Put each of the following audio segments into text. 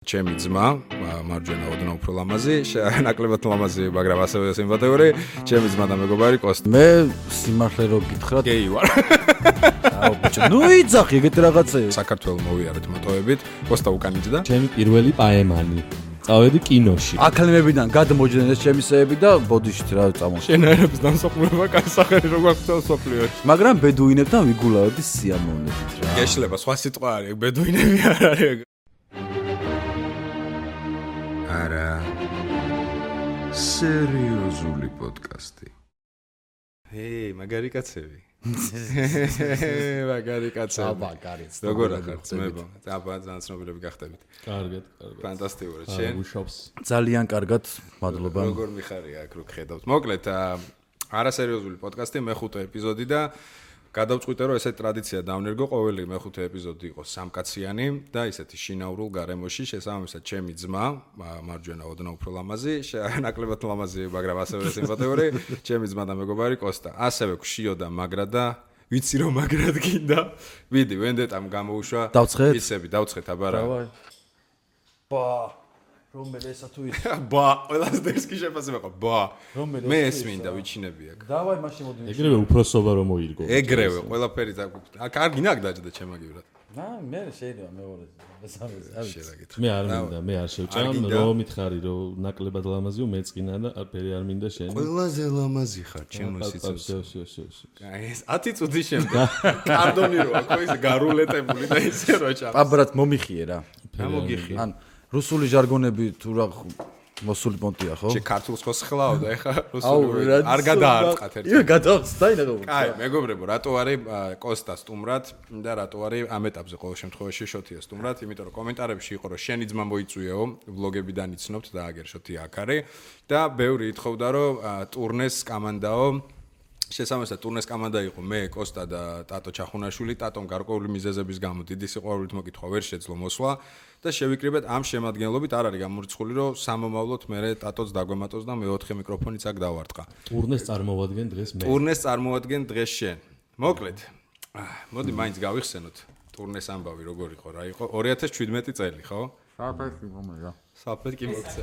ჩემი ძმა, მარჯვენა ოდნავ უფრო ლამაზი, ნაკლებად ლამაზი, მაგრამ ასევე სიმპათიური, ჩემი ძმა და მეგობარი კოსტა. მე სიმართლე რო გითხრათ, გეი ვარ. აუ ბიჭო, ნუ იძახი ეგეთი რაღაცეები. საქართველოს მოვიარეთ მოტოებით, კოსტა უკანიჭდა. ჩემი პირველი პაემანი. წავედი კინოში. აკადემიებიდან გადმოჯდნენ ეს ჩემისეები და ბოდიშით რა წამოშ. შენაერების დამსახურება კასახერი როგორ ხდება სოფლიოში. მაგრამ ბედუინებთან ვიგულავები სიამოვნებით რა. გეშლება, სხვა სიტყვა არის, ბედუინები არ არის. არა სერიოზული პოდკასტი. მაგარი კაცები. მაგარი კაცები. აბაგარიც. როგორ ახართ ძმებო? ძალიან ცნობილები გახდებით. კარგად. ფანტასტიკური. შენ უშავს. ძალიან კარგად, მადლობა. როგორ მიხარია აქ რო გხედავთ. მოკლედ, არასერიოზული პოდკასტი მეხუთე ეპიზოდი და გადავწყვიტე რომ ესეთი ტრადიცია დავნერგო, ყოველი მეხუთე ეპიზოდი იყოს სამკაციანი და ისეთი შინაურულ გარემოში, შესაბამისად ჩემი ძმა, მარჯვენა ოდნავ უფრო ლამაზი, ნაკლებად ლამაზი, მაგრამ ასევე სიმპათიური, ჩემი ძმა და მეგობარი კოსტა. ასევე გშიო და მაგრა და ვიცი რომ მაგრად გინდა. ვიდი, ვენდეტამ გამოუშვა. დავცხეთ? ისები დავცხეთ, აბარა. დავაი. ბა რომელი ესა თუ ის ბა, ყველას დერსკი შეფასება ყო. ბა. რომელი მე ეს მინდა ვიჩინები აქ. დავაი მაშინ მოდი. ეგრევე უფროსობა რომ მოირგო. ეგრევე, ყველაფერი კარგი ნაკ დაჭდა ჩემაგივრად. მე შეიძლება მეორე შეგაკითხე. მე არ მინდა, მე არ შევჭამ, რომ მითხარი, რომ ნაკლებად ლამაზიო, მეწყინა და ფერი არ მინდა შენ. ყველაზე ლამაზი ხარ, ჩემო სიცოცხლე. შო. აი ეს 10 წუთის შემდეგ კარდონი რო აქ ის გარულეტებული და ისე რო ჩა. პაბრად მომიხიე რა. გამოგიხი. ან რუსული ჟარგონები თუ რა მოსული პონტია ხო? შე ქართულს ხო სხლავ და ეხა რუსული არ გადაარტყათ ერთად. ია გადავწდა ინაგო. კაი, მეგობრებო, რატო არის კოსტა სტუმრად და რატო არის ამ ეტაპზე ყოველ შემთხვევაში შოთია სტუმრად, იმიტომ რომ კომენტარებში იყო რომ შენი ძმა მოიწვიეო, ვლოგებიდან იცნობთ და აგერ შოთია აქ არის და ბევრი ითხოვდა რომ ტურნეს კამანდაო შესაბამისად ტურნეს კამანდა იყო მე, კოსტა და ტატო ჩახუნაშვილი, ტატომ გარკვეული მიზეზების გამო დიდი სიყვარულით მოკითხვა ვერ შეძლო მოსვლა და შევიკრიბეთ ამ შემადგენლობით არ არის გამორიცხული რომ სამომავლოდ მე ტატოც დაგვემატოს და მეოთხე მიკროფონიც აქ დავარტყა. ტურნეს წარმოვადგენ დღეს მე. ტურნეს წარმოვადგენ დღეს შენ. მოკლედ. მოდი მაინც გავიხსენოთ ტურნეს ამბავი როგორ იყო რა იყო 2017 წელი ხო? საფეთი მომეა. საფეთი მოგცე.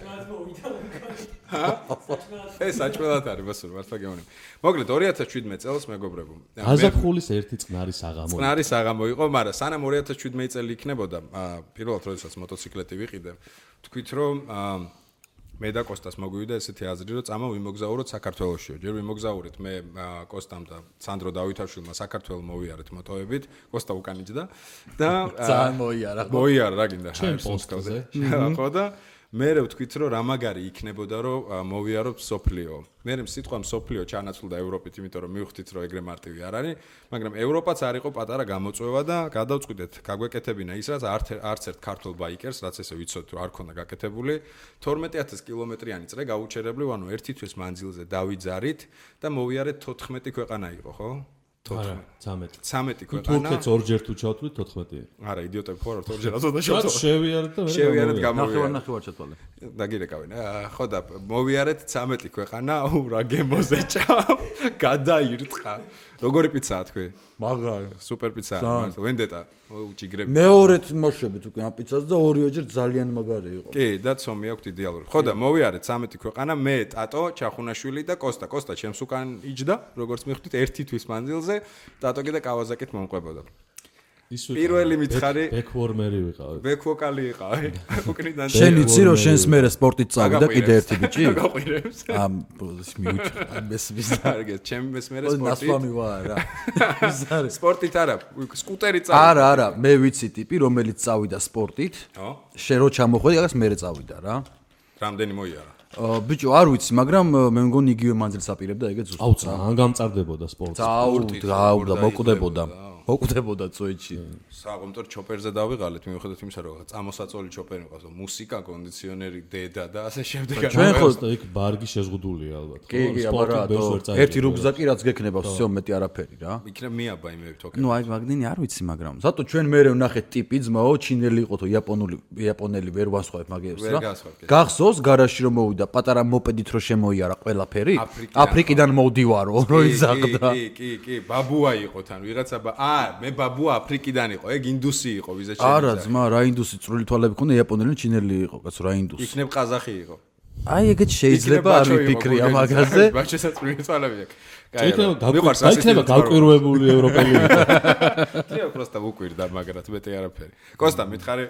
ეს საჭმელად არის ბასურ მართლა გეუბნები. მოკლედ 2017 წელს მეგობრებო. გაზაფხულის ერთი წყნარი საღამო. წყნარი საღამო იყო, მაგრამ სანამ 2017 წელი იქნებოდა, პირველად როდესაც მოტოციკლეტი ვიყიდე, თქვით რომ მე და კოსტას მოგვივიდა ესეთი აზრი, რომ წამა ვიმოგზაუროთ საქართველოშიო. ჯერ ვიმოგზაურეთ მე კოსტამ და სანდრო დავითაშვილმა საქართველოს მოვიარეთ მოტოებით, კოსტა უკანიჭდა და ძალიან მოიარა. მოიარა რა გინდა ჩემ პოსტზე. ხო და მე ვთქვით რომ რა მაგარი იქნებოდა რომ მოვიაროთ სოფლიო. მე სიტყვა სოფლიო ჩანაცვლდა ევროპით, იმიტომ რომ მივხვდით რომ ეგრე მარტივი არ არის, მაგრამ ევროპაც არ იყო პატარა გამოწვევა და გადავწყვიტეთ გაგვეკეთებინა ის რაც არც ერთ ქართულ ბაიკერს, რაც ესე ვიცოდით რომ არ ქონდა გაკეთებული, 12000 კილომეტრიანი წრე გაუჩერებლივ, ანუ ერთი თვის მანძილზე დავიძარით და მოვიარეთ 14 ქვეყანა იყო, ხო? 13 ქვეყანა. თურქეთს ორჯერ თუ ჩავთვლით 14. არა, იდიოტები ხო არ ვართ, ორჯერ აზოდა შევთვალე. შევიარეთ და შევიარეთ გამოვიარეთ. ნახევარ ჩათვალე. დაგირეკავენ. ხო და მოვიარეთ 13 ქვეყანა, რა გემოზე ჭამ, გადაირტყა. როგორი პიცაა თქვი? მაგარი. სუპერ პიცაა, მართლა ვენდეტა, უჭიგრები. მეორედ მოშვებით უკვე ამ პიცას და ორივეჯერ ძალიან მაგარი იყო. კი, და ცომი აქვს იდეალური. ხო და მოვიარეთ 13 ქვეყანა, მე, ტატო, ჩახუნაშვილი და კოსტა. კოსტა ჩემს უკან იჯდა, როგორც მიხვდით, ერთი თვის მანძილზე, ტატო კიდე კავაზაკით მომყვებოდა. პირველი მითხარი ბეკვორმერი ვიყავი. ბეკვოკალი იყავი. უკნიდან შენ იცი რომ შენს მერე სპორტით წავიდა კიდე ერთი ბიჭი? გაყვირებს. ამ მიუჩა. მესმის კარგეთ, ჩემი მესმერე სპორტით. ნასვამი ვარ რა. სპორტით არა, სკუტერი წავიდა. არა, მე ვიცი ტიპი, რომელიც წავიდა სპორტით. ხო? შენ რო ჩამოხვედი, აგას მერე წავიდა რა. რამდენი მოიარა? ბიჭო, არ ვიცი, მაგრამ მე მგონი იგივე მანძილს აპირებდა, ეგეც ზუსტად. აუ, ძალიან გამწარდებოდა სპორტი. აუ, და მოკვდებოდა წოიჩი. საღამოთო ჩოპერზე დავიღალეთ, მიუხედავად იმისა, რომ წამოსაწოლი ჩოპერი მყავს, მუსიკა, კონდიციონერი, დედა და ასე შემდეგ. ჩვენ ხო იქ ბარგი შეზღუდულია ალბათ. კი, აბარა, ერთი რუგზაკი რაც გექნება, всё მეტი არაფერი რა. იქნებ მიაბა იმები თოკე. ნუ აი მაგდენი არ ვიცი, მაგრამ ზატო ჩვენ მერე ვნახეთ ტიპი ძმაო, ჩინელი იყო თუ იაპონელი ვერ ვასხვავებ მაგერს რა. გახსოვს გარაჟში რომ მოვიდა მოვიდა პატარა მოპედით რო შემოიარა ყველაფერი აფრიკიდან მოვდივარო რო იზაღდა კი ბაბუა იყო თან ვიღაცა მე ბაბუა აფრიკიდან იყო ეგ ინდუსი იყო ვიზა შეიძლება არა ძმა რა ინდუსი წვრილი თვალები ქონდა იაპონელი ჩინელი იყო კაცო რა ინდუსი იქნებ ყაზახი იყო აი ეგეც შეიძლება არ ვიფიქრია მაგაზე ბაჩესაც წვრილი თვალები აქვს გაიქნება გავკვირვებული ევროპელი თიო просто ვუკვირდა მაგრად მეტი არაფერი კოსტა მითხარი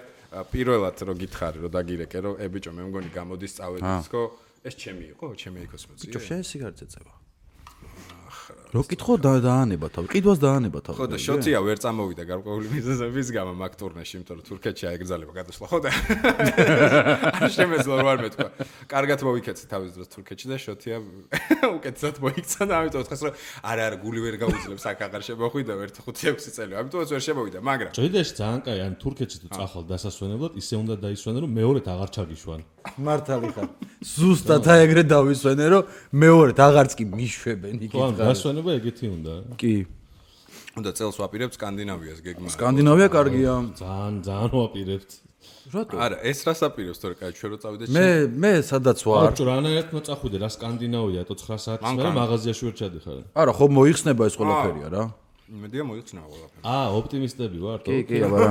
პირველად რო გითხარი რო დაგირეკე რო ბიჭო მე მგონი გამოდის წავედისკო ეს ჩემი იყო ჩემი ეკოსმოცი ბიჭო შენ სიგარეტზე წევა რო კითხო დაანება თავი ყიდვას დაანება თავი ხო და შოთია ვერ წამოვიდა გარკვეული მიზეზების გამო მაგ ტურნეში იმიტომ რომ თურქეთში აეგზალება გადასვლა ხო და არ შემეძლო არ მეთქვა კარგად მოვიქეცე თავის დროს თურქეთში და შოთია უკეთესად მოიქცა და ამიტომ თხეს რომ არა გული ვერ გაუძლებს აქ აღარ შემოხვიდა 1-5-6 წელი ამიტომაც ვერ შემოვიდა მაგრამ ჭიდეში ძალიან კაი ან თურქეთში თუ წახვალ დასასვენებლად ისე უნდა დაისვენო რომ მეორედ აღარ ჩაგიშვან მართალი ხარ ზუსტად აი ეგრე დავისვენე რომ მეორედ აღარც კი მიშვებენ იგი დასვენება ეგეთი უნდა კი უნდა წელს ვაპირებთ სკანდინავიას გეგმა სკანდინავია კარგია ძალიან ვაპირებთ რატო არა ეს რას აპირებს თორე კაი ჩვენ რო წავიდეთ მე სადაც ვარ ბიჭო რანაირად მოწახვიდე რა სკანდინავია თუ 9 საათის მერე მაღაზიაში ვერ ჩადიხარ არა ხო მოიხსნება ეს ყველაფერია რა იმედია მოიხსნება ყველაფერი ოპტიმისტები ვარ კი აბარა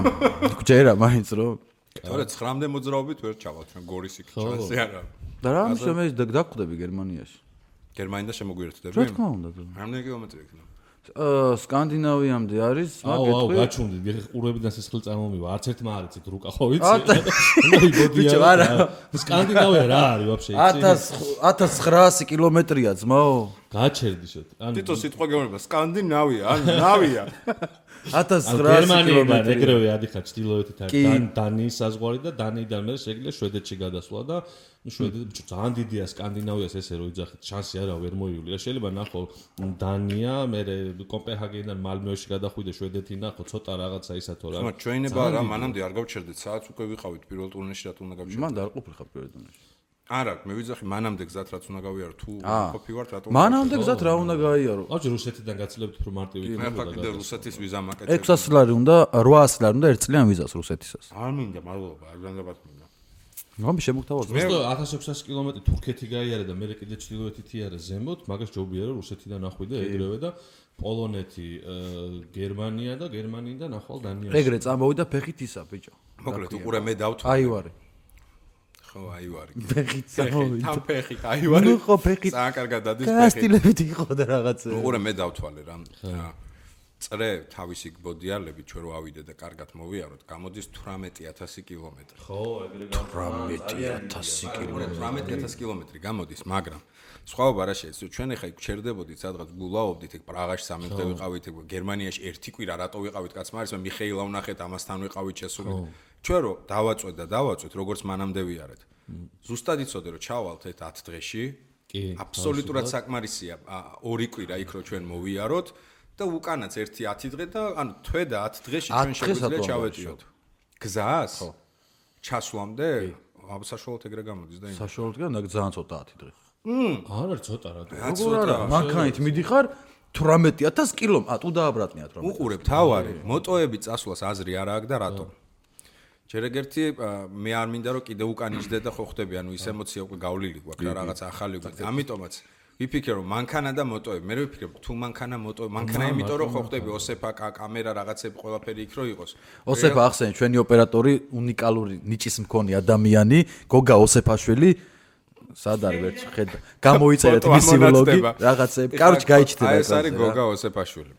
გჯერა მაინც რო თორე 9-მდე მოძრაობით ვერ ჩავალთ ჩვენ გორის იქ ჩანსი არა და რა მე დაგხვდები გერმანიაში გერმანიდან შემოგვიერთდები რა თქმა უნდა რამდენი კილომეტრი იქნება სკანდინავიამდე არის მაგეთქვი გაჩვენდი ყურებიდან სისხლი წარმომივა არც ერთმა არ იცით რუკა ხო ვიცი ბიჭო არა სკანდინავია რა არის ვაფშე 1900 კილომეტრია ძმაო გაჩერდი შოთ თითო სიტყვა გეუბნება სკანდინავია ან ნავია 1900 კილომეტრი ეგრევე ადიხარ ჩtildeოეთით დანიის საზღვარი და დანიიდან მე შეგიძლია შვედეთში გადასვლა და შვედეთი ძალიან დიდია სკანდინავიას ესე რომ იძახით შანსი არა ვერ მოივლია შეიძლება ნახო დანია მე კოპენჰაგენიდან მალმეოში გადახვიდე შვედეთი ნახო ცოტა რაღაცა ისათო რა ჩვენება რა მანამდე არ გავჩერდეთ საათს უკვე ვიყავით პირველ ტურნეში რა უნდა გავჩერდეთ მან არ ყოფილიყავ პირველ ტურნეში არა მე ვიძახი მანამდე გზად რაც უნდა გავიარო თუ ყოფი ვართ რატომ მანამდე გზად რა უნდა გაიარო აუჯი რუსეთიდან გაცლებთ რომ მარტივი იქნება მე ფაქტია რუსეთის ვიზა მაკეთებ 600 ლარი უნდა 800 ლარი უნდა 1 წლიან ვიზას რუსეთისას არ მინდა მადლობა არ განდაბათ მინდა ნომი შემოგთავაზო მე 1600 კილომეტრი თურქეთი გაიარე და მე კიდე ჩtildeოეთით იარე ზემოთ მაგას ჯობია რომ რუსეთიდან ახვიდე ეგრევე და პოლონეთი გერმანია და გერმანიიდან ახვალ დანიაში ეგრე წამოვიდა ფეხით ისა ბიჭო მოკლედ უყურე მე დავთვალე აივარი ხო აივარი ფეხით წამოვიდა თან ფეხით აივარი ნუ ხო ფეხით ძალიან კარგად დადის ფეხით კასტილებით იყო და რაღაცა უყურე მე დავთვალე რა წრე თავისი ბოდიალები ჩვენ რო ავიდე და კარგად მოვიაროთ გამოდის 18000 კილომეტრი ხო ეგრე 18000 კილომეტრი 18000 კილომეტრი გამოდის მაგრამ სხვაობა რა შეიძლება ჩვენ ახლა გჩერდებოდით სადღაც გულაობდით ეგ პრაღაში 3 დღე ვიყავით ეგ გერმანიაში ერთი კვირა რატო ვიყავით კაცმა არის მე მიხეილა ვნახეთ ამასთან ვიყავით შესული ჩვენ რო დავაწვეთ როგორც მანამდე ვიარეთ ზუსტად იცოდე რომ ჩავალთ ეს 10 დღეში კი აბსოლუტურად საკმარისია 2 კვირა იქ რო ჩვენ მოვიაროთ და უკანაც 1-10 დღე და ანუ თვე და 10 დღეში ჩვენ შეგვიძლია ჩავეტიოთ გზას ხო ჩასვლამდე აბსაშუალოდ ეგრე გამოდის და იმ საშუალოდ კი და ძალიან ცოტა 10 დღე არ არის ცოტა რა როგორ არა მანქანით მიდიხარ 18000 კილომეტრი თუ დააბრატნია 18 უყურებ თავარი მოტოები წასვლას აზრი არ აქვს და რატომ ჯერ ეგერთი მე არ მინდა რომ კიდე უკან იჯდე და ხო ხდები ანუ ის ემოცია უკვე გავლილი გვაქვს რა რაღაც ახალი უკვე ამიტომაც ვიფიქრე რომ მანქანა და მოტოები მე ვიფიქრე თუ მანქანა იმიტომ რომ ხო ხდები ოსეფა კამერა რაღაცები ყველაფერი იქ რო იყოს ოსეფა ახსენე ჩვენი ოპერატორი უნიკალური ნიჭის მქონე ადამიანი გოგა ოსეფაშვილი სად არის ვერც ხედა გამოიწერეთ მისი ვლოგი რაღაცები კაროჩ გაიჩნდება ეს არის გოგა ოსეფაშვილი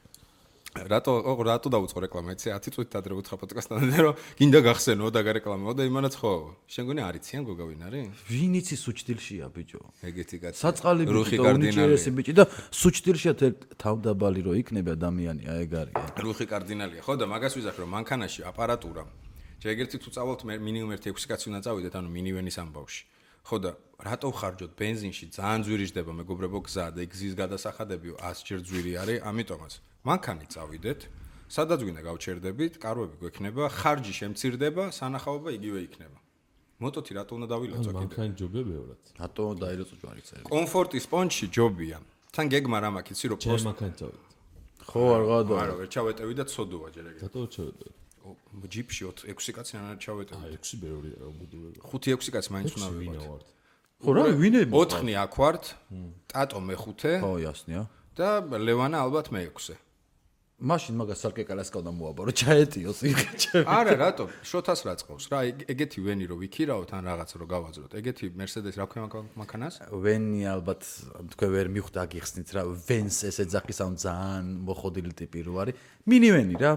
რატო დაუწყო რეკლამა ეცე 10 წუთით ადრე უთხრა პოდკასტთან რომ გინდა გახსენო და გარეკლამაო და იმანაც ხო შენ გონი არიციან გოგა ვინ არის ვინ იცის სუჩდილშია ბიჭო ეგეთი კაცი საწყალი ბიჭო უნიჭერესი ბიჭი და სუჩდილშია თავდაბალი რო იქნება ადამიანია ეგ არის რუხი კარდინალია ხო და მაგას ვიზახე რომ მანქანაში აპარატურა ჯერ ერთი თუ წავალთ მინიმუმ 1-6 კაცი უნდა წავიდეთ ანუ მინივენის ამბავში ხო და რატო ხარჯოთ ბენზინში ძალიან ძვირი ჯდება მეგობრებო გზა და გზის გადასახადებიო 100 ჯერ ძვირი არის ამიტომაც მანქანით წავიდეთ სადაც გვინდა გავჩერდებით კარვები გვექნება ხარჯი შემცირდება სანახაობა იგივე იქნება მოტოთი რატო უნდა დავილოცო კიდე მანქანა ჯობია ბევრად რატო დაილოცო ჯვარიც კომფორტის პონჩი ჯობია თან გეგმა რა მაქვს იცი რომ ჩემ მანქანით წავიდე ხო არ გადა არა ვერ ჩავეტევი და ცოდოა ჯერ ეგრე რატო ჩავეტევი ჯიპში 6 კაცი არ ჩავეტევი აი 6 ბევრია რა ბუდურები 5-6 კაცი მაინც უნდა ვიყოთ ხო რა ვინები 4 აქ ვართ, ტატო მე-5 ხო ясნია და ლევანა ალბათ მე-6. მაშინ მაგას სარკეკალას ყავდა მოაბარო ჩაეტიოს იღეჩები არა რატო შოთას რა წყავს რა ეგეთი ვენი რო ვიქირაოთ ან რაღაც რო გავაძლოთ ეგეთი Mercedes რა ქვია მანქანას ვენი ალბათ თქვენ ვერ მიხვდა გიხსნით რა ვენს ეს ეძახის ამ ძალიან მოხოდილი ტიპი რო არის მინივენი რა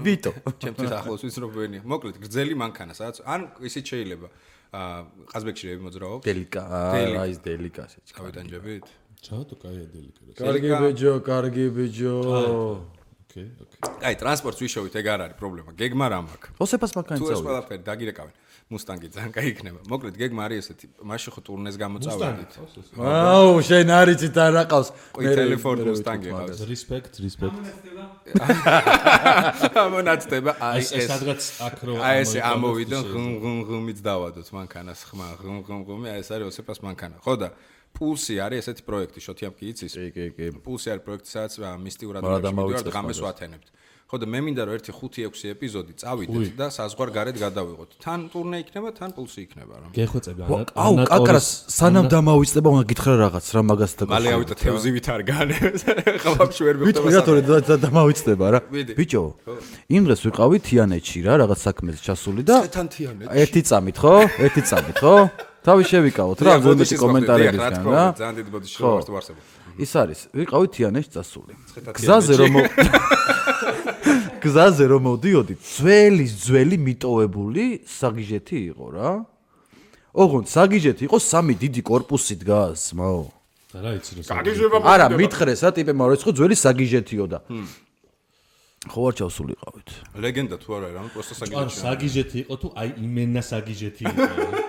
ვიტო ჩემთვის ახლოს ვიცი რომ ვენია მოკლედ გრძელი მანქანა სადაც ან ისიც შეიძლება ყაზბეგში რები მოძრაობ დელიკა რა ის დელიკა შეჭ გავიტანჯებით ჩავთო კაია დელიკა კარგი ბიჯო ოკეი აი ტრანსპორტს ვიშოვით ეგ არ არის პრობლემა გეგმა რა მაქვს ოსეფას მანქანა თუ ეს ყველაფერი დაგირეკავენ მუსტანგი ძალიან კაი იქნება მოკლედ გეგმა არის ესეთი მაშინ ხო ტურნეს გამოწავედით აუ შენ არიცით არ აყავს მე ტელეფონ მუსტანგი ყავს respect ამონაცდება აი ეს სადღაც აქ რო აი ეს ამოვიდა ღმ-ღმ-ღმით დავადოთ მანქანას ხმა ღმ-ღმ-ღმი აი ეს არის ოსეფას მანქანა ხო და პულსი არის ესეთი პროექტი შოთიამ კი იცის კი პულსი არის პროექტი სადაც მისტიურად მოვიდა ღამეს ვათენებთ ხო და მე მინდა რომ ერთი 5-6 ეპიზოდი წავიდეთ და საზღვარგარეთ გადავიღოთ თან ტურნე იქნება თან პულსი იქნება რა გეხვეწები აუ კაკრას სანამ დამავიწყდება უნდა გითხრა რაღაც რა მაგას და მალე ავიდა თევზივით არ განებს ხალხში ვერ მივხვდება ვიტყვი დამავიწყდება რა ბიჭო იმ დღეს ვიყავი თიანეთში რა რაღაც საქმეზე ჩასული და ერთი წამით ხო თავი შევიკავოთ რა ზოგადად კომენტარებისგან რა ძალიან დიდი ბოდიში ვართ ვარსებო ის არის ვიყავი თიანეთში წასული გზაზე რომ მოდიოდი ძველი მიტოვებული საგიჟეთი იყო რა ოღონდ საგიჟეთი იყო 3 დიდი корпуსი დგას მაო და რა იცი საგიჟება არა მითხრესა ტიპებმა რომ იყო ძველი საგიჟეთიო და ხო არ ჩავსული იყავით ლეგენდა თუ არა რა просто საგიჟეთი ან საგიჟეთი იყო თუ აი იმენა საგიჟეთი იყო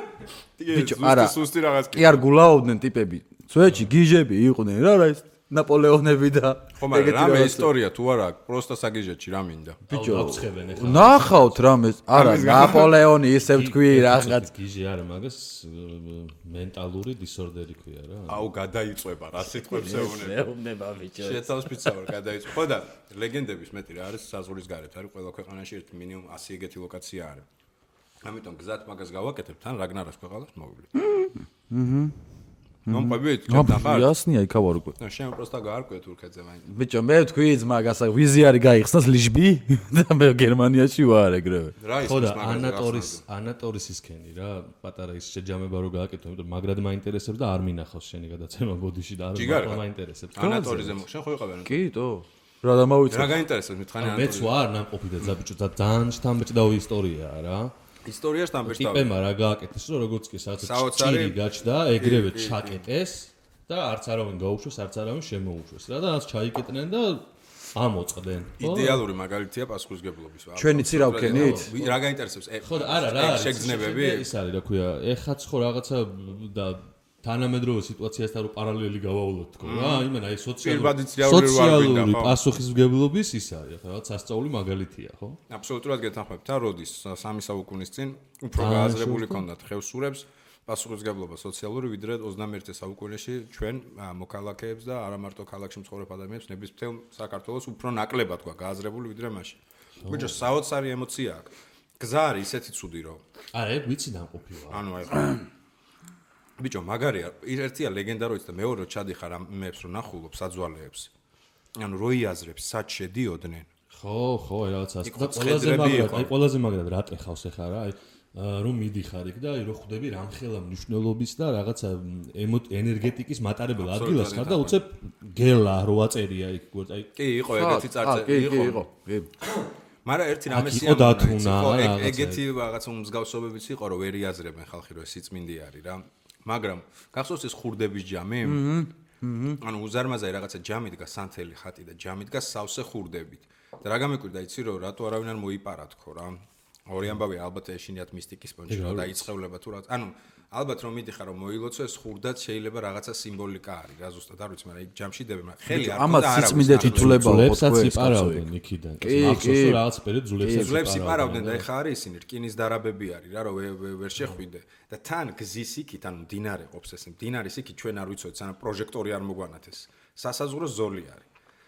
ბიჭო არა სუსტი რაღაც კი არ გულაოდნენ ტიპები სვეჩი გიჟები იყვნენ რა ის ნაპოლეონები და ხო მაგრამ რამე ისტორია თუ არა პროსტა საგიჟეთში რა მინდა ბიჭო ნახავთ რამე არა ნაპოლეონი ისევ თქვი რაღაც გიჟი არა მაგას მენტალური დისორდერი ქვია რა აუ გადაიწובה რა სიტყვებს ეუბნება ბიჭო შეთავს პიცავარ გადაიწובה ხო და ლეგენდების მეტი რა არის საზღვრის გარეთ არის ყველა ქვეყანაში ერთი მინიმუმ 100 ეგეთი ლოკაცია არის ამიტომ გზად მაგას გავაკეთებ თან რაგნარას ქვეყანას მოვივლი მომყვებით ჩატახარ ясნია იქავარ უკვე ნუ შენ просто გაარკვე თურქეთზე მაინც ბიჭო მე ვთქვი მაგას ვიზი არის გაიხსნას ლიშბი და მე გერმანიაში ვარ ეგრევე ხო და ანატორის ისქენი რა პატარა ის შეჯამება რო გააკეთო იმიტომ მაგრად მაინტერესებს და არ მინახავს შენი გადაცემა ბოდიში და არ მაინტერესებს ანატორიზე შენ ხო იყავენ კიტო რა დამავიწყე რა გაინტერესებს მითხარი ანატორი მეც ვარ ნამყოფი და ბიჭო და ძალიან შთამბეჭდავი ისტორიაა რა ისტორიაში დამბეჭდავი ტიპებმა რა გააკეთეს რომ როგორც კი სადაც ჭირი გაჩნდა ეგრევე ჩაკეტეს და არც არავინ გაუშვეს არც არავინ შემოუშვეს რა და რაც ჩაიკეტნენ და ამოწყდნენ იდეალური მაგალითია პასუხისგებლობის ჩვენი ცი რა ვქენით რა გაინტერესებს ხო არა რა არის შეგრძნებები ის არის რა ქვია ეხაც ხო რაღაცა და თანამედროვე სიტუაციასთან რო პარალელი გავავლოთ თქო რა იმენა ეს სოციალური პასუხისმგებლობის ის არის ხო რაღაც სასწაული მაგალითია ხო აბსოლუტურად გეთანხმებით და როდის 3 საუკუნის წინ უფრო გააზრებული ქონდათ ხევსურებს პასუხისმგებლობა სოციალური ვიდრე 21 საუკუნეში ჩვენ მოქალაქეებს და არა მარტო ქალაქში მცხოვრებ ადამიანებს ნების მთელ საქართველოს უფრო ნაკლებად თქვა გააზრებული ვიდრე მაშინ ბიჭო საოცარი ემოცია აქვს გზა არის ისეთი ცუდი რომ არა ეგ ვიცი დამყოფი ვარ ანუ აი ბიჭო მაგარია ერთია ლეგენდა რო იცი და მეორე რო ჩადიხარ ამებს რო ნახულობ საძვალეებს ანუ რო იაზრებს სად შედიოდნენ ხო რაღაცას და ყველაზე მაგრად რა ტეხავს ახლა რა აი რომ მიდიხარ იქ და აი რო ხვდები რამხელა მნიშვნელობის და რაღაცა ენერგეტიკის მატარებელ ადგილას ხარ და უცებ გელა რო აწერია იქ აი კი იყო ეგეთი წარწერა იყო მაგრამ ერთი რამე ეგეთი რაღაცა მსგავსობებიც იყო რომ ვერ იაზრებენ ხალხი რომ ეს სიწმინდი არის რა მაგრამ გახსოვს ეს ხურდების ჯამი? ანუ უზარმაზარი რაღაცა ჯამი დგას სანთელი ხატი და ჯამი დგას სავსე ხურდებით. და რა გამიკვირდა იცი რომ რატო არავინ არ მოიპარა თქო რა. ორი ამბავი ალბათ ეშინიათ მისტიკის პონჩი და იწხევლება თუ რა. ანუ ალბათ რომ მიდიხარ რომ მოილოცო ეს ხურდაც შეიძლება რაღაცა სიმბოლიკა არის რა ზუსტად არ ვიცი მაგრამ იქ ჯამში დებენ ხელი არ ამას სიწმინდე თითულება უყურებსაც იპარავდნენ იქიდან მახსოვს რომ რაღაც პერიოდ ძულებს იპარავდნენ და ეხა არის ისინი რკინის დარაბები არის რა რომ ვერ შეხვიდე და თან გზის იქით ანუ მდინარე ყოფს ეს მდინარის იქით ჩვენ არ ვიცოდით სანამ პროჟექტორი არ მოგვანათეს სასაზღვრო ზოლი არის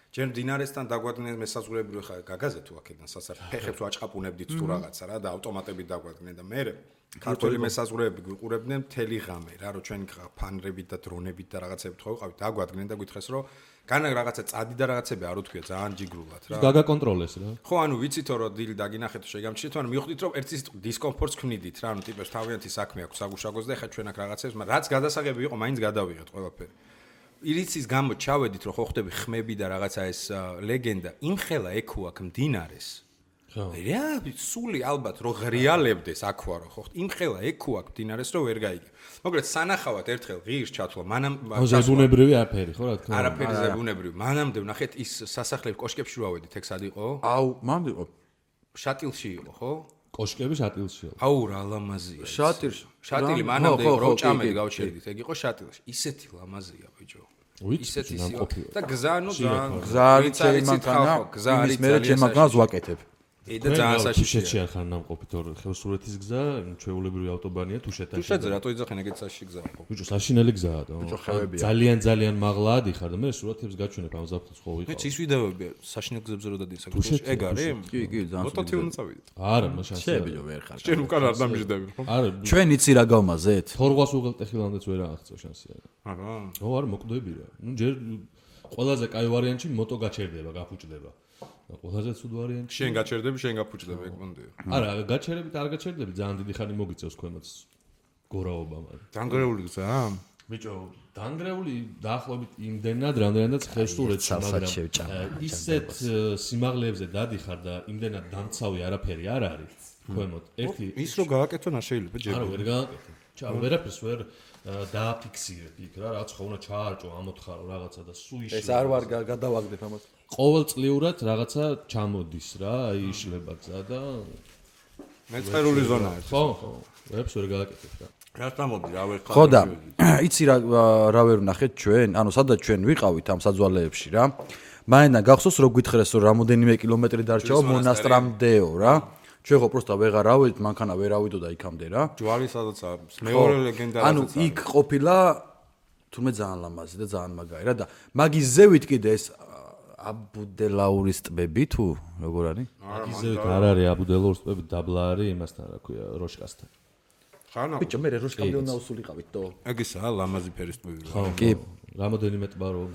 ჯერ მდინარესთან დაგვადგნენ მესაზღვრეები ხა გაგაზე თუ აქედან სასაფეხებს ვაჭყაპუნებდით თუ რაღაცა რა და ავტომატებით დაგვადგნენ და მე ქართული მესაზღვრეები გვიყურებდნენ მთელი ღამე რა რომ ჩვენ ფანრებით და დრონებით და რაღაცებით ხო ვიყავით დაგვადგნენ და გითხრეს რომ განა რაღაცა წადი და რაღაცები არ უთქვია ძალიან ჯიგრულად რა გაგაკონტროლეს რა ხო ანუ ვიცითო რომ დილ დაგინახეთ შეგამჩნიეთ ანუ მივხვდით რომ ერთი დისკომფორტს ქმნიდით რა ანუ ტიპებს თავიანთი საქმე აქვს საგუშაგოს და ეხა ჩვენ აქ რაღაცებს მაგრამ რაც გადასაღები იყო მაინც გადავიღეთ ყველაფერი ირიცის გამო ჩავედით რომ ხო ხდები ხმები და რაღაცა ეს ლეგენდა იმხელა ეკუ აქ მდინარეს რა სული ალბათ რო ღრიალებდეს აქვე რო ხო იმხელა ეკუ აქ მდინარეს რო ვერ გაიგე მოკლედ სანახავად ერთხელ ღირს ჩათვლა მანამ ზებუნებრივი არაფერი ხო რა თქმა უნდა არაფერი ზებუნებრივი მანამდე ვნახეთ ის სასახლეების კოშკებში რო ავედით ეგ სად იყო აუ მანდ იყო შატილში იყო ხო კოშკები შატილში იყო აუ რა ლამაზია შატილი მანამდე იყო რო ჭამელი გავჩერდით ეგ იყო შატილში ისეთი ლამაზია ბიჭო ისეთი და გზა ნუ გზა არის ჩემი მანქანა იმის მერე ჩემ მანქანას ვაკეთებ და ძალიან საშიშია ხარ ნამყოფი თორე ხევსურეთის გზა ჩვეულებრივი ავტობანია თუშეთში თუშეთზე რატო იძახენ ეგეთ საში გზა ხო ბიჭო საშინელი გზაა ძალიან მაღლა ადიხარ და მე სურათებს გაჩვენებ ამ ზაფხულს ხო ვიყავ ის ვიდეოები საშინელ გზებზე რო დადის საქართველოში ეგ არის კი ძალიან მოტოთი უნდა წავიდე არა მაშინ შევიდო ვერ ხარ ჩვენ უკან არ დამიждები ხო არა ჩვენ იცი რა გავმაზეთ თორღვას უღელტეხილამდეც ვერ აღწევ შანსია არა ხო არა მოკვდები რა ნუ ჯერ ყველაზე კაი ვარიანტი მოტო გაჩერდება გაფუჭდება ყველაზე ცუდ ვარიანტი შენ გაჩერდები შენ გაფუჭდები ეგ მომდიო არა გაჩერებით არ გაჩერდები ძალიან დიდი ხანი მოგიწევს ქვემოთ გორაობა მაგრამ დანგრეული გზაა ბიჭო დანგრეული დაახლოებით იმდენად რამდენადაც ხევსურეთში მაგრამ ისეთ სიმაღლეებზე დადიხარ და იმდენად დამცავი არაფერი არ არის ქვემოთ ერთი ის რო გააკეთონ არ შეიძლება ჯერ არა ვერ გააკეთე ჩა ვერაფერს ვერ დააფიქსირებ იქ რა რაც ხო უნდა ჩაარჭო ამოთხარო რაღაცა და სულ იშლება ეს არ ვარ გადავაგდებ ამას ყოველწლიურად რაღაცა ჩამოდის რა აი იშლება გზა და მეწყერული ზონა არის ხო ვერაფერს ვერ გააკეთებ რა რა თამოდი რა ვერ ხარ ხო და იცი რა ვერ ვნახეთ ჩვენ ანუ სადაც ჩვენ ვიყავით ამ საძვალეებში რა მაინდა გახსოვს რო გითხრეს რომ რამოდენიმე კილომეტრი დარჩაო მონასტრამდეო რა ჩვენ ხო პროსტა ვეღარ ავედით მანქანა ვერ ავიდო და იქამდე რა ჯვარი სადაც არის მეორე ლეგენდა ანუ იქ ყოფილა თუმე ძალიან ლამაზი და ძალიან მაგარი რა და მაგის ზევით კიდე ეს აბუდელაურის ტბები თუ როგორ არის მაგის ზევით არ არის აბუდელაურის ტბები დაბლა არის იმასთან რა ქვია როშკასთან ხანა ბიჭო მე როშკამდე უნდა უსულიყავით თო ეგ ისაა ლამაზი ფერის ტბები ხო კი რამოდენიმე ტბა რომ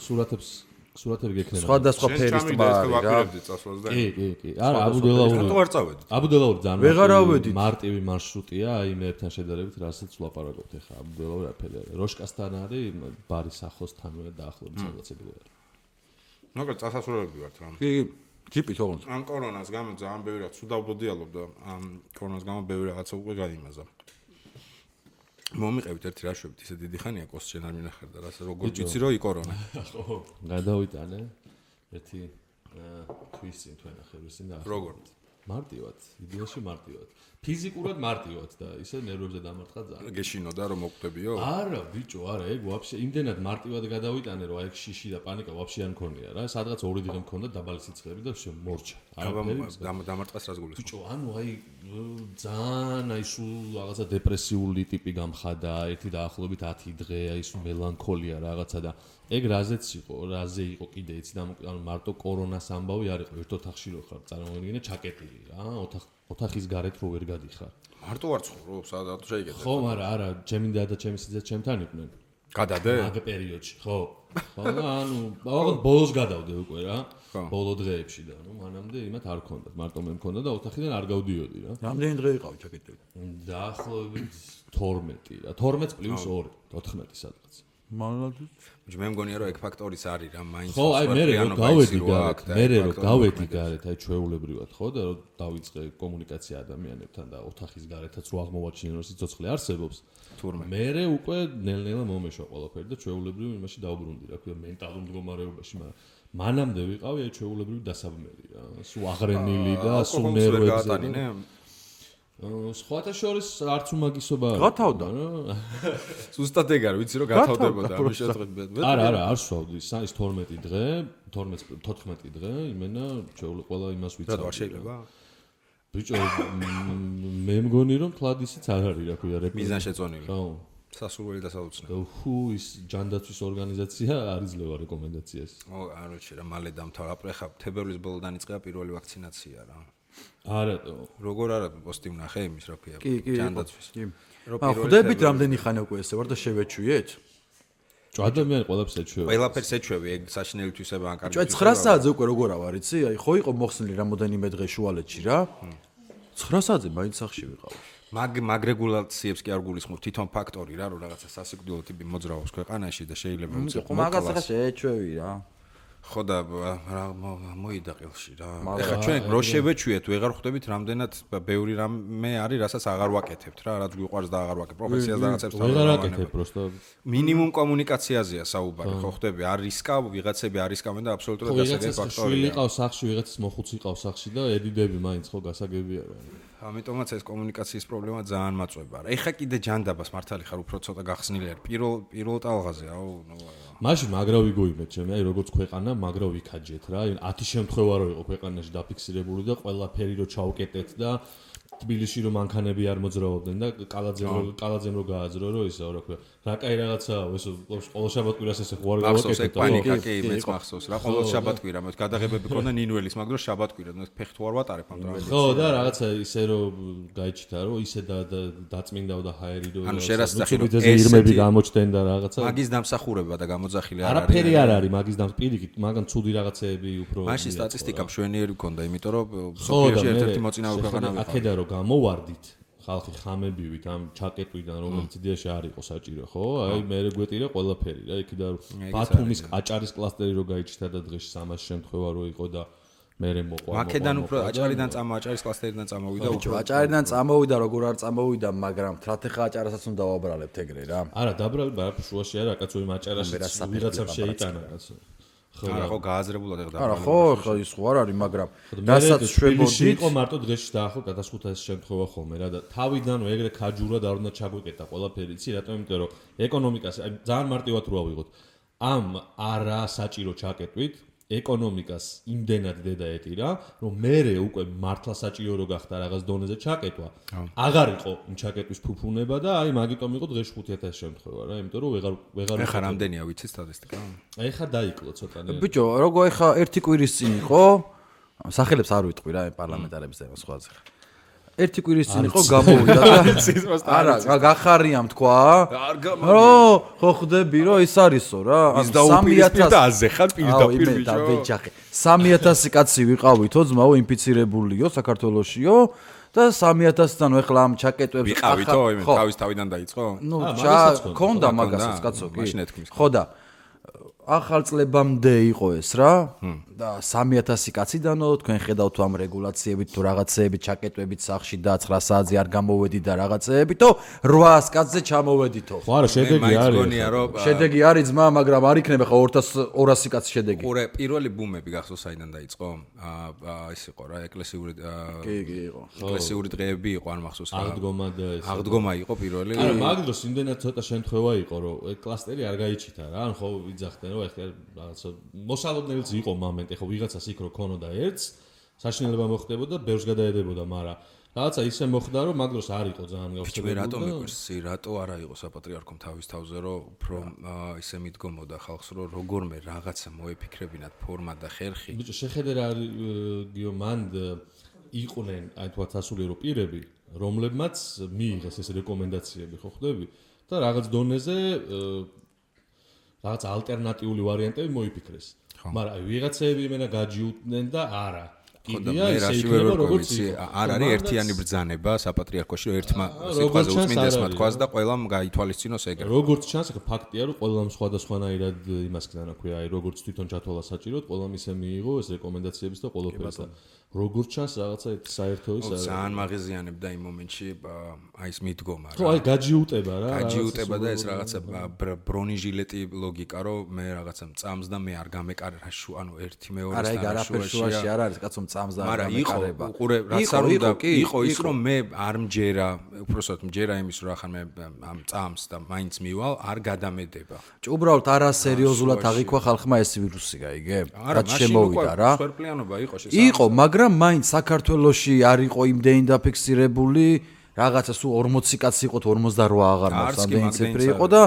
სურათები გექნება სხვადასხვა ფერის ტბა არის რა კი არა აბუდელაური რატო არ წავედით აბუდელაური ძალიან ვეღარ ავედით მარტივი მარშრუტია აი მე ერთთან შედარებით რასაც ვლაპარაკობთ ახლა აბუდელაური არაფერი არის როშკასთან არის ბარის ახლოსთანვე დაახლოებით სადაცები არის ნაკრ წასასვლელები ვართ რა კი ჯიპით ოღონდ ან კორონას გამო ძალიან ბევრი რაც უდავდოდიალობ და ამ კორონას გამო ბევრი რაღაცა უკვე გაიმაზა მომიყევით ერთი რაშვებით ისე დიდი ხანია კოს შენ არ მინახარ და რას როგორ ვიცი რომ იკორონა ხო გადავიტანე ერთი თვის წინ თუ ენახებს წინ და როგორ მარტივად იდეაში მარტივად ფიზიკურად მარტივად და ისე ნერვებზე დამარცხა ძალიან გეშინოდა რომ მოკვდებიო არა ბიჭო არა ეგ ვაფშე იმდენად მარტივად გადავიტანე რომ აი შიში და პანიკა ვაფშე არ მქონია რა სადღაც ორი დღე მქონდა დაბალი სიცხეები და შე მორჩა დამარცხას რას გულისხმობ ბიჭო ანუ აი ძალიან აი სულ რაღაცა დეპრესიული ტიპი გამხადა ერთი დაახლოებით 10 დღე აი სულ მელანქოლია რაღაცა და ეგ რაზეც იყო რაზე იყო კიდე იცი და ანუ მარტო კორონას ამბავი არ იყო ერთ ოთახში რო ხარ წარმოვიდგინე ჩაკეტილი რა ოთახის გარეთ რო ვერ გადიხარ მარტო არ ცხოვრობ სადაც შეიძლება ხო მაგრამ არა ჩემი და ჩემი სიძე ჩემთან იყვნენ გადადე მაგ პერიოდში ხო ანუ ბოლოს ბოლოს გადავდე უკვე რა ბოლო დღეებში და ნუ მანამდე იმათ არ ქონდათ მარტო მე მქონდა და ოთახიდან არ გავდიოდი რა რამდენი დღე იყავი ჩაკეტილი დაახლოებით 12 რა 12 პლუს 2 14 სადღაც მალადით მე მგონია რომ ეგ ფაქტორის არის რა მაინც ხო აი მე რომ გავედი გარეთ მე რომ გავედი გარეთ აი ჩვეულებრივად ხო და რომ დავიწყე კომუნიკაცია ადამიანებთან და ოთახის გარეთაც რო აღმოვაჩინე რომ სიცოცხლე არსებობს თურმე მე უკვე ნელ-ნელა მომეშვა ყველაფერი და ჩვეულებრივ იმაში დავბრუნდი რა ქვია მენტალურ მდგომარეობაში მაგრამ მანამდე ვიყავი აი ჩვეულებრივ დასაბმელი რა სულ აღრენილი და სულ ნერვებზე სხვათა შორის არც უმაგისობა არის. გათავდა რა. ზუსტად ეგ არის, ვიცი რომ გათავდებოდა ამ შეხვედრით. არა, არ სვავდი, ის 12 დღე, 14 დღე, იმენა შეუძლია ყველა იმას ვიცავ. რა შეიძლება? ბიჭო, მე მგონი რომ თლად ისიც არ არის, რა ქვია, მიზანშეწონილი. ხო. სასურველი და საოცნე. ხუ ის ჯანდაცვის ორგანიზაცია არ იძლევა რეკომენდაციას. ო, არ ვიცი რა, მალე დამთავრდა. აპრეხა თებერვლის ბოლოდან იწყება პირველი ვაქცინაცია რა. არატო. როგორ არა პოსტი ვნახე იმის როფია. ჯანდაცვის. ხვდებით რამდენი ხანი უკვე ესე ვარ და შევეჩვიეთ? ადამიანი ყველაფერს ეჩვევა. ყველაფერს ეჩვევი, ეგ საშინელი თვისება ან კარგი. 9 საათზე უკვე როგორ ავარ იცი? აი ხო იყო მოხსნილი რამოდენიმე დღე შუალედში რა. 9 საათზე მაინც სახში ვიყავ. მაგ რეგულაციებს კი არ გულისხმობ თვითონ ფაქტორი რა, რომ რაღაცა სასიკვდილო ტიპი მოძრაობს ქვეყანაში და შეიძლება უცებ მაგას ახლა შეეჩვევი რა. ხო და მოიდა ყელში რა. ეხლა ჩვენ რო შევეჩვიეთ, ვეღარ ხვდებით რამდენად ბევრი რამე არის, რასაც აღარ ვაკეთებთ რა, რაც გვიყვარს და აღარ ვაკეთებ. პროფესიას და რაღაცებს აღარ ვაკეთებ, просто მინიმუმ კომუნიკაციაზეა საუბარი, ხო ხვდები, არ რისკავ, ვიღაცები არ რისკავენ და აბსოლუტურად გასაგები ფაქტორია. შვილი ყავს სახში, ვიღაცის მოხუცი ყავს სახში და ედიდები მაინც ხო გასაგებია რა. ამიტომაც ეს კომუნიკაციის პრობლემა ძალიან მაწვება რა. ეხა კიდე ჯანდაბას მართალი ხარ უფრო ცოტა გახსნილი არ პირველ ტალღაზე აუ მაშინ მაგრა ვიგოიმეთ ჩემი აი როგორც ქვეყანა მაგრა ვიქაჯეთ რა 10 შემთხვევა რო იყო ქვეყანაში დაფიქსირებული და ყველაფერი რო ჩაუკეტეთ და თბილისში რომ მანქანები არ მოძრაობდნენ და კალაძემ რო გააძრო რომ ისე რა ქვია რა კაი რაღაცაა ეს ყოველ შაბათ-კვირას ესე ხوار გავაკეთეთ და პანიკა კი მეც მახსოვს რა ყოველ შაბათ-კვირა მე გადაღებები ქონდა ნინველის მაგრამ შაბათ-კვირა მე ფეხით ვარ ვატარებ ამ დროის ხო და რაღაცა ისე რომ გაიჩიტა რომ ისე დაწმინდაო და ჰაერი რომ ანუ შერასწახი რომ ირმები გამოჩდნენ და რაღაცა მაგის დამსახურება და გამოძახილი არ არის არაფერი არ არის მაგის პირიქით მაგან ცუდი რაღაცეები უფრო მაშინ სტატისტიკა მშვენიერი გქონდა იმიტომ რომ სოფიაში ერთ-ერთი მოწინავე ქვეყანა ვიყავ აქედა რომ გამოვარდით ხალხი ხამებივით ამ ჩაკეტვიდან რომელიც იდეაში არ იყო საჭირო ხო აი მე გვეტირა ყველაფერი რა იქიდან ბათუმის აჭარის კლასტერი რო გაიჩიტა და დღეში 300 შემთხვევა რო იყო და მე მოყვა აქედან უფრო აჭარიდან აჭარის კლასტერიდან წამოვიდა უფრო აჭარიდან წამოვიდა როგორ არ წამოვიდა მაგრამ თრათეხა აჭარასაც უნდა დავაბრალებთ ეგრე რა არა დაბრალებ არა შუაში არა კაცო იმ აჭარაში ვიღაცამ შეიტანა კაცო არა ხო გააზრებულად ეხლა არა ხო ხო ის ხო არ არის მაგრამ რასაც შვებოდით იყო მარტო დღეში დაახო გადასხუთა ეს შემთხვევა ხოლმე რა და თავიდანვე ეგრე ქაჯურად არ უნდა ჩაგვიკეტა ყველაფერი იცი რატომ იმიტომ რომ ეკონომიკას აი ძალიან მარტივად რო ავიღოთ ამ არა საჭირო ჩაკეტვით ეკონომიკას იმდენად დედა ეტირა რომ მე უკვე მართლა საჭირო რო გახდა რაღაც დონეზე ჩაკეტვა აღარ იყო იმ ჩაკეტვის ფუფუნება და აი მაგიტომ იყო დღეში 5000 შემთხვევა რა იმიტომ რომ ვეღარ ეხა რამდენია ვიცი სტატისტიკა აი ეხა დაიკლო ცოტა ბიჭო როგორ ეხა ერთი კვირის წინ იყო სახელებს არ ვიტყვი რა პარლამენტარების და სხვაზე ერთი კვირის წინ იყო გამოვიდა და არა გახარიამ თქვა ხო ხვდები რომ ის არისო რა 3000-ზე ხარ პირდაპირ ბიჭო 3000 კაცი ვიყავითო ძმაო ინფიცირებულიო საქართველოსიო და 3000-დან ეხლა ამ ჩაკეტვებს ვიყავითო თავის თავიდან დაიწყო ნუ ქონდა მაგასაც კაცო კი ხო და ახალ წლებამდე იყო ეს რა და 3000 კაციდანო თქვენ ხედავთ ამ რეგულაციებით თუ რაღაცეებით ჩაკეტვებით სახში და 9 საათზე არ გამოვედი და რაღაცეებით თო 800 კაცზე ჩამოვედითო ხო არა შედეგი არის შედეგი არის ძმა მაგრამ არ იქნება ხო 200 კაცი შედეგი ყურე პირველი ბუმები გახსოვს საიდან დაიწყო ის იყო რა ეკლესიური კი იყო ეკლესიური დღეები იყო არ მახსოვს რა აღდგომა და ეს აღდგომა იყო პირველი არა მაგ დროს იმდენად ცოტა შემთხვევა იყო რომ კლასტერი არ გაიჩიტა რა ან ხო ვიძახდნენ რომ ეხლა რაღაცა მოსალოდნელიც იყო მომენტი ხო ვიღაცას იქ რო ქონოდა ერთს საშინელება მოხდებოდა ბევრს გადაედებოდა მაგრამ რაღაცა ისე მოხდა რომ მაგ დროს არ იყო ძალიან გავშევებული რატომ მიყვარს რატო არა იყო საპატრიარქომ თავის თავზე რომ უფრო ისე მიდგომოდა ხალხს რომ როგორმე რაღაცა მოეფიქრებინათ ფორმა და ხერხი ბიჭო შეხედე რა გიო მან იყვნენ აი თქვა სასულიერო პირები რომლებმაც მიიღეს ეს რეკომენდაციები ხო ხვდები და რაღაც დონეზე რაღაც ალტერნატიული ვარიანტები მოიფიქრეს. მაგრამ ვიღაცები იმენა გაჯიუტდნენ და არა. კიდია ისე იქნება როგორც არ არის ერთიანი ბრძანება საპატრიარქოში რომ ერთმა სიტყვაზე უწმინდესმა თქვას და ყველამ გაითვალისწინოს ეგრე. როგორც ჩანს, ახლა ფაქტია რომ ყველამ სხვადასხვანაირად იმას ქნა რა ქვია, აი როგორც თვითონ ჩათვალა საჭიროდ, ყველამ ისე მიიღო ეს რეკომენდაციების და ყველაფერს და როგორც ჩანს რაღაცა საერთო ის არა. ძალიან მაღიზიანებდა იმ მომენტში აი ეს მიდგომა რა. ხო, აი გაჯიუტება რა. გაჯიუტება და ეს რაღაცა ბრონიჟილეტი ლოგიკა რომ მე რაღაცა წამს და მე არ გამეკარე რა შუ ანუ ერთი მეორე არა ეგ არაფერ შუაში არ არის კაცო წამს და არ გამეკარება. უყურე რაც არ უნდა იყო ის რომ მე არ მჯერა უბრალოდ მჯერა იმის რომ ახლა მე ამ წამს და მაინც მივალ არ გადამედება. უბრალოდ არასერიოზულად აღიქვა ხალხმა ეს ვირუსი გაიგე? რაც შემოვიდა რა. სვერპლიანობა იყო შესაძლოა. იყო მაგრამ მაინც საქართველოში არ იყო იმდენი დაფიქსირებული რაღაცა სულ 40 კაცი იყო 48 აღარ მოს ამდენი ციფრი იყო და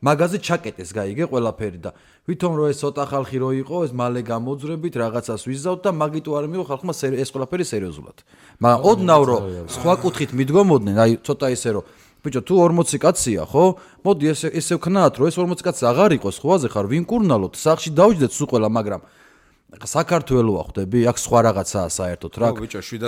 მაგაზე ჩაკეტეს გაიგე ყველაფერი და ვითომ რომ ეს ცოტა ხალხი რო იყო ეს მალე გამოძრებით რაღაცას ვიზავთ და მაგიტო არ მიიღო ხალხმა ეს ყველაფერი სერიოზულად მაგრამ ოდნავ რომ სხვა კუთხით მიდგომოდნენ აი ცოტა ისე რომ ბიჭო თუ 40 კაცია ხო მოდი ესე ვქნათ რომ ეს 40 კაცი აღარ იყოს ხვაზე ხარ ვინ კურნალოთ სახში დავჯდეთ სულ ყველა მაგრამ საქართველოა ხვდები აქ სხვა რაღაცაა საერთოდ რა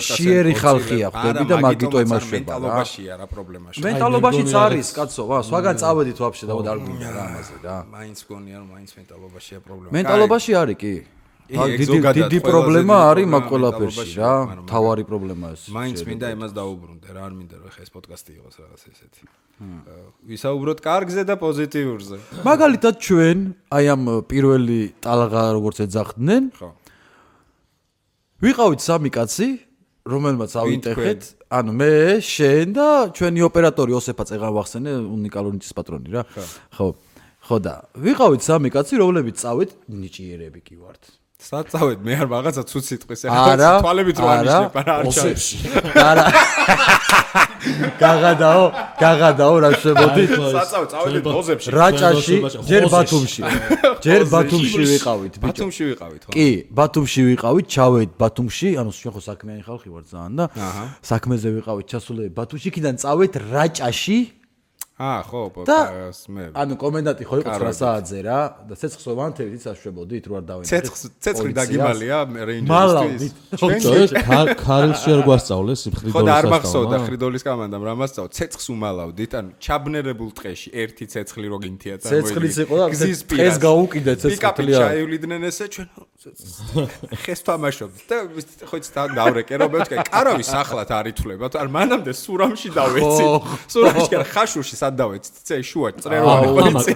შიერი ხალხია ხვდები და მაგიტო იმაშება რა მენტალობაშია რა პრობლემაში მენტალობაშიც არის კაცო სხვაგან წავედით ვაფშე და არ გვინდა რა ამაზე რა მაინც გონია რომ მაინც მენტალობაშია პრობლემა მენტალობაში არის კი დიდი პრობლემა არის მაგ ყველაფერში რა თავარი პრობლემა ეს მაინც მინდა იმას დაუბრუნდე რა არ მინდა რომ ხა ეს პოდკასტი იყოს რაღაც ესეთი ვისაუბროთ კარგზე და პოზიტიურზე მაგალითად ჩვენ აი ამ პირველი ტალღა როგორც ეძახდნენ ხო ვიყავით სამი კაცი რომელმაც ავიტეხეთ ანუ მე შენ და ჩვენი ოპერატორი ოსეფა წეღარ ვახსენე უნიკალურნიცის პატრონი რა ხო და ვიყავით სამი კაცი რომლებიც წავით ნიჭიერები კი ვართ საწავეთ მე არ რაღაცა ცუც სიტყვის ახლა თვალებით რო ანიშნებ არა არ ჩავს არა გაღადაო რა შევოდი საწავეთ წავედით ბოზებში რაჭაში ჯერ ბათუმში ვიყავით ბათუმში ვიყავით ხო კი ბათუმში ვიყავით ჩავედით ბათუმში ანუ ჩვენ ხო საქმიანი ხალხი ვართ ძალიან და საქმეზე ვიყავით ჩასულები ბათუმში იქიდან წავედით რაჭაში ხო მე ანუ კომენდანტი ხო იყო 9 საათზე რა და ცეცხლს ვანთებით იცაშვებოდით რო არ დავინახეთ ცეცხლი დაგიმალია რეინჯერისთვის ქარილში არ გვასწავლეს ხო და არ მახსოვდა ხრიდოლის კამანდამ რა მასწავლ ცეცხლს უმალავდით ანუ ჩაბნერებულ ტყეში ერთი ცეცხლი რო გინთია ცეცხლის იყო და ეს გაუკიდე ცეცხლი ჩაივლიდნენ ესე ჩვენ ხეს თამაშობთ და ხო იცით დავრეკე რომ მე კარავის ახლად არ ითვლება არ მანამდე სურამში დავეცი სურამში ხაშურში სად დავეცით ცე შუა წრეროვანი ხო იცი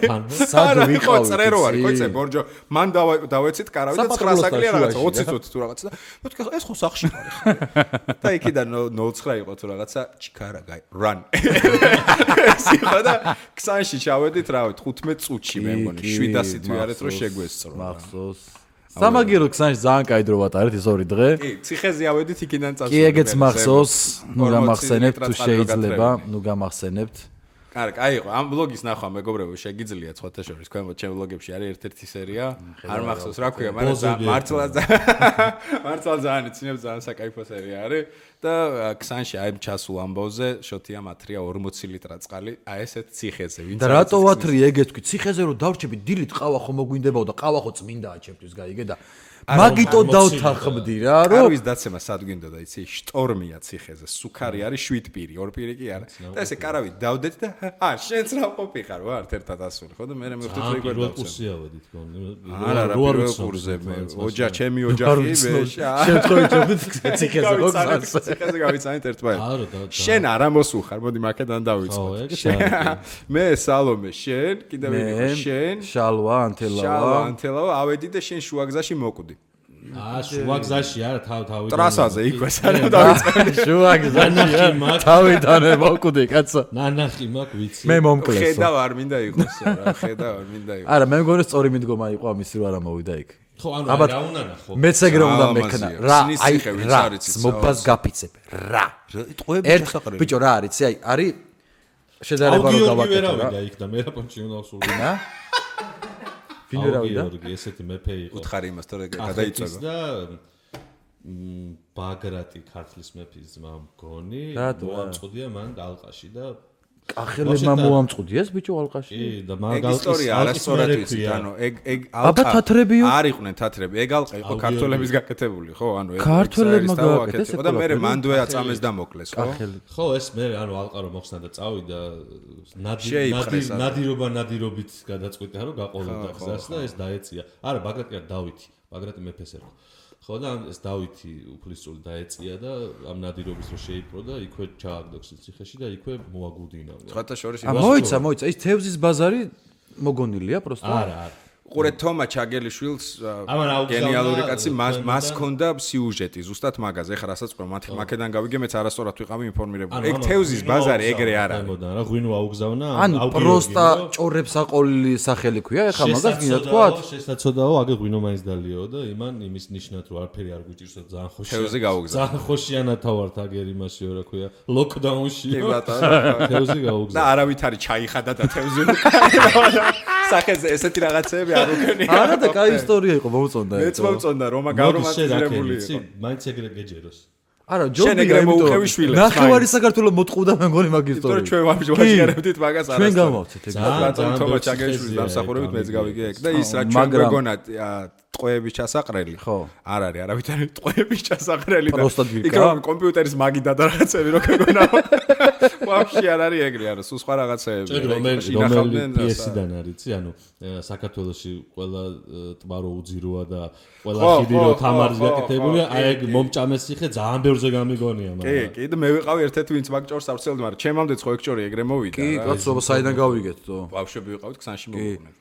სად ვიყავით წრეროვანი ხო იცი ბორჯო მან დავეცით კარავი და 9 საკლია რაღაცა 20 წუთი თუ რაღაცა და მე ეს ხო სახში არის და იქიდან 09 იყო თუ რაღაცა ჩიქარა გაი run სიხა და ქსანში ჩავედით რავი 15 წუთში მე მგონი 700 თუ არის რომ შეგვესწრო მახსოვს სამაგირო ქსანში ძალიან კაი დრო ვატარეთ ეს ორი დღე კი ციხეზე ავედით იქიდან წასვლა კი ეგეც მახსოვს ნუ გამახსენებთ თუ შეიძლება ნუ გამახსენებთ კაი იყო ამ ბლოგის ნახვა მეგობრებო შეგიძლიათ სხვათა შორის ქვემოთ ჩემ ბლოგებში არის ერთ-ერთი სერია არ მახსოვს რა ქვია მაგრამ მართლა ძალიან იცინებ ძალიან საკაიფო სერია არის და ქსანში აი ჩასულ ამბავზე შოთია მათრია 40 ლიტრა წყალი აი ესეთ ციხეზე ვინც და რატო ვათრი ეგეთ თქვი ციხეზე რომ დავრჩები დილით ყავა ხო მოგვინდებაო და ყავა ხო წმინდაა ჩემთვის გაიგე და მაგიტო დავთანხმდი რა რომ არის დაცემა სად გვინდოდა იცი შტორმია ციხეზე სუქარი არის 7 პირი 2 პირი კი არა და ესე კარავით დავდეთ და შენც რა ყოფიხარ ვარ ერთად ასული ხო და მე მივხვდით რომ იგვარ დავცემ არა პირველ კურსზე მე ოჯახ ჩემი ოჯახი მე შემთხვევით ციხეზე ხო ციხეზე გავიცანით ერთმანეთს შენ არა მოსუხარ მოდი მაკედან დავიწყოთ მე სალომე შენ კიდევ ვინ შენ შალვა ანთელავა ავედი და შენ შუაგზაში მოკვდი შუაგზაში არა თავი ტრასაზე იქვე სანამ დავიწყე შუაგზაში თავიდან მოკვდი კაცო ნანახი მაქვს ვიცი მე მომკლესო ხედავ არ მინდა იყოს რა ხედავ არ მინდა იყოს არა მე მგონი სწორი მიდგომა იყო ამისი რომ არა მოვიდა იქ ხო ანუ რა უნდა ნახო მეც ეგრე უნდა მექნა რა აი მობას გაფიცებ რა ერთ ბიჭო რა არის აი არის შედარება რომ გავაკეთო რა იქ და მე რა პონჩი უნდა ვსურვინა ვინ ვერავიდა? ესეთი მეფე იყო. უთხარი იმას თორე გადაიწვევა. და ბაგრატი ქართლის მეფის ძმა მგონი, მოამწყვდია მან ალყაში და კახელებმა მოამწყვდიეს ბიჭო ალყაში? კი, და მაგ ისტორია არასწორად ვიცი, ანუ ეგ აბა თათრებიო? არ იყვნენ თათრები, ეგ ალყა იყო ქართველების გაკეთებული, ხო? ანუ ეგ ქართველებმა გააკეთეს და მე მანდვე აწამეს და მოკლეს, ხო? ხო, ეს მე ანუ ალყა რომ მოხსნა და წავიდა ნადირობით გადაწყვიტა რომ გაყოლოდა გზას და ეს დაეწია. არა, ბაგრატი არ დავითი, ბაგრატი მეფეს ერქვა. ხო და ეს დავითი უფლისწული დაეწია და ამ ნადირობის რო შეიპყრო და იქვე ჩააგდოს ციხეში და იქვე მოაგუდინა. სხვათა შორის მოიცა ის თევზის ბაზარი მოგონილია პროსტა? არა. ყურე თომა ჩაგელიშვილს გენიალური კაცი მას ქონდა სიუჟეტი ზუსტად მაგაზე ეხლა რასაც ყო მაქედან გავიგე მეც არასწორად ვიყავი ინფორმირებული ეგ თევზის ბაზარი ეგრე არ არის რა ღვინო აუგზავნა ანუ პროსტა ჭორებს აყოლილი სახელი ქვია ეხლა მაგას გინდა თქვა შესაძოდაო აგე ღვინო მაინც დალიო და იმის ნიშნად რომ არაფერი არ გვიჭირს და ძალიან ხოშია თევზი გაუგზავნა ძალიან ხოშიანათა ვართ აგერ იმასიო რა ქვია ლოკდაუნში თევზი გაუგზავნა და არავით არის ჩაიხადა და თევზი სახეზე ესეთი რაღაცები არ უკენია არა და კაი ისტორია იყო მოუწონდა მეც მოუწონდა რომა გავრომანტიზირებული იყო მაინც ეგრე გეჯეროს არა ჯობია იმიტომ ნახევარი საქართველოს მოტყუდა მე მგონი მაგ ისტორიას ჩვენ ვაჟღერებდით მაგას არასდროს ჩვენ გამოვცეთ ეგ ბატონ თომა ჩაგეშვილის დამსახურებით მეც გავიგე ეგ და ის რა ჩვენ გვეგონა ტყვეების ჩასაყრელი ხო არ არის არავით არის ტყვეების ჩასაყრელი და იქ რომ კომპიუტერის მაგიდა და რაღაცები რო გეგონა ვაფშე არ არის ეგრე არა სულ სხვა რაღაცეები რომელი პიესიდან არიცი ანუ საქართველოში ყველა ტბა რო უძიროა და ყველა ხიდი რო თამარის გაკეთებულია აი ეგ მომჭამეს ციხე ძალიან ბევრზე გამიგონია მაგრამ კი და მე ვიყავი ერთ-ერთი ვინც მაგ ჭორს ავცელდი მაგრამ ჩემამდეც ხო ეგ ჭორი ეგრე მოვიდა კი კაცობა საიდან გავიგეთ თო ბავშვები ვიყავით ქსანში მოვუყვნეთ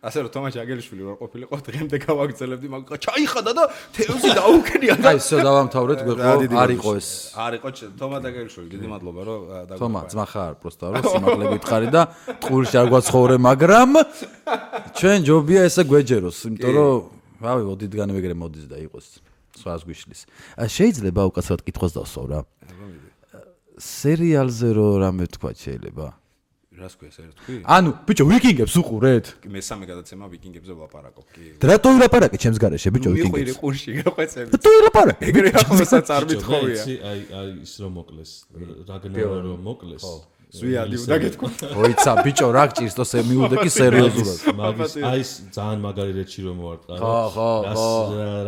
ასე რომ თომა ჩაგელიშვილი რო ყოფილიყო დღემდე გავაგრძელებდი მაგ ჩაიხადა და თევზი დაუკენია და აი ისე დავამთავრეთ გვეყო არ იყო ეს არ იყო თომა ჩაგელიშვილი დიდი მადლობა რომ თომა ძმა ხარ პროსტა რომ სიმაღლე გითხარი და ტყურში არ გვაცხოვრე მაგრამ ჩვენ ჯობია ესე გვეჯეროს იმიტომ რომ რავი ოდითგანვე ეგრე მოდის და იყოს სხვას გვიშლის შეიძლება უკაცრავად კითხვას დავსვავ რა სერიალზე რო რამე თქვა შეიძლება რას ქვია ეს თქვი? ანუ ბიჭო ვიკინგებს უყურეთ? მესამე გადაცემა ვიკინგებზე ვლაპარაკობ კი. რატო ვილაპარაკე ჩემს გარეშე ბიჭო ვიკინგებს? მიყვირი ყურში გაყვეცები. რატო ვილაპარაკე? ეგრე ახალსაც არ მithხოვია. აი ის რომ მოკლეს, რაგნარო რომ მოკლეს. ზვიადი უნდა გეთქვა. ოიცა ბიჭო რა გჭირს თო მიუდე კი სერიოზულად. მაგის აი ეს ძალიან მაგარი რეჩი რომ მოვარტყა. ხო.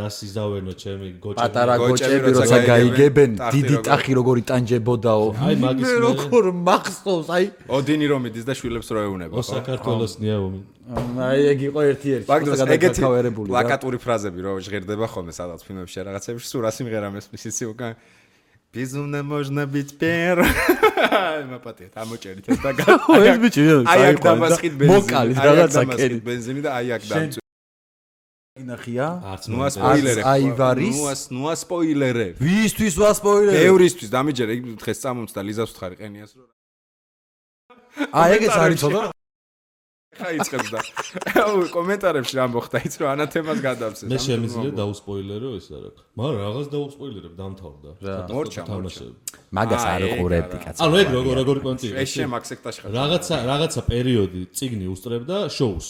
რას იზავენო ჩემი გოჭები. პატარა გოჭები როცა გაიგებენ დიდი ტახი როგორი ტანჯებოდაო. აი მაგის მე როგორ მახსოვს აი ოდინი რომ იდის და შვილებს რო ეუნება ხო? საქართველოს ნიაომი. აი ეგ იყო ერთი-ერთი ეგეთი პლაკატური ფრაზები რო ჟღერდება ხოლმე სადაც ფილმებში რაღაცებში სულ რა სიმღერა მესმის იცი უკან Безумно можно быть первым. Мапатია, ამოჭერით ეს და ეს ბიჭი აი აქ დამასხით ბენზინი. მოკალით რაღაცა კერი. ბენზინი და აი აქ დამწვი. ინახია? ნუა სპოილერე. აივარის. ნუა სპოილერე. ვისთვის ვასპოილერე? ევრისთვის დამიჯერე იქ დღეს წამომწდა ლიზას ვთხარი ყენიას რო. აი ეგეც არის ცოტა. ხაიწყებს და კომენტარებში რა მოხდა იც რომ ანათემას გადავსეს. მე შემიძლია დაუსპოილერო ეს რა. მაგრამ რაღაც დაუსპოილერებ დამთავრდა. მორჩა. მაგას არ უყურებდი კაცო. ანუ ეგ როგორი პონტი. ეს შემაქ სექტაში ხარ. რაღაცა პერიოდი წიგნი უსწრებდა შოუს.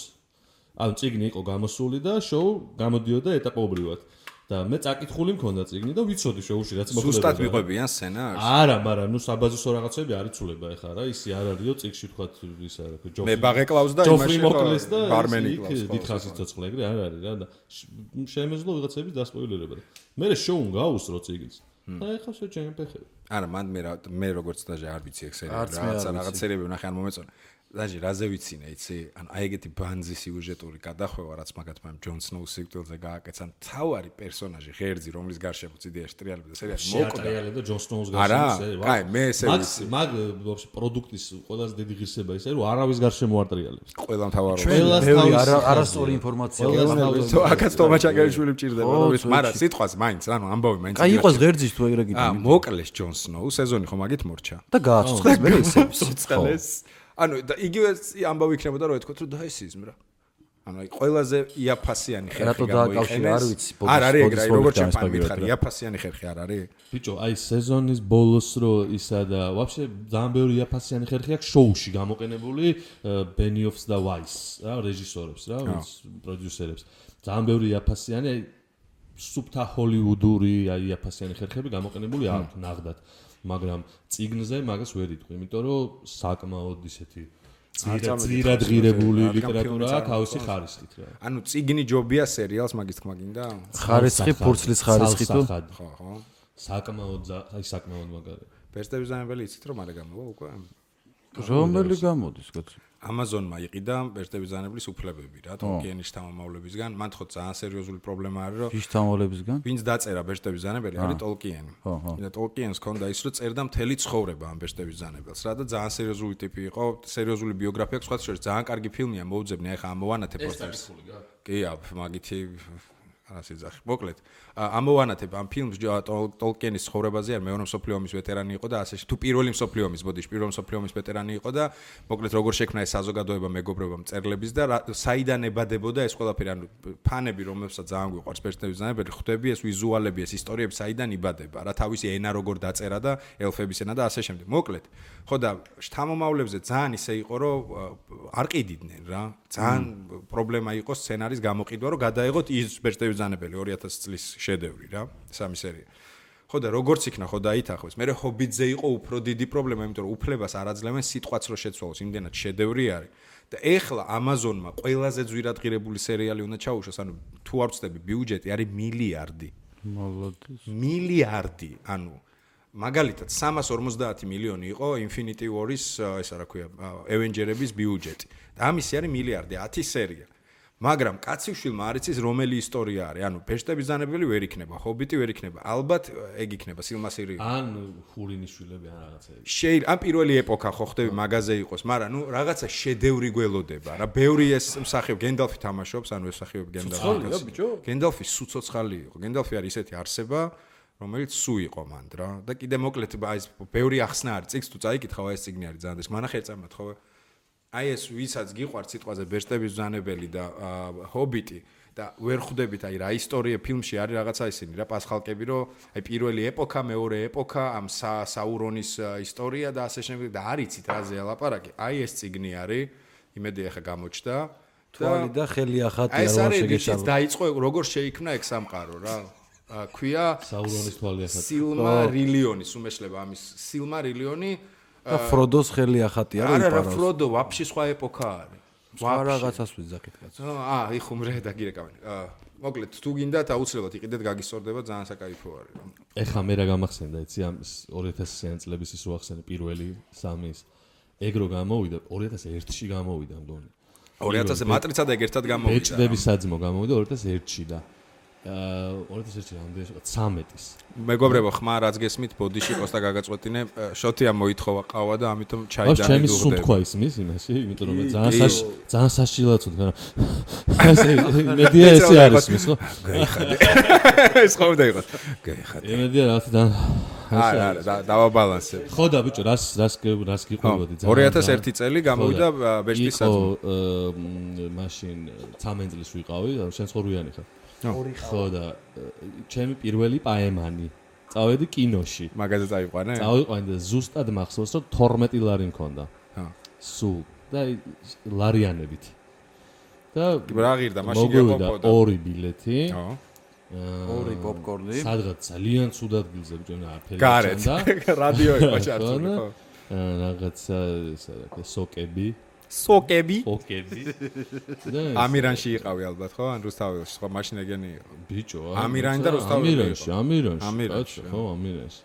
ანუ წიგნი იყო გამოსული და შოუ გამოდიოდა ეტაპობრივად. და მე წაკითხული მქონდა წიგნი და ვიცოდი შოუში რაც მოხდება. ზუსტად მიყვებიან სცენარს? არა, მაგრამ ნუ საბაზისო რაღაცები არ იცულება ეხლა რა, ისი არ არისო წიგში თქვა ის არა, ჯოფრი. მე ბაღეკლავს და იმაში მოკლეს და ბარმენი კლავს. დიდხანს იცოცხლე ეგრე არ არის რა და შემეძლო ვიღაცების დასპოილერება. მე შოუმ გაუსრო წიგნს. და ეხლა შეჭემფეხები. არა, მან მე როგორც დაჟე არ ვიცი ეგ სერიალი, რაღაც სერიები ვნახე არ მომეწონა. დაჟე რაზე ვიცინე, იცი? ანუ აი ეგეთი ბანძი სიუჟეტური გადახვევა რაც მაგათმა ჯონ სნოუს სიკვდილზე გააკეცან, თავარი პერსონაჟი ღერძი, რომლის გარშემო ციდიაში ტრიალებდა სერიალი მოკვდა. ტრიალებდა ჯონ სნოუს გარშემო. არა, კაი, მე ესე ვიცი. მაგ ვაფშე პროდუქტის ყველაზე დიდი ღირსება ისე რომ არავის გარშემო არ ტრიალებს. ყველა მთავარობა. ბევრი არასწორი ინფორმაცია. აქაც თომა ჩაგელიშვილი მჭირდება, მაგრამ სიტყვას მაინც, ანუ ამბავი მაინც. კაი იყოს ღერძის თუ ეგრე გითხრა. მოკლეს ჯონ სნოუ, სეზონი ხომ მაგით მორჩა. და გააცოცხლეს მე ისე. ცოცხლეს. ანუ და იგივე ამბავი იქნებოდა რომ ეთქვათ რომ დაესიზმ რა. ანუ აი ყველაზე იაფასიანი ხერხი გამოიყენეს. არ არის ეგ რა, როგორც ჩემთან მითხარი, იაფასიანი ხერხი არ არის? ბიჭო, აი სეზონის ბოლოს რო ისა და ვაფშე ძალიან ბევრი იაფასიანი ხერხი აქვს შოუში გამოყენებული ბენიოფს და ვაის რა, რეჟისორებს რა, პროდიუსერებს. ძალიან ბევრი იაფასიანი აი სუპთა ჰოლივუდური აი იაფასიანი ხერხები გამოყენებული აქვს ნაღდად. მაგრამ წიგნზე მაგას ვერ იტყვი, იმიტომ რომ საკმაოდ ისეთი ძირად ღირებული ლიტერატურა აქვს თავისი ხარისხით რა. ანუ წიგნი ჯობია სერიალს მაგის თქმა გინდა? ხარისხი, ფურცლის ხარისხი თუ? ხო. საკმაოდ მაგარი. პერსპექტივიზამებელი იცით რომ არა გამოვა უკვე? რომელი გამოდის კაცო? Amazon-მა იყიდა ბეჭდებისგანებლის უფლებები რა, Tolkien-ის შთამომავლებისგან. მან თქო ძალიან სერიოზული პრობლემა არის, რომ ის შთამომავლებისგან? ვინც დაწერა ბეჭდებისგანებელი არის Tolkien. და Tolkien-ს ქონდა ის, რომ წერდა მთელი ცხოვრება ამ ბეჭდებისგანებელს რა და ძალიან სერიოზული ტიპი იყო, სერიოზული ბიოგრაფია, სხვა შორის ძალიან კარგი ფილმია, მოუძებნი, ახლა ამოვანათებ პოსტერს. კი, მაგითი ასიძახი. მოკლედ, ამოვანათებ ამ ფილმს Tolkien-ის ცხოვრებაზე, არ მეორე მსოფლიო ომის ვეტერანი იყო და ასე თუ პირველი მსოფლიო ომის, ბოდიში, პირველი მსოფლიო ომის ვეტერანი იყო და მოკლედ როგორ შექმნა ეს საზოგადოება მეგობრობა მწერლების და საიდან ებადებოდა ეს ყველაფერი, ანუ ფანები, რომელსაც ძალიან გვიყვარს ბეჭდებისგანებელი, ხვდები ეს ვიზუალები, ეს ისტორიები საიდან იბადება, რა თავისი ენა როგორ დაწერა და ელფების ენა და ასე შემდეგ. მოკლედ, ხო და შთამომავლებზე ძალიან ისე იყო, რომ არ ყიდიდნენ რა. ძალიან პრობლემა იყო სცენარის გამოყიდვა, რომ გადაეღოთ ის ბეჭდებისგანებელი 2000 წლის შედევრი რა, სამი სერია. ხო და როგორც იქნა, ხო დაითანხმეს. მე ჰობიტზე იყო უფრო დიდი პრობლემა, იმიტომ რომ უფლებას არ აძლევენ სიტყვაც რო შეცვალოს, იმდენად შედევრი არის. და ეხლა Amazon-მა ყველაზე ძვირადღირებული სერიალი უნდა ჩაუშვას, ანუ თუ არ ვცდები, ბიუჯეტი არის მილიარდი. მოლოდის. მილიარდი, ანუ მაგალითად 350 მილიონი იყო Infinity War-ის, ესა რა ქვია, Avengers-ების ბიუჯეტი. და ამისი არის მილიარდი, 10 სერია. მაგრამ კაციშვილმა არ იცის რომელი ისტორია არის. ანუ ბეჭდებისგანებელი ვერ იქნება, ჰობიტი ვერ იქნება. ალბათ ეგ იქნება სილმასილი. ან ხურინიშვილები ან რაღაცა. შეიძლება ან პირველი ეპოქა ხო ხდები მაგაზე იყოს, მაგრამ ნუ რაღაცა შედევრი გველოდება რა. ბევრი ეს მსახიობ გენდალფი თამაშობს, ანუ ეს მსახიობი გენდალფი. გენდალფი სუცოცხალი იყო. გენდალფი არის ისეთი არსება, რომელიც სუ იყო მანდ რა. და კიდე მოკლედ აი ეს ბევრი ახსნა არის. წიგს თუ წაიკითხავ, ეს წიგნი არის ძალიან. მანახე წამოთ ხო? აი ეს ვისაც გიყვართ სიტყვაზე ბეჭდებისგანებელი და ჰობიტი და ვერ ხვდებით აი რა ისტორია ფილმში არის რაღაცა ისინი რა პასხალკები რომ აი პირველი ეპოქა, მეორე ეპოქა, ამ საურონის ისტორია და ასე შემდეგ და არიცით რაზე ალაპარაკი. აი ეს წიგნი არის, იმედი ახლა გამოჩნდა. თვალი და ხელი ახატი არ ვარ შეგეშალო. აი დაიწყო როგორ შეიქმნა ეგ სამყარო რა. ქვია საურონის თვალი ახატი. სილმარილიონის უმეშლება ამის სილმარილიონი და ფროდოს ხელი ახატი არის იპარავს. არა, ფროდო ვაფშე სხვა ეპოქა არის. სხვა რაღაცას ვიძახით კაცო. იხუმრე და გირეკავენ. მოკლედ, თუ გინდათ აუცილებლად იყიდეთ, გაგისწორდება, ძალიან საკაიფო არის. ეხლა მე რა გამახსენდა, იცი ამ 2000-იან წლების ის რო ახსენე პირველი სამის. ეგ რო გამოვიდა 2001-ში გამოვიდა მგონი. 2000-ზე მატრიცა და ეგ ერთად გამოვიდა. ბეჭდების საძმო გამოვიდა 2001-ში და 2001-ში რამდენი 13-ის. მეგობრებო, ხმა რაც გესმით, ბოდიში ყოსტა გაგაწყვეტინე, შოთია მოითხოვა ყავა და ამიტომ ჩაი და ჩემი სუნთქვა ის მის იმაში, იმიტომ რომ ძალიან საშილად ვთქვა. მედია ესე არის მის ხო? გაიხადე. ეს ხომ და იყოს. გაიხადე. მედია რა თქმა არა, დავაბალანსებ. ხო და ბიჭო, რას გიყვებოდი ძალიან. 2001 წელი გამოვიდა ბეჭდის საძმო. მაშინ 13 წლის ვიყავი, შენ ცხოვრიანი ხარ. ხო და ჩემი პირველი პაემანი წავედი კინოში. მაგაზე წავიყვანე? წავიყვანე და ზუსტად მახსოვს რომ 12 ლარი მქონდა. სულ და ლარიანებით. და რა ღირდა მაშინ გეყოფოდა? 2 ბილეთი. ხო. 2 პოპკორნი. სადღაც ძალიან ცუდ ადგილზე ბიჭონა აფერი ჩანდა. რადიო იყო ჩართული ხო? რაღაცა ესა რა სოკები. სოკები? სოკები. ამირანში იყავი ალბათ ხო? ან რუსთაველში, ხო მაშინ ეგენი იყო. ბიჭო, ამირანი და რუსთაველი. ამირანში. ხო, ამირანში.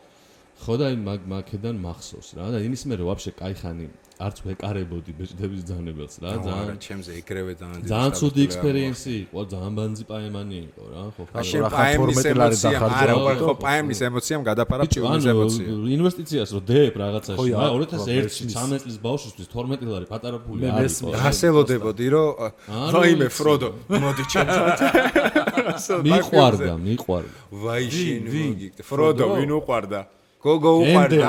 ხო და მაქედან მახსოვს რა და იმის მერე ვაფშე кайხანი არც ვეკარებოდი ბეჭდებისგანებელს რა ძალიან ჩემზე ეგრევე ძალიან ცუდი ექსპერიენსი იყო ძალიან ბანძი პაემანი იყო რა ხო ხო პაემის ემოცია არა ხო პაემის ემოციამ გადაფარა ფილმის ემოცია ინვესტიციას რო დებ რაღაცაში რა 2001-ში 13 წლის ბავშვისთვის 12 ლარი პატარა ფული არის გასელოდებოდი რომ რაიმე ფროდო მოდი ჩემთან მიყვარდა ვაი შენ მოგიგდე ფროდო ვინ უყვარდა გოგო უყვარდა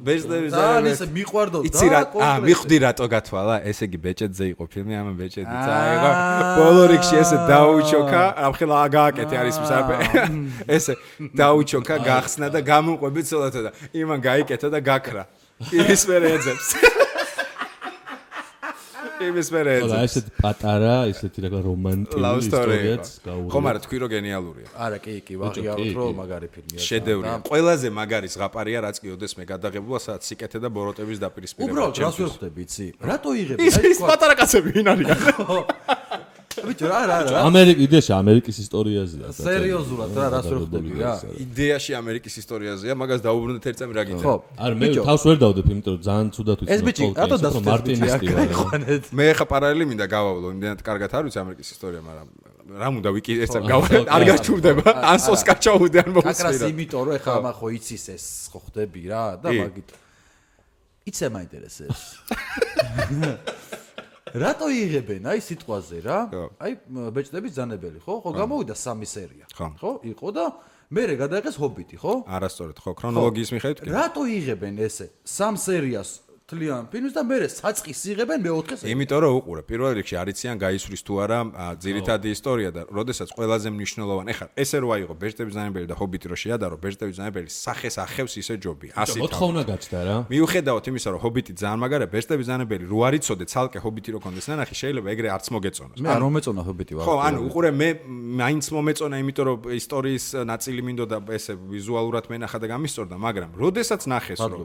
ბეჭდების ისე მიყვარდო და იცი რა მიხვდი რატო გათვალა ესე იგი ბეჭედზე იყო ფილმი ამ ბეჭედი წაიღო ბოლო რიგში ესე დაუჩოქა ამხელა გააკეთე არის მსაფე ესე დაუჩოქა გახსნა და გამომყვები ცოლათა და იმან გაიკეთა და გაქრა ის მერე ეძებს იმის მერე ეძებს და ესეთ პატარა ისეთი რა რომანტიკული ისტორიაც გაუღია ხო მაგრამ თქვი რომ გენიალურია არა კი ვაღიაროთ რომ მაგარი ფილმია შედევრია ყველაზე მაგარი ზღაპარია რაც კი ოდეს მე გადაღებულა სადაც სიკეთე და ბოროტების დაპირისპირება უბრალოდ რას ვერ ხვდები იცი რატო იღები ის პატარა კაცები ვინ არიან ბიჭო რა ამერიკის ამერიკის ისტორიაზეა სერიოზულად რა რას ვერ ხდები რა იდეაში ამერიკის ისტორიაზეა მაგას დაუბრუნდეთ ერთ წამი რა გინდა ხო არა მე თავს ვერ დავდებ იმიტომ რომ ძალიან ცუდად ვიცი ეს ბიჭი რატო დასწრებით მე ხა პარალელი მინდა გავავლო იმდენად კარგად არ ვიცი ამერიკის ისტორია მაგრამ რა უნდა ვიკი ერთ წამი გავავლო არ გაჩურდება ან სოსკა ჩაუდე ან მოსწირა აკრას იმიტომ რომ ეხლა ამახო იცის ეს ხო ხდები რა და მაგით იცი მაინტერესებს რატო იღებენ აი სიტყვაზე რა აი ბეჭდების ძანებელი ხო გამოვიდა 3 სერია ხო იყო და მერე გადაიღეს ჰობიტი ხო არასწორად ხო ქრონოლოგიის მიხედვით კი რატო იღებენ ესე 3 სერიას თლიან ფილმს და მერე საწყის იღებენ მე-4 სერიას იმიტომ რომ უყურე პირველ რიგში არიციან გაისვრის თუ არა ძირითადი ისტორია და როდესაც ყველაზე მნიშვნელოვანი ეხლა ესე რო აიღო ბეჭდების ძანებელი და ჰობიტი რო შეადარო ბეჭდების ძანებელი სახეს ახევს ისე ჯობი 100 მოთხოვნა გაჩნდა რა მიუხედავად იმისა რომ ჰობიტი ძალიან მაგარია ბეჭდების ძანებელი რო არ იცოდე ცალკე ჰობიტი რო კონდეს ნანახი შეიძლება ეგრე არც მოგეწონოს მე არ მომეწონა ჰობიტი ვარ ხო ანუ უყურე მე მაინც მომეწონა იმიტომ რომ ისტორიის ნაწილი მინდოდა ესე ვიზუალურად მენახა და გამისწორდა მაგრამ როდესაც ნახეს რომ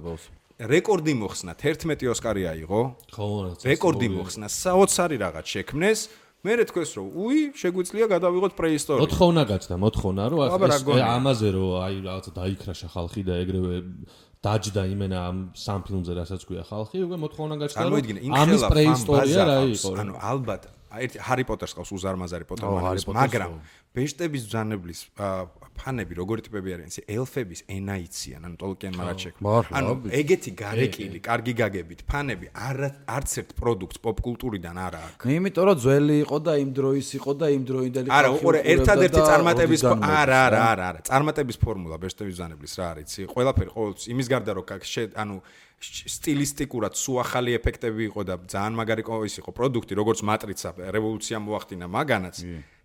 რეკორდი მოხსნა 11 ოსკარი აიღო. ხო, რეკორდი მოხსნა, საოცარი რაღაც შექმნეს. მე რეთქოს რომ უი, შეგვიძლია გადავიღოთ პრეისტორია. მოთხოვნა გაჩნდა, მოთხოვნა რომ ამაზე რომ აი რაღაცა დაიქრაშა ხალხი და ეგრევე დაჯდა იმენა ამ სამ ფილმზე რასაც გვია ხალხი, უკვე მოთხოვნა გაჩნდა რომ ამის პრეისტორია რა იყო. ანუ ალბათ ერთი ჰარი პოტერს ყავს უზარმაზარი პოტერმანის, მაგრამ ბეჭდების ბრძანებლის ფანები როგორი ტიპები არიან, ისე ელფების ენა იციან, ანუ ტოლკიენმა რაც შექმნა. ანუ ეგეთი გარეკილი, კარგი გაგებით ფანები არც ერთ პროდუქტს პოპკულტურიდან არ აქვს. იმიტომ რომ ძველი იყო და იმ დროის იყო და იმ დროინდელი არა, უყურე, ერთადერთი წარმატების არა, წარმატების ფორმულა ბეჭდების ბრძანებლის რა არის? ყველაფერი ყოველთვის იმის გარდა რომ ანუ სტილისტიკურად სულ ახალი ეფექტები იყო და ძალიან მაგარი ის იყო პროდუქტი, როგორც მატრიცა რევოლუცია მოახდინა მაგანაც.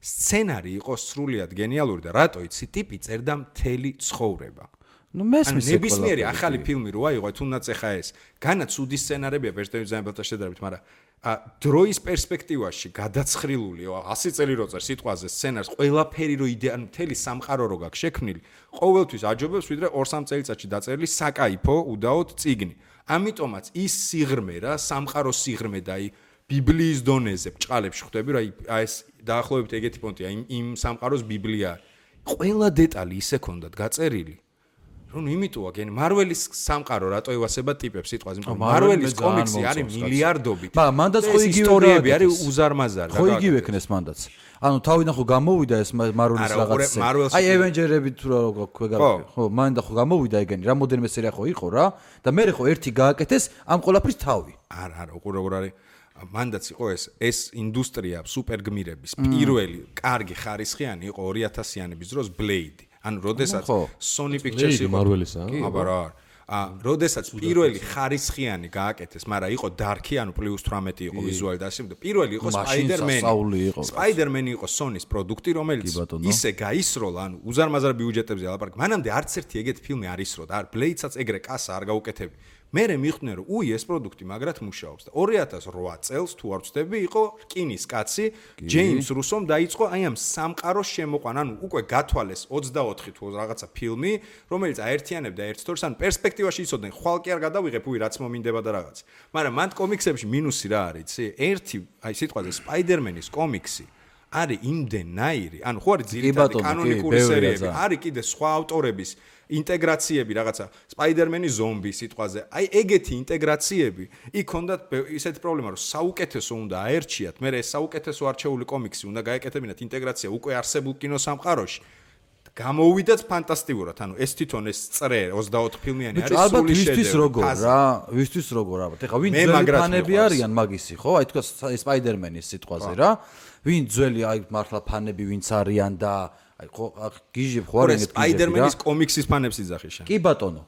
სცენარი იყო სრულიად გენიალური და რატო იცი ტიპი წერდა მთელი ცხოვრება. ნუ მესმის ნებისმიერი ახალი ფილმი რო აიღო, თუნდაც ეხა ეს. განა ცუდი სცენარებია ბეჭდების ბრძანებელთან შედარებით, მაგრამ დროის პერსპექტივაში გადაცხრილული 100 წელი რო წერ სიტყვაზე სცენარს, ყველაფერი რო იდეა, ანუ მთელი სამყარო რო გაქვს შექმნილი, ყოველთვის აჯობებს ვიდრე 2-3 წელიწადში დაწერილი საკაიფო უდაოდ წიგნი. ამიტომაც ის სიღრმე რა, სამყაროს სიღრმე და აი ბიბლიის დონეზე ბჭყალებში ხვდები რა, აი ეს დაახლოებით ეგეთი პონტია, იმ სამყაროს ბიბლია. ყველა დეტალი ისე ქონდათ გაწერილი. რომ იმიტოა გენ მარველის სამყარო რატო ევასება ტიპებს სიტყვაზე იმიტომ მარველის კომიქსი არის მილიარდობით მაგრამ მანდაც ხო იგივე ისტორიები არის უზარმაზარი ხო იგივე ქნეს მანდაც ანუ თავიდან ხო გამოვიდა ეს მარველის რაღაცა აი ევენჯერები თუ რა გვეგარები ხო მანდა ხო გამოვიდა ეგენი რამოდენმე სერია ხო იყო რა და მე ხო ერთი გააკეთეს ამ ყოლაფრის თავი არა უყურე როგორ არის მანდაც იყო ეს ინდუსტრია სუპერგმირების პირველი კარგი ხარისხიანი იყო 2000-იანების დროს ბლეიდი ანუ როდესაც Sony Pictures იყო მარველისა აბარა როდესაც პირველი ხარისხიანი გააკეთეს, მაგრამ იყო დარკი, ანუ +18 იყო ვიზუალი და ასე, პირველი იყო Spider-Man იყო Sony-ის პროდუქტი, რომელიც ისე გაისროლა, ანუ უზარმაზარ ბიუჯეტებზე ალაპარაკ. მანამდე არც ერთი ეგეთი ფილმი არ ისროდა, არ Blade-საც ეგრე კასა არ გაუკეთები. მერე მიხვდნენ რომ უი ეს პროდუქტი მაგრად მუშაობს და 2008 წელს თუ არ ვცდები იყო რკინის კაცი ჯეიმს რუსომ დაიწყო აი ამ სამყაროს შემოყვანა ანუ უკვე გათვალეს 24 თუ რაღაცა ფილმი რომელიც აერთიანებდა ერთ სტორს ან პერსპექტივაში იცოდნენ ხვალ კი არ გადავიღებ უი რაც მომინდება და რაღაც მაგრამ მან კომიქსებში მინუსი რა არის იცი ერთი აი სიტყვაზე სპაიდერმენის კომიქსი არის იმდენაირი ანუ ხო არის ძირითადი კანონიკური სერიები არის კიდე სხვა ავტორების ინტეგრაციები რაღაცა სპაიდერმენის ზომბი სიტყვაზე აი ეგეთი ინტეგრაციები იქ ჰქონდათ ისეთი პრობლემა რომ საუკეთესო უნდა აერჩიათ მე ეს საუკეთესო არჩეული კომიქსი უნდა გაეკეთებინათ ინტეგრაცია უკვე არსებულ კინოსამყაროში გამოუვიდათ ფანტასტიკურად ანუ ეს თვითონ ეს წრე 24 ფილმიანი არის სული შედევრი ვისთვის როგორ რა ვისთვის როგორ ალბათ ეხა ვინ ძველი ფანები არიან მაგისი ხო აი თქვა სპაიდერმენის სიტყვაზე რა ვინ ძველი აი მართლა ფანები ვინც არიან და აი ხო გიჟებ ხო არ ეგეთ სპაიდერმენის კომიქსის ფანებს იძახი შენ კი ბატონო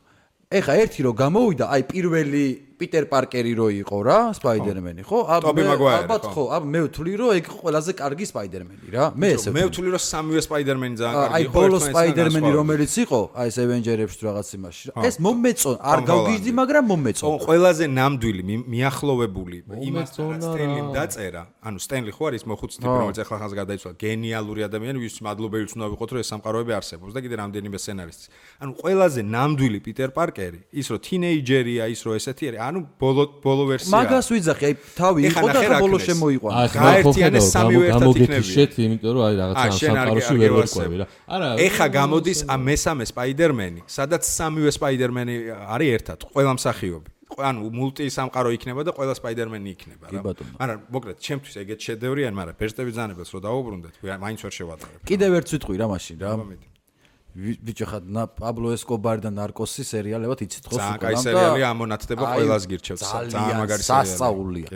ეხა ერთი რო გამოვიდა აი პირველი პიტერ პარკერი რო იყო რა სპაიდერმენი ხო ალბათ ხო მე ვთვლი რომ ეგ ყველაზე კარგი სპაიდერმენი რა მე ესე მე ვთვლი რომ სამივე სპაიდერმენი ძალიან კარგი იყო აი ბოლო სპაიდერმენი რომელიც იყო აი ეს ევენჯერებში რაღაც იმაში ეს მომეწონ არ გავგიჟდი მაგრამ მომეწონ ყველაზე ნამდვილი მიახლოვებული იმასთან სტენლიმ დაწერა ანუ სტენლი ხო არის მოხუცი ტიპი რომელიც ახლა ხანს გადაიცვალა გენიალური ადამიანი ვის მადლობელიც უნდა ვიყოთ რომ ეს სამყაროები არსებობს და კიდე რამდენიმე სცენარისტი ანუ ყველაზე ნამდვილი პიტერ პარკერი ის რომ თინეიჯერია ის რომ ესეთი არის ანუ ბოლო ვერსია. მაგას ვიძახი, აი თავი იყო და ახლა ბოლო შემოიყვანა. გაერთიანეს სამივე ერთად იქნებიან. შეთი, იმიტომ რომ აი რაღაცა სამყაროში ვერ ვერკვევი რა. არა, ეხა გამოდის მესამე სპაიდერმენი, სადაც სამივე სპაიდერმენი არის ერთად, ყველა მსახიობი. ანუ მულტი სამყარო იქნება და ყველა სპაიდერმენი იქნება რა. მაგრამ მოკლედ, ჩემთვის ეგეთ შედევრი ან, მაგრამ პერსპექტივის ბრძანებელს რო დავუბრუნდეთ, მაინც ვერ შევატარებ. კიდევ ერთ ვიტყვი რა მაშინ რა. ბიჭო ხა პაბლო ესკობარი და ნარკოსი სერიალებად იცით ხო? ძალიან კაი სერიალია, ამონათდება ყველას გირჩევს. ძალიან მაგარი სერიალია. სასწაულია.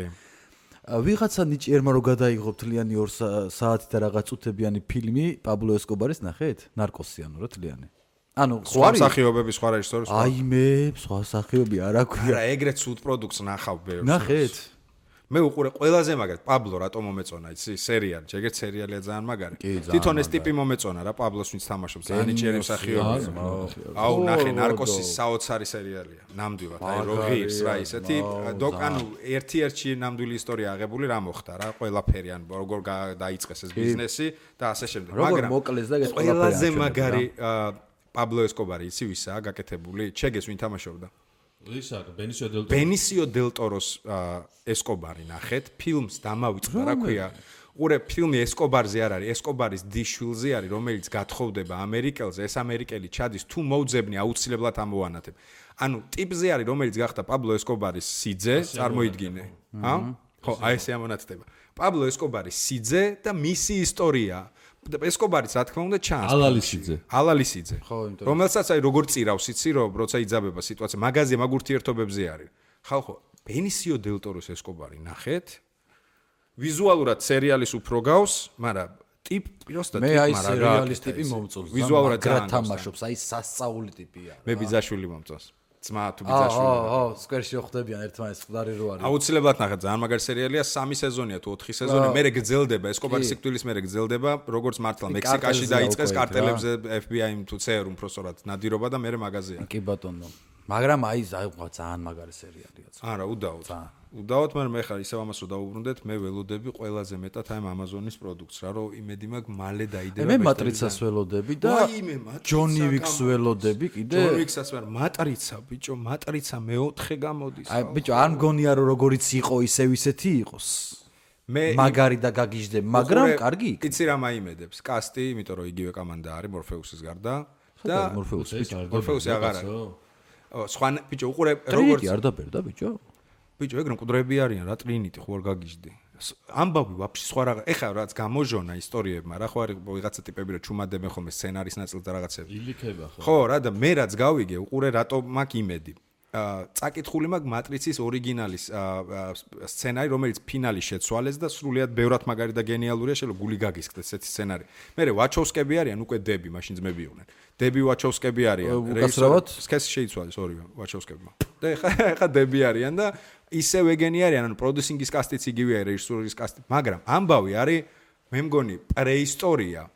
ვიღაცა ნიჭიერმა რო გადაიღო თლიანი 2 საათი და რაღაც წუთებიანი ფილმი პაბლო ესკობარის ნახეთ? ნარკოსი ანუ რა თლიანი. ანუ სხვა მსახიობები, სხვა რეჟისორი, სხვა. აი მე სხვა მსახიობი არ აქვია. არა, ეგრეთ სულ პროდუქტს ნახავ ბევრს. ნახეთ? მე უყურე ყველაზე მაგარი პაბლო რატომ მომეწონა იცი სერიალი ეგრეთ სერიალია ძალიან მაგარი თვითონ ეს ტიპი მომეწონა რა პაბლოს ვინც თამაშობს ძალიან ნიჭიერი მსახიობია აუ ნახე ნარკოსის საოცარი სერიალია ნამდვილად აი როგირს რა ისეთი ანუ ერთ-ერთი ნამდვილი ისტორია აღებული რა მოხდა რა ყველაფერი ან როგორ დაიწყეს ეს ბიზნესი და ასე შემდეგ მაგრამ ყველაზე მაგარი პაბლო ესკობარი იცი ვისაა გაკეთებული ჩეგეს ვინ თამაშობდა ბენისიო დელ ტოროს ესკობარი ნახეთ ფილმს დამავიწყდა რა ქვია ყურე ფილმი ესკობარზე არ არის ესკობარის დიშვილზე არის რომელიც გათხოვდება ამერიკელზე ეს ამერიკელი ჩადის თუ მოუძებნი აუცილებლად ამოვანათებ ანუ ტიპზე არის რომელიც გახდა პაბლო ესკობარის სიძე წარმოიდგინე ხო აი ესე ამონათდება პაბლო ესკობარის სიძე და მისი ისტორია ესკობარიც რა თქმა უნდა ჩანს ალალისიძე რომელსაც აი როგორ წირავს იცი რომ როცა იძაბება სიტუაცია მაგაზე მაგ ურთიერთობებზე არის ხალხო ბენისიო დელ ტოროს ესკობარი ნახეთ ვიზუალურად სერიალის უფრო გავს მაგრამ ტიპი როსტა ტიპი მაგრამ მე აი სერიალის ტიპი მომწონს ვიზუალურად ძალიან თამაშობს აი სასწაული ტიპია მე ბიძაშვილი მომწონს ძმა თუ ბიძაშვილი სკვერში ხდებიან ერთმანეთს მყდარი რო არის აუცილებლად ნახეთ ძალიან მაგარი სერიალია 3 სეზონია თუ 4 სეზონი მერე გრძელდება ესკობარის სიკვდილის მერე გრძელდება როგორც მართლა მექსიკაში დაიწყეს კარტელებზე FBI-მ თუ CER-მ პროსორად ნადირობა და მერე მაღაზია კი ბატონო მაგრამ აი ძალიან მაგარი სერიალია არა უდაოდ მაგრამ მე ხარ ისევ ამას რო დავუბრუნდეთ მე ველოდები ყველაზე მეტად აი ამაზონის პროდუქტს რა რომ იმედი მაქვს მალე დაიდება მე მატრიცას ველოდები და ჯონი ვიქს ველოდები კიდე ჯონი ვიქსაც ვარ მატრიცა ბიჭო მატრიცა მე-4 გამოდის აი ბიჭო არ მგონია რომ როგორიც იყო ისევ ისეთი იყოს მე მაგარი და გაგიჟდები მაგრამ კარგი იცი რა მაიმედებს კასტი იმიტომ რომ იგივე კომანდა არის მორფეუსის გარდა და მორფეუსი აღარ არის სხვა ბიჭო უყურე როგორც არ დაბერდა ბიჭო ბიჭო ეგ რომ მკვდრები არიან რა ტრინიტი ხო არ გაგიჟდი ამბავი ვაფშე სხვა რაღაც ეხა რაც გამოჟონა ისტორიებმა რა ხო არის ვიღაცა ტიპები რომ ჩუმადებენ ხოლმე სცენარის ნაწილს და რაღაცები ილიქება ხო რა და მე რაც გავიგე უყურე რატო მაქვს იმედი წაკითხული მაქვს მატრიცის ორიგინალის სცენარი რომელიც ფინალის შეცვალეს და სრულიად ბევრად მაგარი და გენიალურია შეიძლება გული გაგისკდეს ესეთი სცენარი მე ვაჩოვსკები არიან უკვე დები მაშინ ძმები იყვნენ დები ვაჩოვსკები არიან რეჟისორად სქესი შეიცვალეს ორივე ვაჩოვსკებმა და ეხა დები არიან და ისევ ეგენი არიან ანუ პროდიუსინგის კასტიც იგივეა რეჟისურის კასტი მაგრამ ამბავი არის მე მგონი პრეისტორია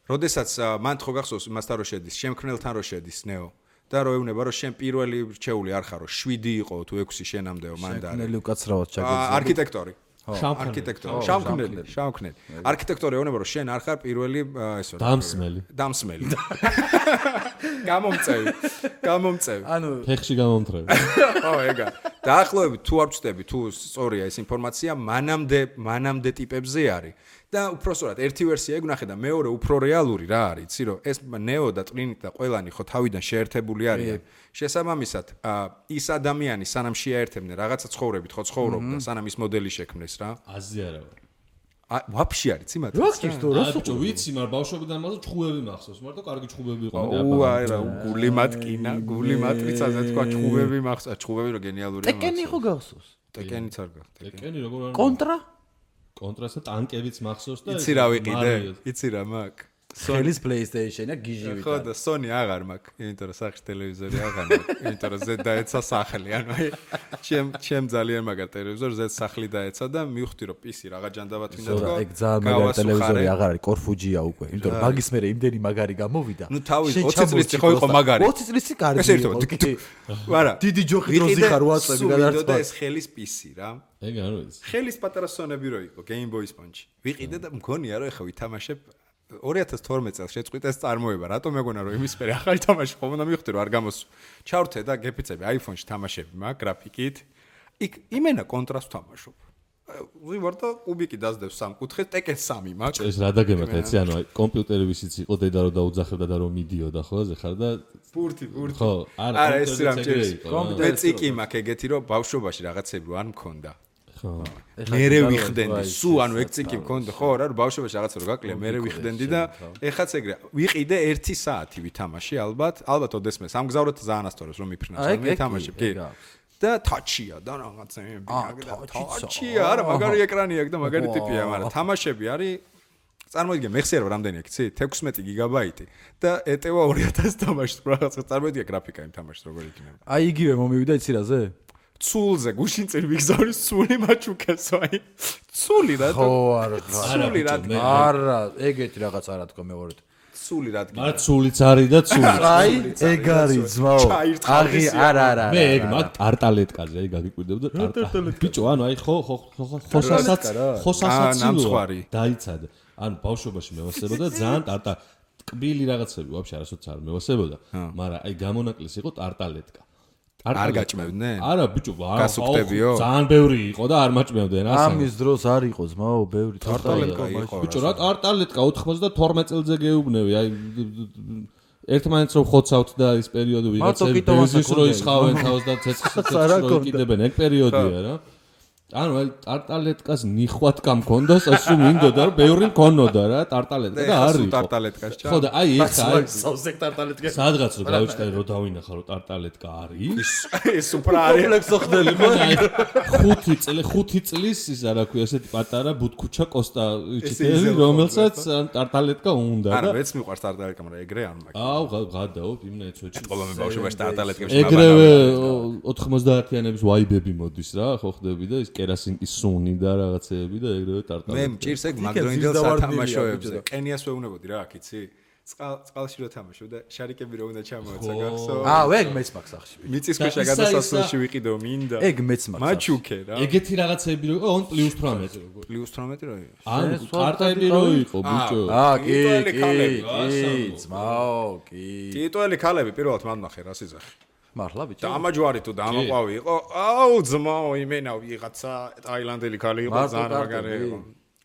როდესაც მან ხო გახსოვს მასთან რო შედის შემქმნელთან რო შედის ნეო და რო ეუბნება რომ შენ პირველი რჩეული არ ხარო 7 იყო თუ 6 შენამდეო მანდ არის შემქმნელი უკაცრავად ჩაგეძლო არქიტექტორი შავქმნელი არქიტექტორი ეუბნება რომ შენ არ ხარ პირველი ესო დამსმელი გამომწევი ანუ ფეხში გამომთრევი ო ეგა დაახლოებით თუ არ ვწდები თუ სწორია ეს ინფორმაცია მანამდე ტიპებზე არის და უпроსტად ერთი ვერსია ეგ და მეორე უფრო რეალური რა არის იცი რომ ეს ნეო და ტრინიტი და ყველანი ხო თავიდან შეერთებული არიან შესაბამისად ის ადამიანი სანამ შეერთებდნენ რაღაცა ცხოვრებით ხო ცხოვრობდა სანამ ის მოდელი შექმნეს რა აზი არა ვაფშე არის იმათ რა გიქცო რა ბიჭო ვიცი მაგრამ ბავშვობიდან მაგას ჩხუბები მახსოვს მარტო კარგი ჩხუბები იყო აი რა გული მატკინა გული მატრიცაზე თქვა ჩხუბები მახსოვს ჩხუბები რო გენიალურია ტეკენი ხო გახსოვს ტეკენიც არ გახდა ტეკენი როგორ არის კონტრასა ტანკებიც მახსოვს და იცი რა ვიყიდე იცი რა მაგ ხელის PlayStation-ია გიჟი ვიყავ. ხო და Sony აღარ მაქვს, იმიტომ რომ სახში ტელევიზორი აღარ მაქვს, იმიტომ რომ ზედ დაეცა სახლი, ანუ აი ჩემ ძალიან მაგარ ტელევიზორ ზედ სახლი დაეცა და მივხვდი რომ PC რაღა ჯანდაბად მინდა თქო. ეგ ძალიან მაგარი ტელევიზორი აღარ არის, კორფუჯია უკვე, იმიტომ რომ მაგის მერე იმდენი მაგარი გამოვიდა. ნუ თავის 20 წლის ხო იყო მაგარი. 20 წლის კარგი. არა. დიდი ჯოხი დროზე ხარ ვატსაპი გადარწვა. და ეს ხელის PC რა. ეგ არ ვიცი. ხელის პატარა სონები რო იყო Game Boy Sponge. ვიყიდე და მგონია რომ ეხა ვითამაშებ 2012 წელს შეწყვიტა ეს წარმოება, რატომ მეგონა რომ იმის მერე ახალი თამაში ხომ უნდა მივხვდი რომ არ გამოსვა. ჩავრთე და გეფიცები iPhone-ში თამაშები მაგ გრაფიკით. იქ იმენა კონტრასტ თამაშობ. ვარ და კუბიკი დაძდებს სამკუთხედს, Tekken 3 მაგ. ეს რა დაგემართ ეცი, ანუ აი კომპიუტერი ვისიც იყო დედა რომ დაუძახებდა და რომ მიდიოდა ხო, ზე ხარ და ბურთი. ხო, არა ეს რა მჭირს. კომპიუტერი წიკი მაქვს ეგეთი რომ ბავშვობაში რაღაცები არ მქონდა. ხო. მერე ვიხდენდი, სულ ანუ ეგ წიკი მქონდა, ხო, რა რომ ბავშვობაში რაღაცა რო გაკლია, მერე ვიხდენდი და ეხაც ეგრე. ვიყიდე 1 საათი ვითამაში ალბათ ოდესმე სამგზავრეთ ძალიან ასწორებს რომ მიფრინავს, მე თამაშებ, კი. და თაჩია და რაღაცები თაჩია არა მაგარი ეკრანი აქვს და მაგარი ტიპია მაგრამ თამაშები არის წარმოიდგინე მე ხსიერო რამდენი აქვს იცი 16 გიგაბაიტი და ეტევა 2000 თამაშს რაღაცა წარმოიდგინე გრაფიკა იმ თამაშს როგორ იქნება აი იგივე მომივიდა იცი რაზე ცულზე გუშინ წინ ვიგზავნის ცული მაჩუკესო აი ცული რა ხო არა ცული რა არა ეგეთი რაღაც არა თქო მეღორეთ ცული რადგან მაგრამ ცულიც არის და ცული აი ეგ არის ძმაო აღი არა მე ეგ მაგ ტარტალეტკაზე აი გაგიკვირდებოდა ტარტალეტკა ბიჭო ანუ აი ხოსასაცილო დაიცადა ანუ ბავშვობაში მევასებოდა ძალიან ტარტა კბილი რაღაცები ვაფშე არასოც არ მევასებოდა მაგრამ აი გამონაკლისი იყო ტარტალეტკა არ გაჭმევდნენ? არა, ბიჭო, გასუქდებიო? ძალიან ბევრი იყო და არ მაჭმევდნენ, ასე. ამის დროს არ იყო ძმაო, ბევრი ტარტალეტკა იყო. ბიჭო, რა ტარტალეტკა 92 წელზე გეუბნები, აი ერთმანეთს რომ ხოცავთ და ის პერიოდი ვიღაცები ბიზნეს რო ისხავენ თავს და ცეცხლს რო იკიდებენ, ეგ პერიოდია რა. ანუ აი ტარტალეტკას ნიხვატკა მქონდას, ასე მინდოდა რომ ბევრი მქონოდა რა, ტარტალეტკა და არ იყო. ტარტალეტკაში ჩა. ხო და აი ეხა აი სავსეკ ტარტალეტკა. სადღაც რო გავიჩნდა რომ დავინახა რომ ტარტალეტკა არის. ეს უფრო არის. კომპლექსო ხდელი ხო? 5 წლის ის არა ქვია ესეთი პატარა ბუთქუჩა კოსტა იჩიტელი რომელსაც ტარტალეტკა უნდა და არა მეც მიყვარს ტარტალეტკა მაგრამ ეგრე არ მაქვს. აუ გადაო იმნა ეცოჩი. ყველამე ბავშვობაში ტარტალეტკებში ეგრევე 90-იანების ვაიბები მოდის რა ხო ხდები და ის კერასინკის სუნი და რაღაცეები და ეგრევე ტარტალეტკა. მე მჭირს ეგ მაგდროინდელ სათამაშოებზე. ყენიას ვეუბნებოდი რა აქ იცი? წყალში რო თამაშობ და შარიკები რო უნდა ჩამოეცა გახსოვ? ეგ მეც მაქვს ახში. მიწისქვეშა გადასასვლელში ვიყიდო მინდა. ეგ მეც მაქვს. მაჩუკე რა. ეგეთი რაღაცეები რო იყო on +18 როგორ? +18 რო იყო. ანუ კარტები რო იყო ბიჭო. კი, ძმაო, კი. ტიტუელი ქალები პირველად მანდნახე რა სიზახი. მართლა ბიჭო. დამაჯვარი თუ დამაყვავი იყო. აუ ძმაო იმენა ვიღაცა ტაილანდელი ქალი იყო ძალიან მაგარი იყო.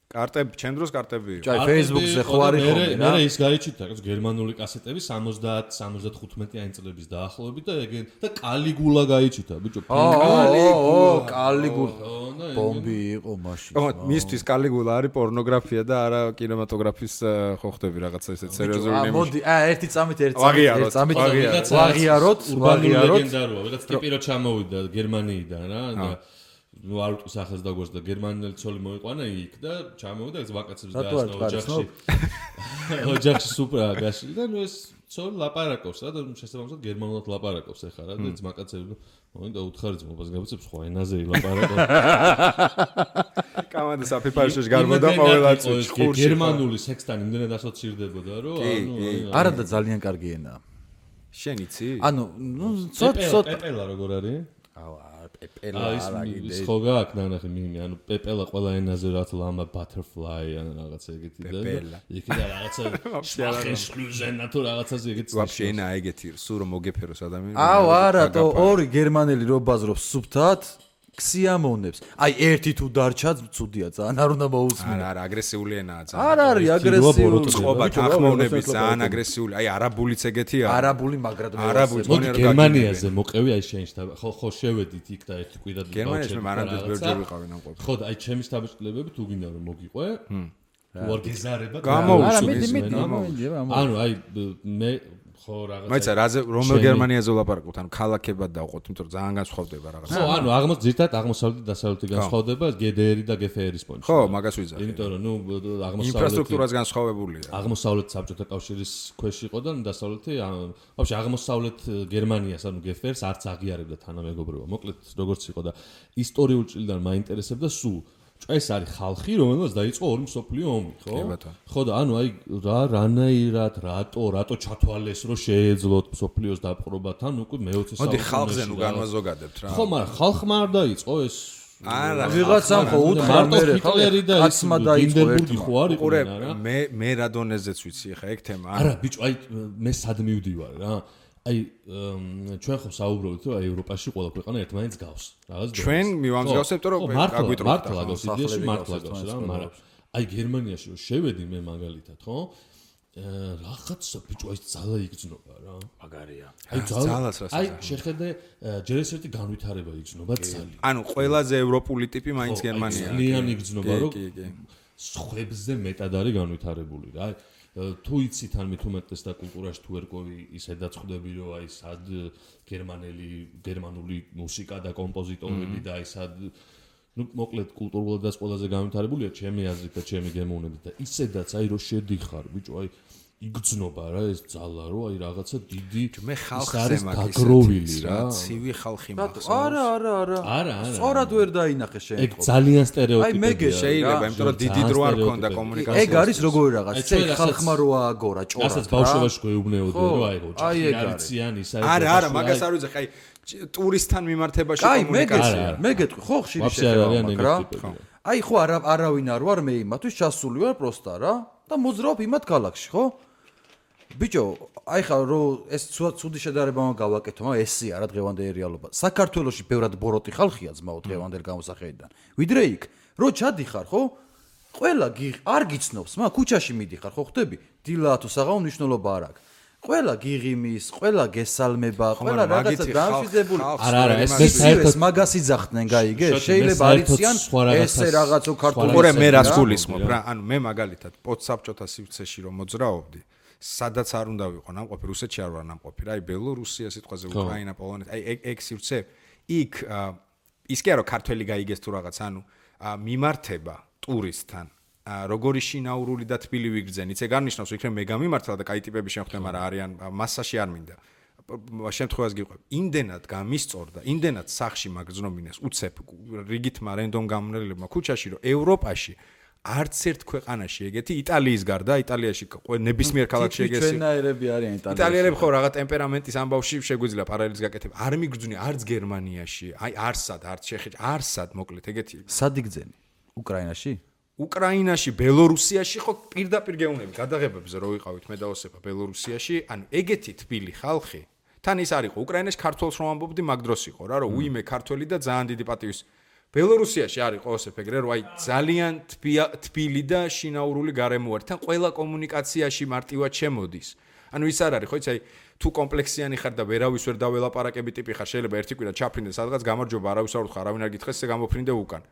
კარტები, ჩემ დროს კარტები იყო. აი Facebook-ზე ხო არის ხოლმე რა. მე ის გაიჩიტა გერმანული კასეტები 70-75 წლების დაახლოებით და ეგ და კალიგულა გაიჩიტა ბიჭო. კალიგულა. ბომბი იყო მაშინ. ხო, მისთვის კალიგულა არის პორნოგრაფია და არა კინემატოგრაფის ხო ხდები რაღაცა ესეთ სერიოზული ნიმუში. მოდი, ერთი წამით ვაღიაროთ. ლეგენდაროა, ვიღაც ტიპი რო ჩამოვიდა გერმანიიდან რა და ნუ არ უტყვის ახალს დაგვას და გერმანელი ცოლი მოიყვანა იქ და ჩამოვიდა ეს ვაკაცებს გაასწავლა ოჯახში. ოჯახში სუპრა გაშლი და ნუ ეს ცოლი ლაპარაკობს რა და შესაბამისად გერმანულად ლაპარაკობს ეხლა რა და ეს ვაკაცები მოინდა უთხარი ძმობას გაბიცებს სხვა ენაზე ლაპარაკობს. კამანდა საფიფაშში გარბოდა ყოველაც ხურში. გერმანული სექსთან იმდენად ასოცირდებოდა რომ ანუ არა და ძალიან კარგი ენაა. შენ იცი? ანუ ნუ ცოტ პეპელა როგორ არის? პეპელა ის ხო გააქვს ნახე მიმი ანუ პეპელა ყველა ენაზე რაც ლამა butterfly ან რაღაცა ეგეთი და იქ და რაღაცა შახესლუზენა თუ რაღაცაზე ეგეთი ვაფშე ენა ეგეთი სულ რომ მოგეფეროს ადამიანი აუ არა თო ორი გერმანელი რო ბაზრობს სუფთად ქსიამოვნებს. აი ერთი თუ დარჩა ცუდია ძალიან არ უნდა მოусმინო. არა აგრესიული ენაა ძალიან. არ არის აგრესიული. წყობა თანხმოვნები ძალიან აგრესიული. აი არაბულიც ეგეთია. არაბული მაგრად არაბული გერმანიაზე მოყევი აი შენში ხო შევედით იქ და ერთი კვირად გერმანიაში მე მანამდე ბევრჯერ ვიყავი ამ ყოფილი. ხო და აი ჩემი შთაბეჭდილებები თუ გინდა რომ მოგიყვე თუ არ გეზარება გამოუშვი. ანუ აი მე ხო რაღაცა მაიცა რაზე რომელ გერმანიაზე ვლაპარაკობთ ანუ ქალაქებად დავყოთ იმიტომ რომ ძალიან განსხვავდება რაღაცა ხო ანუ ზირთად აღმოსავლეთი და დასავლეთი განსხვავდება GDR და GFR-ის პონჩი ხო მაგას ვიზახი იმიტომ რომ ნუ აღმოსავლეთი ინფრასტრუქტურაც განსხვავებულია აღმოსავლეთ საბჭოთა კავშირის ქვეშ იყო და დასავლეთი ვაფშე აღმოსავლეთ გერმანიას ანუ GFR-ს არც აღიარებდა თანამეგობრობა მოკლედ როგორც იყო და ისტორიულ ჭრილიდან მაინტერესებდა სულ ეს არის ხალხი, რომელსაც დაიწყო ორი მსოფლიო ომი, ხო? ხო და ანუ აი რანაირად, რატო ჩათვალეს, რომ შეეძლოთ მსოფლიოს დაპყრობა, თან უკვე მე-20 საუკუნეში. მოდი ხალხზე ნუ განვაზოგადებთ რა. ხო, მაგრამ ხალხმა არ დაიწყო ეს არა ვიღაცამ ხო უთხრა მე ხა კაცმა დაიწყო ერთმა ხო არ იყო არა მე რა დონეზეც ვიცი ხა ეგ თემა არა ბიჭო აი მე სად მივდივარ რა აი ჩვენ ხო საუბრობთ რომ აი ევროპაში ყველა ქვეყანა ერთმანეთს გავს რაღაც ჩვენ მივამსგავსებთ რომ გაგვიტროთ მართლა გავს იდეაში მართლა გავს რა მაგრამ აი გერმანიაში რომ შევედი მე მაგალითად ხო რაღაცა ბიჭო აი ძალა იგრძნობა რა მაგარია აი ძალას რა აი შეხედე ჯერ ეს ერთი განვითარება იგრძნობა ძალიან ანუ ყველაზე ევროპული ტიპი მაინც გერმანია ძალიან იგრძნობა რომ სხვებზე მეტად არის განვითარებული რა თუ იცით ან მithumetes და კულტურაში თუ ერკვევი ისედაც ხვდები რომ აი სად გერმანული მუსიკა და კომპოზიტორები და აი სად ну მოკლედ კულტურულად ყველაზე განვითარებულია ჩემი აზრით და ჩემი გემოვნებით და ისედაც აი რომ შედიხარ ბიჭო აი იგრძნობა რა ეს ძალა რომ აი რაღაცა დიდი მე ხალხზე გაგროვილი რა ცივი ხალხი მახსოვს არა სწორად ვერ დაინახე შენ ეგ ძალიან სტერეოტიპია აი მეგე შეიძლება იმიტომ რომ დიდი დრო არ ქონდა კომუნიკაციაში ეგ არის როგორი რაღაც ეს ხალხმა რო ააგორა ჭორად რასაც ბავშვობაში გვეუბნეოდე რომ აი ოჯახი არიციან ისა არა მაგას არ ვიცი აი ტურისტთან მიმართებაში კომუნიკაცია მე გეტყვი ხო ხშირი შეხება მაგრამ აი ხო არავინ არ ვარ მე იმათვის ჩასული ვარ პროსტა რა და მოძრაობ იმათ ქალაქში ხო ბიჭო აი ხა რომ ეს ცუდი შედარება გავაკეთო მაგრამ ესე არა დღევანდელი რეალობა საქართველოში ბევრად ბოროტი ხალხია ძმაო დღევანდელ გამოსახედიდან ვიდრე იქ რო ჩადიხარ ხო ყველა არ გიცნობს მაგრამ ქუჩაში მიდიხარ ხო ხვდები დილა თუ საღამო მნიშვნელობა არ აქვს ყველა გიღიმის, ყველა გესალმება, ყველა რაღაცა დამშვიდებული. არა, ეს საერთოდ მაგას იძახდნენ, გაიგე? შეიძლება არიციან ესე რაღაცო ქართული. ორი მე რას გულისხმობ რა, ანუ მე მაგალითად პოდსაბჭოთა სივრცეში რომ მოძრაობდი, სადაც არ უნდა ვიყო ნამყოფი, რუსეთში არ ვარ ნამყოფი რა, აი ბელორუსია სიტყვაზე, უკრაინა, პოლონეთი, აი ეგ სივრცე, იქ ის კი არა ქართველი გაიგეს თუ რაღაც, ანუ მიმართება ტურისტთან როგორი შინაურული და თბილი ვიგრძენ. იცი განნიშნავს იქნებ მე გამიმართლა და კაი ტიპები შემხვდა, მაგრამ არიან მასაში არ მინდა. შემთხვევას გიყვებ. იმდენად გამისწორდა, იმდენად სახში მაგზნობინეს უცებ რიგითმა რენდომ გამონელებმა ქუჩაში, რომ ევროპაში არც ერთ ქვეყანაში ეგეთი იტალიის გარდა, იტალიაში ნებისმიერ ქალაქში ეგეთი ჩვენაერები არიან იტალიაში. იტალიელები ხო რაღაც ტემპერამენტის ამბავში შეგვიძლია პარალელის გაკეთება. არ მიგრძნი არც გერმანიაში, აი არსად, არც ჩეხეთში, არსად მოკლედ ეგეთი. სად იგრძენი? უკრაინაში? უკრაინაში, ბელორუსიაში ხო პირდაპირ გეუნები გადაღებებზე რო ვიყავით მე და ოსეფა ბელორუსიაში, ანუ ეგეთი თბილი ხალხი. თან ის არისო უკრაინაში ქართულს რომ ამბობდი მაგ დროს იყო რა, რომ უიმე ქართველი და ძალიან დიდი პატივის. ბელორუსიაში არისო ოსეფ ეგრე, რომ აი ძალიან თბილი და შინაურული გარემო არის. თან ყველა კომუნიკაციაში მარტივად შემოდის. ანუ ის არ არის ხო იცი აი თუ კომპლექსიანი ხარ და ვერავის ვერ დაველაპარაკები ტიპი ხარ, შეიძლება ერთი კვირა ჩაფრინდე სადღაც გამარჯობა, არავის არ უთხრა, არავინ არ გითხრეს, ესე გამოფრინდე უკან.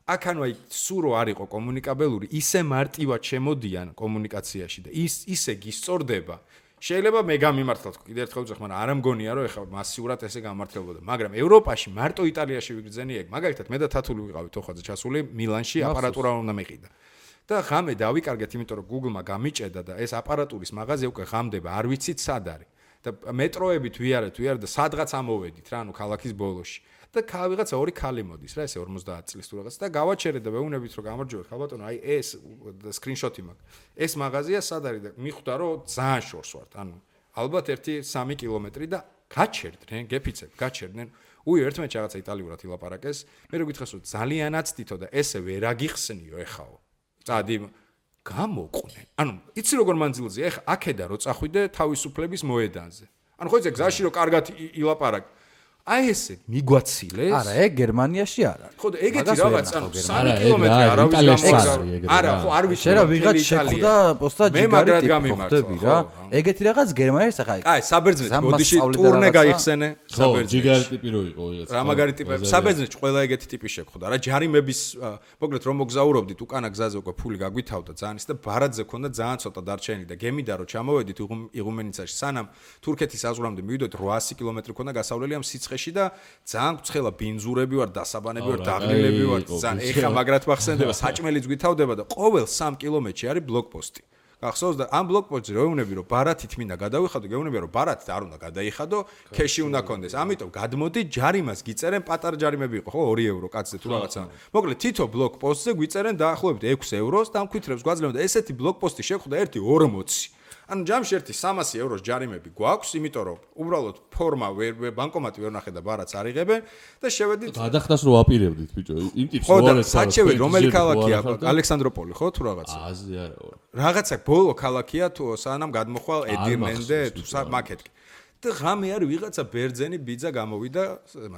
აქ ანუ აი სურო არ იყო კომუნიკაბელური, ისე მარტივად შემოდიან კომუნიკაციაში და ისე გისწორდება. შეიძლება მე გამიმართლოთ კიდევ ერთხელ ვძახ, მაგრამ არ მგონია რომ ეხლა მასიურად ესე გამართლებოდა, მაგრამ ევროპაში მარტო იტალიაში ვიგრძენი ეგ. მაგალითად მე და თათული ვიყავით ოხვაძე ჩასული მილანში აპარატურა უნდა მეყიდა. და ღამე დავიკარგეთ, იმიტომ რომ Google-მა გამიჭედა და ეს აპარატურის მაღაზია უკვე ღამდება, არ ვიცით სად არის. და მეტროებით ვიარეთ და სადღაც ამოვედით რა, ანუ ქალაქის ბოლოში. და ვიღაცა ორი ქალი მოდის რა, ესე 50 წლის თუ რაღაც და გავაჩერეთ და ვეუნებით რომ გამარჯობეთ, ხალბატონო, აი ეს სკრინშოტი მაქვს. ეს მაღაზია სად არის და მიხვდა რომ ძალიან შორს ვართ, ანუ ალბათ 1-3 კილომეტრი და გაჩერდნენ, გეფიცებ, გაჩერდნენ. ერთმანეთს რაღაცა იტალიურად ილაპარაკეს. მე რო გითხრას რომ ძალიანაც თითო და ესე ვერ აგიხსნიო ეხაო. წადი გამოყვნენ. ანუ იცი როგორ მანძილზია, ეხა აქედა რო წახვიდე თავისუფლების მოედანზე. ანუ ხო იცი გზაში რო კარგად ილაპარაკ აი ესე მიგვაცილეს? არა, ეგ გერმანიაში არა. ხო და ეგეთი რაღაც ანუ 3 კილომეტრი არავის გამოგზავნა. არა, ხო არ ვიცი. შეიძლება ვიღაც შეხვდა პოსტა ჯიგარი ტიპი ხვდები რა. ეგეთი რაღაც გერმანიაში ახლა. აი, საბერძნეთ ბოდიში ტურნე გაიხსენე, საბერძნეთ. ჯიგარი ტიპი რო იყო ვიღაც. რა მაგარი ტიპები, საბერძნეთში ყველა ეგეთი ტიპი შეხვდა რა. ჯარიმების მოკლედ რომ მოგზაურობდით, უკანა გზაზე უკვე ფული გაგვითავდა ძალიან ის და ბარათზე ქონდა ძალიან ცოტა დარჩენილი და გემიდა რომ ჩამოვედით იღუმენიცაში სანამ თურქეთის საზღვრამდე მივიდოდით 800 კილომეტრი ქონდა გასავლელი ამ სიცხეში და ძალიან ცხელა ბინზურები ვარ, დასაბანები ვარ, დაღლილები ვარ, ძალიან ეხა მაგრად მახსენდება, საჭმელიც გვითავდება და ყოველ 3 კილომეტრში არის ბლოკპოსტი. გახსოვს და ამ ბლოკპოსტზე რო ეუნები რომ ბარათით მინდა გადავიხადო, გეუნები რომ ბარათით არ უნდა გადაიხადო, ქეში უნდა კონდეს. ამიტომ გადმოდი ჯარიმას გიწერენ, პატარა ჯარიმები იყო, ხო 2 ევრო კაცზე თუ რაღაცა. მოკლედ თითო ბლოკპოსტზე გვიწერენ დაახლოებით 6 ევროს და ამ ქვითრებს გვაძლევენ და ესეთი ბლოკპოსტი შეხვდა ერთი 40. ანუ ჯამში ერთი 300 ევროს ჯარიმები გვაქვს, იმიტომ რომ უბრალოდ ფორმა ბანკომატი ვერ ნახე და ბარაც არიღებენ და შევედით. გადახდას რო ვაპირებდით ბიჭო, იმ ტიპს რო არის. საჩევი რომელი ქალაქია? ალექსანდროპოლი ხო თუ რაღაცა? აზრი არა. რაღაცა ბოლო ქალაქია თუ სანამ გადმოხვალ ედირმენდე თუ მაკეტკი. და ღამე არის ვიღაცა ბერძენი ბიძა გამოვიდა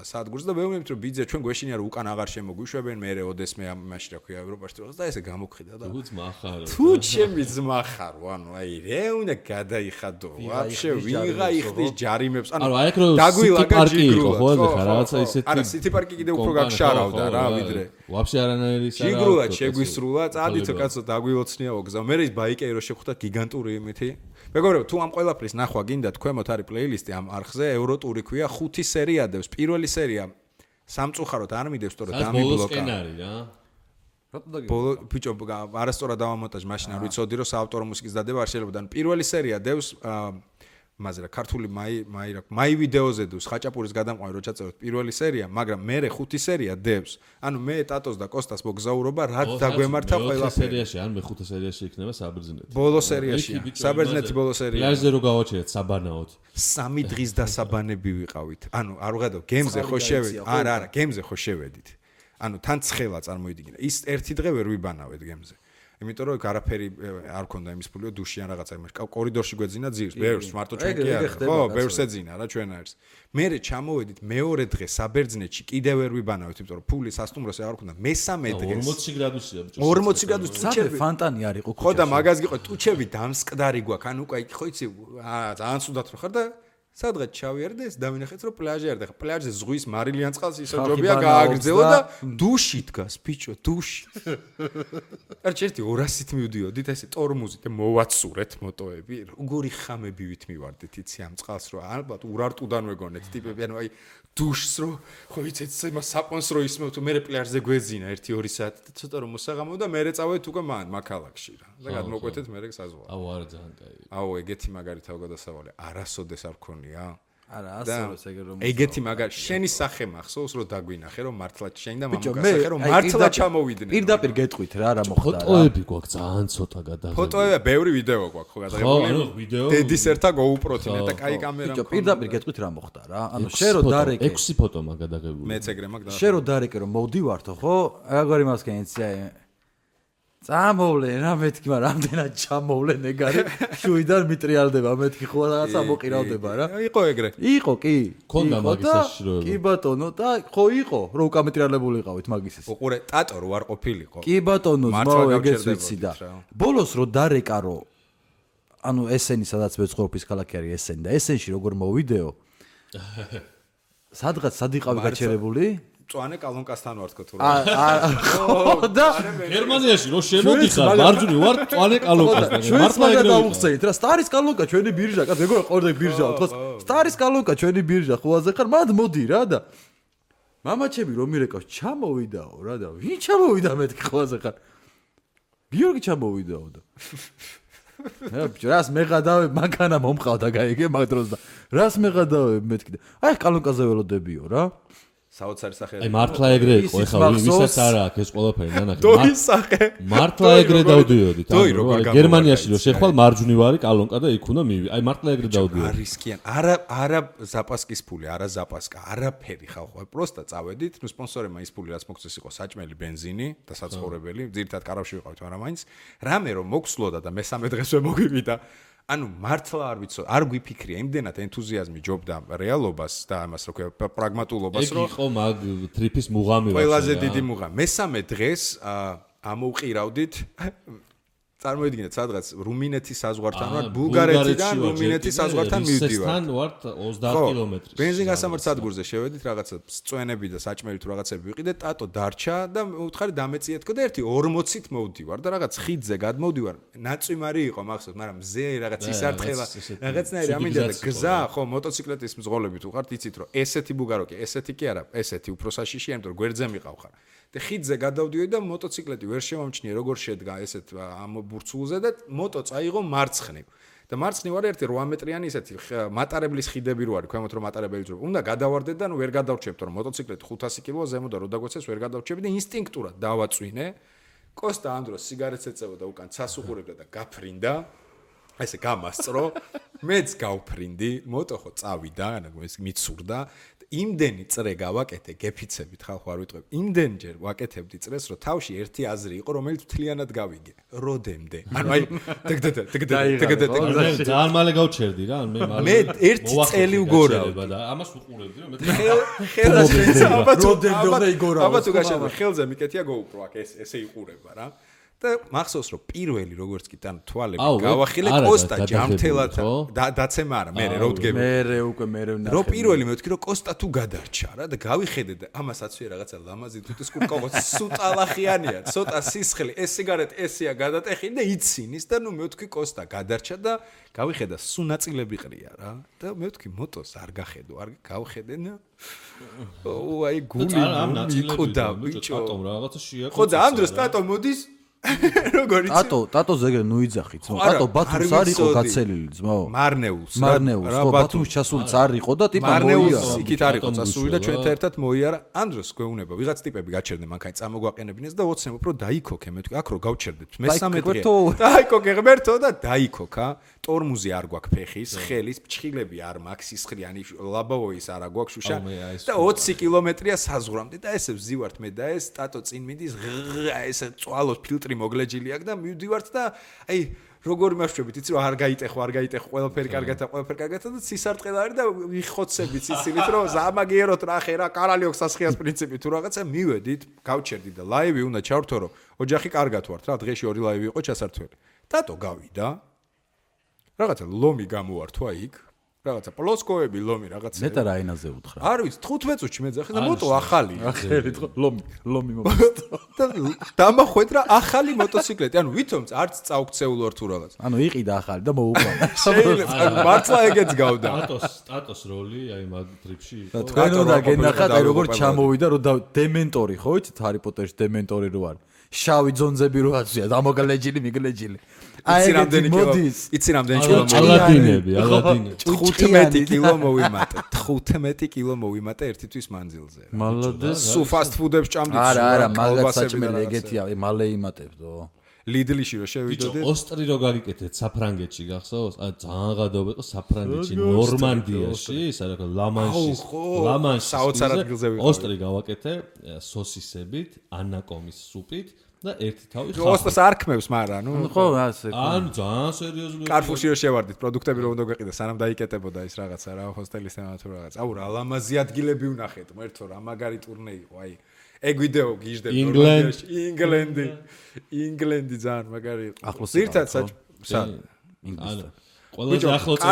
სადგურს და მეუბნებთ რომ ბიძა ჩვენ გვეშინია რომ უკან აღარ შემოგვიშვებენ მე ოდესმე ამაში რა ქვია ევროპაში რაღაც და ესე გამოგხიდა და თუ ძმა ხარო თუ ჩემი ძმა ხარო ანუ აი რე უნდა გადაიხადო ვაფშე ვიღა იხდის ჯარიმებს ანუ დაგვილაგა ჯიგრულად ხო ხა რაღაცა ისეთი არა სიტი პარკი კიდე უფრო გაგშარავდა რა ვიდრე ვაფშე არანაირი ჯიგრულად შეგვისრულა წადითო კაცო დაგვილოცნიაო გზა მე ის ბაიკერი რო შეხვდა გიგანტური იმითი მეგობრებო თუ ამ ყველაფრის ნახვა გინდათ ქვემოთ არის პლეილისტი ამ არხზე ევროტური ქვია 5 სერია დევს პირველი სერია სამწუხაროდ არ მიდევს თორე დამიბლოკა ბოლო ბიჭო არასწორად დავამონტაჟ მაშინ არ ვიცოდი რომ საავტორო მუსიკის დადება არ შეიძლება და პირველი სერია დევს მაზრა ქართული მაი ვიდეოზე დევს ხაჭაპურის გადამყვანი რო ჩაწეროთ პირველი სერია მაგრამ მე 5 სერია დევს ანუ მე ტატოს და კოსტას მოგზაურობა რა დაგვემართა ყველაფერი სერიაში ან მე 5 სერიაში იქნება საბერძნეთი ბოლო სერიაში საბერძნეთი ბოლო სერია პლაჟზე რო გავაჩერეთ საბანაოდ 3 დღის დასაბანები ვიყავით ანუ არ ვღედო გემზე ხო შევედით არა გემზე ხო შევედით ანუ თან ცხელა წარმოიდგინე ის ერთი დღე ვერ ვიბანავეთ გემზე იმიტომ რომ არაფერი არ ქონდა იმის ფულიო დუში ან რაღაცა იმას კორიდორში გვეძინა ძირს ბევრს მარტო ჩვენ კი არა ხო ბევრს ეძინა რა ჩვენ არის მერე ჩამოვედით მეორე დღე საბერძნეთში კიდევ ვერ ვიბანავით იმიტომ რომ ფული სასტუმროს არ ქონდა მესამე დღეს 40 გრადუსია ბიჭო 40 გრადუსი ტუჩები ფანტანი არ იყო ხო და მაგაზ გიყო ტუჩები დამსკდარი გვაქვს ანუ უკვე ხო იცი ძალიან სუდათ რო ხარ და სადღაც ჩავიარდე ეს დავინახეთ რომ პლაჟი არ და პლაჟზე ზღვის მარილიან წყალს ისო ჯობია გააგრძელო და დუში დგას ბიჭო დუში არ ჩერთი 200-ით მივდიოდით ესე ტორმუზით და მოვაცურეთ მოტოები როგორი ხამები ვით მივარდით იცი ამ წყალს რომ ალბათ ურარტუდან ვეგონეთ ტიპები ანუ აი დუშს რო ხო იცით იმას საპონსრო ისმევ თუ მე პლაჟზე გვეძინა 1-2 საათი ცოტა რომ მოსაღამო და მე წავედით უკვე მაქალაქში რა და გადმოკვეთეთ მე საზღვარი აუ არა ძალიან კაი აუ ეგეთი მაგარი თავგადასავალი არასოდეს არ ქონია არა ასწორებს ეგ რომ ეგეთი მაგარი შენი სახე მახსოვს რომ დაგვინახე რომ მართლა შენი და მამაკაცი რომ მართლა ჩამოვიდნენ პირდაპირ გეტყვით რა მოხდა ფოტოები გვაქვს ძალიან ცოტა გადაღებული ფოტოები ბევრი ვიდეო გვაქვს ხო გადაღებული დედის ერთა GoPro-თი და კაი კამერა ბიჭო პირდაპირ გეტყვით რა მოხდა რა ანუ შენ რო დარეკე 6 ფოტო მაგ გადაღებული მეც ეგრე მაგ და შენ რო დარეკე რომ მოვდივართო ხო აგარი მასკენიცია წამოვლენ რა მეთქი მაგრამ რამდენად ჩამოვლენ ეგარი შუიდან მიტრიალდება მეთქი ხო რაღაცა მოყირავდება რა იყო ეგრე იყო კი ქონდა მაგის საშიშროება კი ბატონო და ხო იყო რო უკამეტრიალებული იყავით მაგის ეს უყურე ტატო რო არ ყოფილიყო კი ბატონო ზმაო ეგეც ვიცი და ბოლოს რო დარეკა რო ანუ ესენი სადაც ვეცხოვრობის ქალაქი არის ესენი და ესენში როგორ მოვიდეო სადღაც სად იყავი გაჩერებული წვანე კალონკასთან ვარ თქო თუ რა და გერმანიაში რო შემოდიხარ მარჯვნივ ვარ წვანე კალონკასთან მართლა ეგრე დავუხსენით რა სტარის კალონკა ჩვენი ბირჟა კაც ეგრე ყორდა ბირჟაო თქო სტარის კალონკა ჩვენი ბირჟა ხოაზე ხარ მად მოდი რა და მამაჩები რომ მირეკავს ჩამოვიდაო რა და ვინ ჩამოვიდა მეთქი ხოაზე ხარ გიორგი ჩამოვიდაო და რას მეღადავე მაგანა მომყავდა გაიგე მაგ დროს და რას მეღადავე მეთქი აი კალონკაზე ველოდებიო რა საოცარი სახე აი მართლა ეგრე იყო ეხლა ვისაც არა აქვს ეს ყველაფერი ნანახი დოის სახე მართლა ეგრე დავდიოდით გერმანიაში რო შეხვალ მარჯვნივ არის კალონკა და იქ უნდა მივი აი მართლა ეგრე დავდიოდი არისკიან არა ზაპასკის ფული არა ზაპასკა არაფერი ხალხო პროსტა წავედით ნუ სპონსორებმა ის ფული რაც მოგწეს იყო საჭმელი ბენზინი და საცხოვრებელი ძირითადად კარავში ვიყავით მაგრამ მაინც რამე რომ მოგსვლოდა და მესამე დღესვე მოგივიდა ანუ მართლა არ ვიცო არ გვიფიქრია იმდენად ენთუზიაზმი ჯობდა რეალობას და ამას რო ქვია პრაგმატულობას რომ ეგ იყო მაგ ტრიპის მუღამი ყველაზე დიდი მუღამი მესამე დღეს ამოვყირავდით წარმოიდგინეთ სადღაც რუმინეთის საზღვართან ვარ ბულგარეთიდან რუმინეთის საზღვართან მივდივარ ისესთან ვარ 30 კილომეტრი ბენზინგასამართ სადგურზე შევედით რაღაცა წვენები და საჭმელი თუ რაღაცები ვიყიდე ტატო დარჩა და უთხარი დამეციეთქო და ერთი 40-ით მოვდივარ და რაღაც ხიდზე გადმოვდივარ ნაწვიმარი იყო მახსოვს მაგრამ მზე რაღაც ისარტყელა რაღაცნაირი ამინდა და გზა ხო მოტოციკლეთის მძღოლები თუ ხართ იცით რომ ესეთი ბულგაროკი ესეთი კი არა ესეთი უფრო საშიშია იმიტომ რომ გვერდზე მიყავ ხარ და ხიდზე გადავდიოდი და მოტოციკლეტი ვერ შემომჩნიე როგორ შედგა ესეთ ამ ბურცულზე და მოტო წაიღო მარცხნივ და მარცხნივ არის ერთი 8 მეტრიანი ესეთი მატარებლის ხიდები რო არის ქვემოთ რომ მატარებელი ძრო უნდა გადავარდეთ და ნუ ვერ გადავრჩებთ რომ მოტოციკლეტი 500 კილოა ზემო და რო დაგვეცეს ვერ გადავრჩები და ინსტინქტურად დავაწვინე კოსტა ამ დროს სიგარეტს ეწევა და უკან ცას უყურებდა და გაფრინდა ესე გამასწრო, მეც გავფრინდი, moto ხო წავიდა, ეს მიცურდა. იმდენი წრე გავაკეთე, გეფიცებით ხალხო არ ვიტყვებ. იმდენჯერ ვაკეთებდი წრეს, რომ თავში ერთი აზრი იყო, რომელიც მთლიანად გავიგე. როდემდე. ანუ აი, დგდ. ძალიან მალე გავჩერდი რა, მე ერთი წელი უგორავდი და ამას უყურებდი რომ მე ხელა შეიძლება აბა თუ გაშა ხელზე მიკეთია GoPro აქ ესე იყურება რა. და მახსოვს რომ პირველი როგორც კი თან თვალები გავახილე კოსტა ჯამთელად დაცემა არა მე რო ვდგები მე ვნახე რო პირველი მე ვთქვი რომ კოსტა თუ გადარჩა რა და გავიხედე და ამასაც ვე რაღაცა ლამაზი თუთის კურკოვო სუტალახიანია ცოტა სისხლი ეს სიგარეტი ესია გადატეხინი და იცინის და ნუ მე ვთქვი კოსტა გადარჩა და გავიხედა სუნაწილები ყრია რა და მე ვთქვი მოტოს არ გახედო არ გავხედე და აი გული მიკოდა ბიჭო რაღაცა შეაკო ხო და ამ დროს ტატო მოდის როგორ იცი? ტატო ზეგრე ნუ იძახით. ტატო ბათუმს არ იყო გაცელილი ძმაო. მარნეულს. ხო ბათუმს ჩასულიც არ იყო და ტიპა მოიარა. მარნეულს იქით არ იყო წასული და ჩვენთან ერთად მოიარა. ამ დროს გვეუბნება ვიღაც ტიპები გაჩერდნენ მანქანა წამოგვაყენებინეს და ოცნებობ რომ დაიქოქე მე თქვი აქ რო გავჩერდეთ. მესამე დღე. დაიქოქე ღმერთო და დაიქოქა. ტორმუზი არ გვაქვს ფეხის, ხელის, ფჩხილები არ მაქვს, სისხლიანი ლაბავოის არ გვაქვს შუშა და 20 კილომეტრია საზღვრამდე და ესე ვზივართ მე და ეს ტატო წინ მიდის ესე წვალოს ფილტრი მოგლეჯილი აქვს და მივდივართ და აი როგორ იმაშვებით იცი რომ არ გაიტეხო ყველაფერი კარგად და სისარტყელა არის და ვიხოცებით სიცილით რომ ზამაგიეროთ რახე რა კარალიოქ სასხიას პრინციპი თუ რაღაცა მივედით გავჩერდი და ლაივი უნდა ჩავრთო რომ ოჯახი კარგად ვართ რა დღეში 2 ლაივი იყო ჩასართველი ტატო გავიდა რაღაცა ლომი გამოვართვა იქ რაღაცა პლოსკოები ლომი რაღაცა მეტა რა ენაზე უთხრა არ ვიცი 15 წუთში მეძახე და moto ახალია ახერით ლომი და დამახვედრა ახალი მოტოციკლეტი ანუ ვითომც არც წავქცეულ ვარ თუ რაღაც ანუ იყიდა ახალი და მოუყვანა შეიძლება მართლა ეგეც გავდა ტატოს როლი აი მაგ ტრიპში და თქვენ უნდა გენახათ აი როგორ ჩამოვიდა რომ დემენტორი ხო იცით ჰარი პოტერში დემენტორი რო არის შავი ძონძები რო აცვია დამოგლეჯილი მიგლეჯილი იცი რამდენი კილო ალადინები 15 კილო მოვიმატე ერთი თვის მანძილზე მალადეს სუ ფასტ ფუდებს ჭამდით არა მაგაც საჭმელი ეგეთია მალე იმატებდო ლიდლიში რო შევიდოდე ოსტრი რო გაგიკეთეთ საფრანგეთში გახსოვს ან ძალიან გადაობა იყო საფრანგეთში ნორმანდიაში სადაც ლამანში საოცარ ადგილზე ვიყავი ოსტრი გავაკეთე სოსისებით ანაკომის სუპით და ერთი თავი ხა ოსტას არქმევს მაგრამ ნუ ხო ასე ან ძალიან სერიოზული კარფურში რო შევარდით პროდუქტები რომ უნდა გვეყიდა სანამ დაიკეტებოდა ის რაღაცა რა ჰოსტელის თემა თუ რაღაც აუ რა ლამაზი ადგილები ვნახეთ მერთო რა მაგარი ტურნე იყო აი ეგ ვიდეო გიჟდებ ნორმანდიაში ინგლენდი ძალიან მაგარი იყო ახლოს ზირთად ანუ ყველაზე ახლოს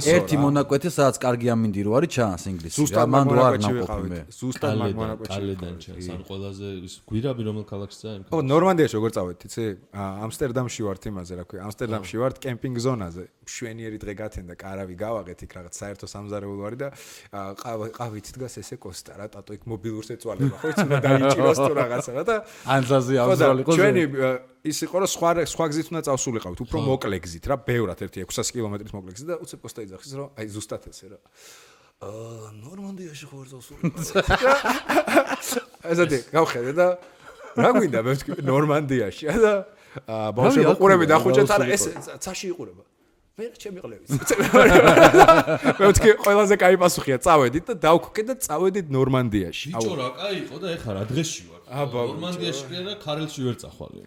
ერთი მონაკვეთი სადაც კარგი ამინდირო არის ჩანს ინგლისში რა მანდ ვარ ნაკופი მე ზუსტად მაგ მონაკვეთში კალედან ჩანს ან ყველაზე ის გვირაბი რომელ ქალაქში წაი ხო ნორმანდიაში როგორ წავედით იცი ამსტერდამში ვართ იმაზე რა ქვია ამსტერდამში ვართ კემპინგ ზონაზე მშვენიერი დღე გათენდა კარავი გავაღეთ იქ რაღაც საერთო სამზარეულო არის და ყავით დგას ესე კოსტა რა ტატო იქ მობილურს ეწვალება ხო იცი უნდა დაიჭიროს თუ რაღაცა რა და ანზაზე ამზრალი ხო ჩვენი ის იყო რომ სხვა გზით უნდა წავსულიყავით უფრო მოკლე გზით რა ბევრად ერთი 600 კილომეტრის მოკლე გზით და უცებ კოსტა იძახის რომ აი ზუსტად ესე რა ნორმანდიაში ხო ვერ წავსულიყავით ესეთი გავხედე და რა გვინდა მე ვთქვი ნორმანდიაში და ბავშვები უყურები და ხუჭეთ არა ეს ცაში იყურება მე ჩემი ყლევიც მე ვთქვი ყველაზე კაი პასუხია წავედით და დავქოკე და წავედით ნორმანდიაში ბიჭო რა კაი იყო და ეხლა რა დღეში ვარ ნორმანდიაში კი არა ქარელში ვერ წახვალე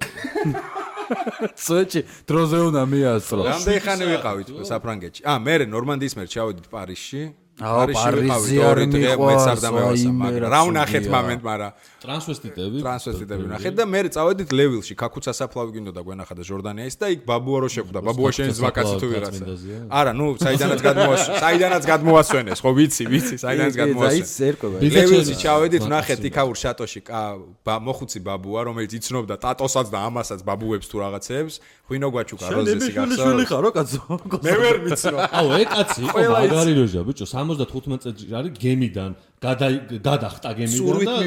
სოჭი დროზე უნდა მიასწრო რამდენი ხანი ვიყავით საფრანგეთში მე ნორმანდიის მერ ჩავედით პარიზში პარიზი არ მიყვარს მაგრამ რა ვნახეთ მომენტ მაგრამ ტრანსვესტიტები ვნახეთ და მე წავედით ლევილში ქაქუცა საფლავი გინდოდა გვენახა და ჟორდანიას და იქ ბაბუა რო შეხვდა ბაბუა შენ ზვაკაცი თუ ვიღაცა არა ნუ საიდანაც გადმოასვენეს ხო ვიცი საიდანაც გადმოასვენეს ლევილში ჩავედით ვნახეთ იქაურ შატოში მოხუცი ბაბუა რომელიც იცნობდა ტატოსაც და ამასაც ბაბუებს თუ რაღაცებს ღვინო გვაჩუკა როზესი გახსოვს ხო კაცო მე ვერ ვიცნო აუ ეგ კაცი იყო მაგარი როჟა ბიჭო 75 წელიწადში არის გემიდან გადახტა გემიდან და ხო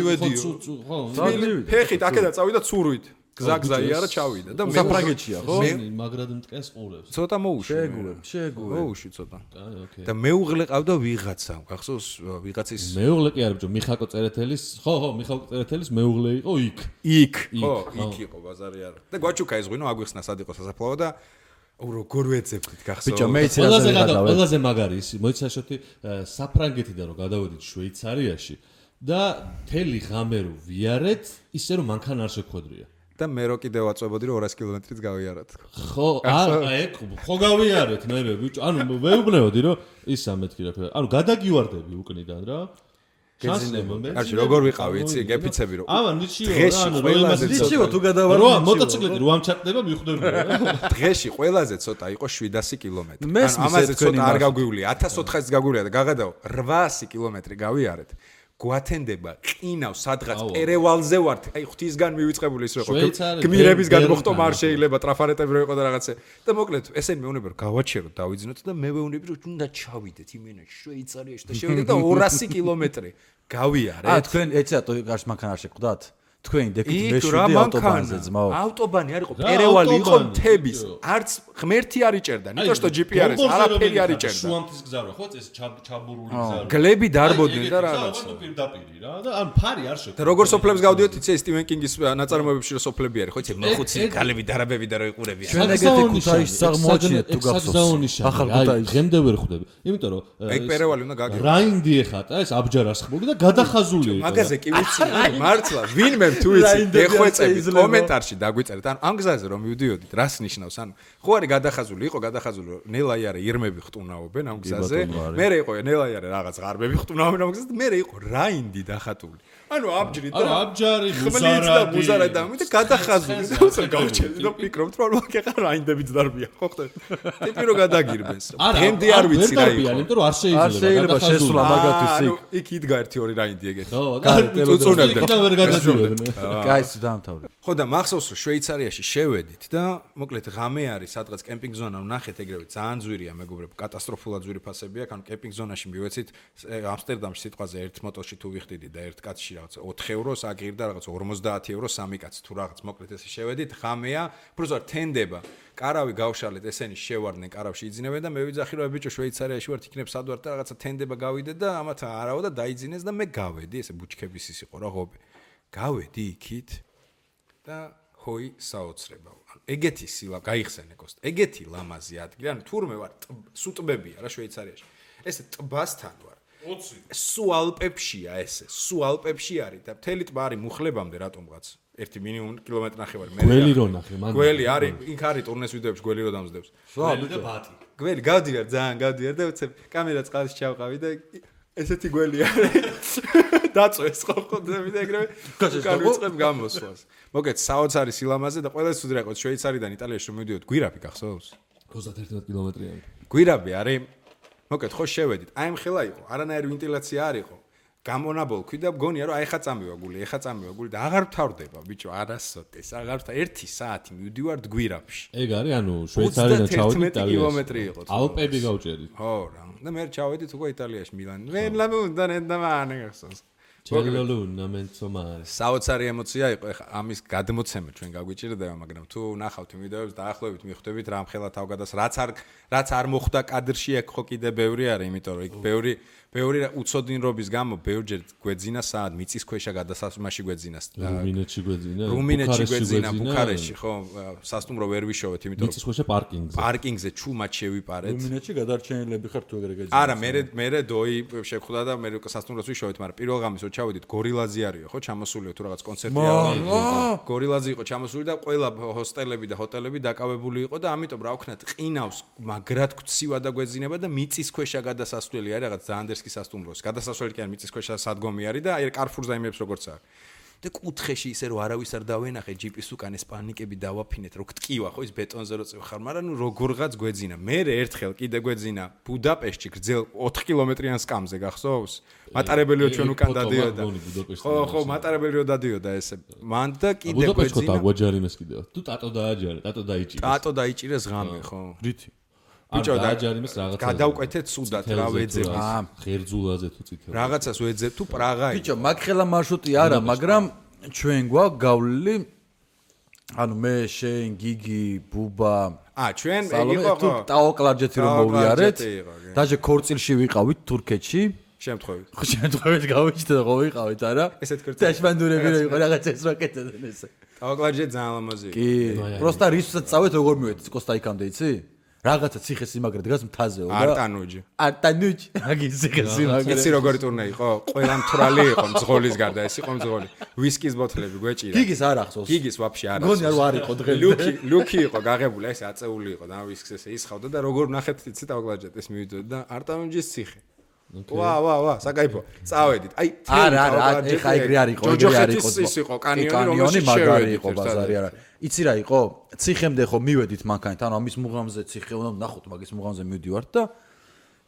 ფეხით აქედან წავიდა ცურვით გზა-გზაი არა ჩავიდა და საფრანგეთშია ხო მე მაგრად მტკენს ყურებს ცოტა მოუშვი შეეგურე მოუშვი ცოტა და მეუღლე ყავდა ვიღაცა გახსოვს ვიღაცის მეუღლე კი არა ბიჭო მიხაკო წერეთელის ხო მიხაკო წერეთელის მეუღლე იყო იქ ხო იქ იყო ბაზარი არა და გვაჩუკა ეს ღვინო აგვიხსნა სად იყო სასაფლაო და როგორ ვეძებდით გახსოვს? ბიჭო, მე იცი რაზე გადავედი. ყველაზე მაგარი ის, მოიცაშოთი საფრანგეთიდან რომ გადავედით შვეიცარიაში და მთელი ღამე რო ვიარეთ, ისე რომ მანქანა არ შეგვხვედრია. და მე რო კიდევ ვაწვებოდი რომ 200 კილომეტრიც გავიაროთ. ხო, ხო გავიარეთ მე ბიჭო, ანუ მეუბნეოდი რომ ისა მეთქი რა. ანუ გადაგივარდები უკნიდან რა. კარგი, როგორ ვიყავი, იცი, გეფიცები რომ. აბა, ნიჩიო რა, ანუ ნიჩიო თუ გადავარ. რა, მოტოციკლეტი რო ამჩატდება, მიხვდები რა. დღეში ყველაზე ცოტა იყო 700 კილომეტრი. ანუ ამაზე ცოტა არ გაგვივლია, 1400-ს გაგვივლია და გაგადაო 800 კილომეტრი გავიარეთ. გვათენდება ყინავ სადღაც პერევალზე ვართ. აი ღვთისგან მივიწყებული ის რო იყო. გმირებისგან მოხტომა არ შეიძლება, ტრაფარეტები რო იყო და რაღაცე. და მოკლედ, ესენი მეუბნები რომ გავაჩეროთ, დავიძინოთ და მე ვეუბნები რომ უნდა ჩავიდეთ იმენაში შვეიცარიაში და შევიდეთ და 200 კილომეტრი გავიარეთ. თქვენ ეცი რატო გარშ მანქანა არ შეხვდათ? თქვენ დეკით მეშვიდე ავტობანზე ძმაო. ავტობანი არ იყო, პერევალი იყო მთების. არც ღმერთი არ იჭერდა, ნიტო што GPS არაფერი არ იჭერდა. შუამთის გზა რა, ხო, ეს ჩაბურული გზა. გლები დარბოდნენ და რაღაცა. პირდაპირი რა და ან ფარი არ შეხვდა. და როგორ სოფლებს გავდიოთ, იცი სტივენ კინგის ნაწარმოებებში რომ სოფლები არის, ხო, იცი, მოხუცი გალები დარაბები და რო იყურებიან. ჩვენ ეგეთი ქუთაისს აღმოაჩინეთ თუ გახსოვს. ახალ ქუთაისს. ღემდე ვერ ხვდები. იმიტომ რომ ეგ პერევალი უნდა გაგიო. რაინდი ეხატა ეს აბჯარასხმული და გადახაზული იყო. მაგაზე კი ვიცი, მართლა, ვინმე თუ იცი, ეხვეწებით კომენტარში დაგვიწერეთ. ანუ ამ გზაზე რომ მივდიოდით, რას ნიშნავს? ანუ ხო არის გადახაზული, იყო გადახაზული, რომ ნელაიარე ირმები ხტუნაობენ ამ გზაზე. მერე იყო ნელაიარე რაღაც ღარბები ხტუნაობენ ამ გზაზე. მერე იყო რაინდი დახატული. ანუ აბჯრი და აბჯარი მუზარადი და მე გადახაზული და გავჩერდი და ფიქრობთ რომ მაგ რაინდებიც დარბია, ხო ხდება? ტიპი რო გადაგირბეს. გემდი არ ვიცი რა იყო. იმიტომ რომ არ შეიძლება შესვლა მაგათვით იქ. იქ იდგა ერთი ორი რაინდი ეგეთი. ხო, უწუნებდა. და ვერ გადაგირბენ. კაის დაამთავრე. ხო და მახსოვს რომ შვეიცარიაში შევედით და მოკლედ ღამე არის სადღაც კემპინგ ზონა ვნახეთ ეგრევე ძალიან ძვირია მეგობრებო კატასტროფულად ძვირი ფასები აქვს ანუ კემპინგ ზონაში მივეცით ამსტერდამში სიტყვაზე ერთ მოტოში თუ ვიხდიდი და ერთ კაცში რაღაც 4 ევროს აგირდა რაღაც 50 ევროს სამი კაცი თუ რაღაც მოკლედ ესე შევედით ღამეა პროზარ თენდება კარავი გავშალეთ ესენი შევარდნენ კარავში იძინებენ და მე ვიძახი რომ ბიჭო შვეიცარიაში ვართ იქნებ სად ვართ და რაღაცა თენდება გავიდე და ამათ არავა და დაიძინეს და მე გავედი ესე ბუჩქების ის იყო რა ღობე გავედი იქით და ჰოი საოცრება. ეგეთი სილა გაიხსენე კოსტ. ეგეთი ლამაზი ადგილი. ანუ თურმე ვარ სუტბებია რა შვეიცარიაში. ესე ტბასთან ვარ. 20. სუ ალპებშია ესე. სუ ალპებში არის და მთელი ტბა არის მუხლებამდე რატომღაც. ერთი მინიმუმ კილომეტრი ნახევარი მე. გველი რო ნახე მან. გველი არის, იქ არის ტურნეს ვიდეოებში გველი რო დამზდებს. გველი და ბატი. გველი გავდივარ ძალიან გავდივარ და უცებ კამერა წყალში ჩავყავი და ესეთი გველი არის. დაწვეს ხოხოდები და ეგრევე განვიწყებ გამოსვლას. მოგეთ საოცარი სილამაზე და ყველა სულ რა იყო შვეიცარიდან იტალიაში რომ მივდიოთ გვირაბი გახსოვს? 31 კილომეტრიანი. გვირაბი არის. მოგეთ ხო შევედით. აი მხელა იყო. არანაირი ვენტილაცია არ იყო. გამონაბოლქვი და მგონია რომ აი ხა წამივა გული და აღარ ვთავრდება ბიჭო არასოდეს აღარ ვთავრ 1 საათი მივდივართ გვირაბში. ეგ არის ანუ შვეიცარიდან ჩავედით იტალიაში. 30 კილომეტრი იყო. ალპები გავჭედით. ხო რა. და მე ჩავედით უკვე იტალიაში მილანი. მე ლამუნდა ნენდამანე გახსოვს. ჩელოლუნა მენცომარე. საოცარი ემოცია იყო ეხა ამის გადმოცემა ჩვენ გაგვიჭირდება, მაგრამ თუ ნახავთ ვიდეოებს დაახლოებით მიხვდებით რა მხელა თავგადას რაც არ მოხდა კადრში აქ ხო კიდე ბევრი არის, იმიტომ რომ იქ ბევრი უცოდინრობის გამო ბევრჯერ გვეძინა საათ მიწისქვეშა გადასასვლელში გვეძინა. რუმინეთში გვეძინა, ბუქარესტში ხო სასტუმრო ვერ ვიშოვეთ, იმიტომ რომ მიწისქვეშა პარკინგზე ჩუმად შევიპარეთ. რუმინეთში გადარჩენილები ხარ თუ ეგრე გეძინა. არა, მე დოი შევხვდა და მე სასტუმროს ვიშოვეთ, მაგრამ პირველ ღამეს ჩავედით გორილაზი არისო ხო ჩამოსულიო თუ რაღაც კონცერტი არის გორილაზი იყო ჩამოსული და ყველა ჰოსტელები და ჰოტელები დაკავებული იყო და ამიტომ რა ვქნათ ყინავს მაგრად გცივა და გვეძინება და მიწისქვეშა გადასასვლელი არის რაღაც ზანდერსკის სასტუმროს გადასასვლელი კი არ მიწისქვეშა სადგომი არის და აი კარფურს დაიმებს როგორც აქვს და კუთხეში ისე რომ არავის არ დავენახე ჯიპის უკან ეს პანიკები დავაფინეთ რო გტკივა ხო ის ბეტონზე რო წევ ხარ მაგრამ ნუ როგორღაც გვეძინა მე ერთხელ კიდე გვეძინა ბუდაპეშტში გრძელ 4 კილომეტრიან სკამზე გახსოვს მატარებელიო ჩვენ უკან დადიოდა ხო მატარებელიო დადიოდა ესე მან და კიდე გვეძინა ბუდაპეშტში დაგვაჯარიმეს კიდე თუ ტატო დაიჭირეს ღამე ხო რითი ბიჭო დააჯარიმეს რაღაცა გადავკვეთეთ სუდად რა ვეძებ ღერძულაზე თუ წითელ რაღაცას ვეძებ თუ პრაღა ბიჭო მაგხელა მარშრუტი არა მაგრამ ჩვენ გვაქვს გავლილი ანუ მე შენ გიგი ბუბა ჩვენ იყო თუ ტაო კლარჯეთი რომ მოვიარეთ დაჟე ქორწილში ვიყავით თურქეთში შემთხვევით გავიჩნდა რომ ვიყავით არა ესეთ ქორწილი დაშმანდურები რო იყო რაღაც ეს რა კეთებდნენ ესე ტავაკლაჯე ძალიან ლამაზი კი პროსტა რისთვისაც წავეთ როგორ მივედით კოსტაიკამდე იცი რაღაცა ციხე-სიმაგრე დგას მთაზე და არტანუჯი აგის ციხე-სიმაგრე იცი როგორი ტურნე იყო ყველა მთვრალი იყო მძღოლის გარდა ეს იყო მძღოლი ვისკის ბოთლები გვეჭირა გიგის არ ახსოვს გიგის ვაფშე არ გონი არ იყო დღემდე ლუკი იყო გაღებული ეს აწეული იყო და ვისკს ესე ისხავდა და როგორ ნახეთ იცი ტავაკლაჯეტეს მივიდოდი და არტანუჯის ციხე ვა საკაიფო წავედით აი არა ეხა ეგრე არ იყო ის იყო კანიონი მაგარი იყო ბაზარი არა იცი რა იყო ციხემდე ხო მივედით მანქანით ანუ ამის მუღამზე ციხე უნდა ნახოთ მაგის მუღამზე მივდივართ და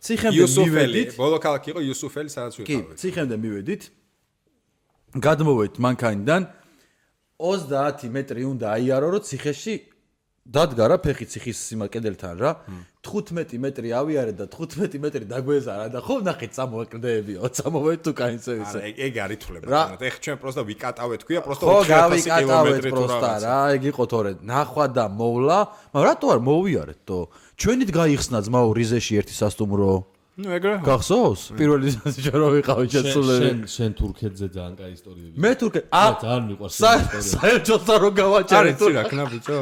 ციხემდე მივედით ბოლო ქალაქი იყო იუსუფელი სადაც ვიყავით კი ციხემდე მივედით გადმოვედით მანქანიდან 30 მეტრი უნდა აიარო რომ ციხეში დადგა რა ფეხი ციხის სიმაკედელთან რა 15 მეტრი ავიარე და 15 მეტრი დაგვეზარა და ხო ნახე წამოვაკრდებიო წამოვედ თუ კაინცე ისე ეგ არ ითვლება ეხ ჩვენ პროსტა ვიკატავეთ ქვია პროსტა 4000 კილომეტრი პროსტა რა ეგ იყო თორე ნახვა და მოვლა მაგრამ რატო არ მოვიარეთ თო ჩვენით გაიხსნა ძმაო რიზეში ერთი სასტუმრო ნუ ეგრე გახსოვს პირველი ჯერო ვიყავი შეცვლები შენ თურქეთზე ძალიან კაი ისტორიები მე თურქეთ ძალიან მიყვარს საერთოდ რო გავაჭერე თუ რა ქნა ბიჭო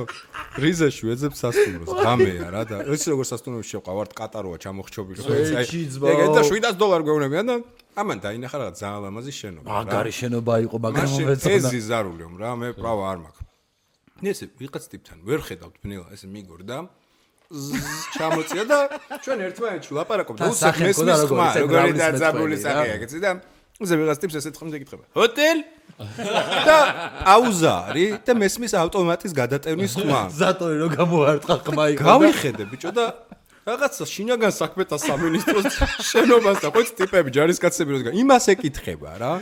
რიზეში ვეძებ სასტუმროს ღამეა რა და იცი როგორ სასტუმროში შევყავართ ყატაროა ჩამოხრჩობილი ეგ და $700 გვეუბნებიან და ამან დაინახა რაღაც ძალიან ლამაზი შენობა მაგარი შენობა იყო მაგრამ მეცონა ეს ზიზარულიო რა მე პრავა არ მაქვს ესე ვიღაც ტიპთან ვერ ხედავთ ბნელა ესე მიგორდა ჩამოწია და ჩვენ ერთმანეთში ვლაპარაკობთ უსახ მესმის ხმა როგორი დაძაბული სახეა ეგეცი და უზე ვიღაც ტიპს ესეთ ხმზე ეკითხება ჰოტელ და აუზარი და მესმის ავტომატის გადატევნის ხმა ზატორი რო გამოარტყა ხმა იყო გავიხედე ბიჭო და რაღაცა შინაგან საქმეთა სამინისტროს შენობას და ხო ტიპები ჯარისკაცები როდგა იმას ეკითხება რა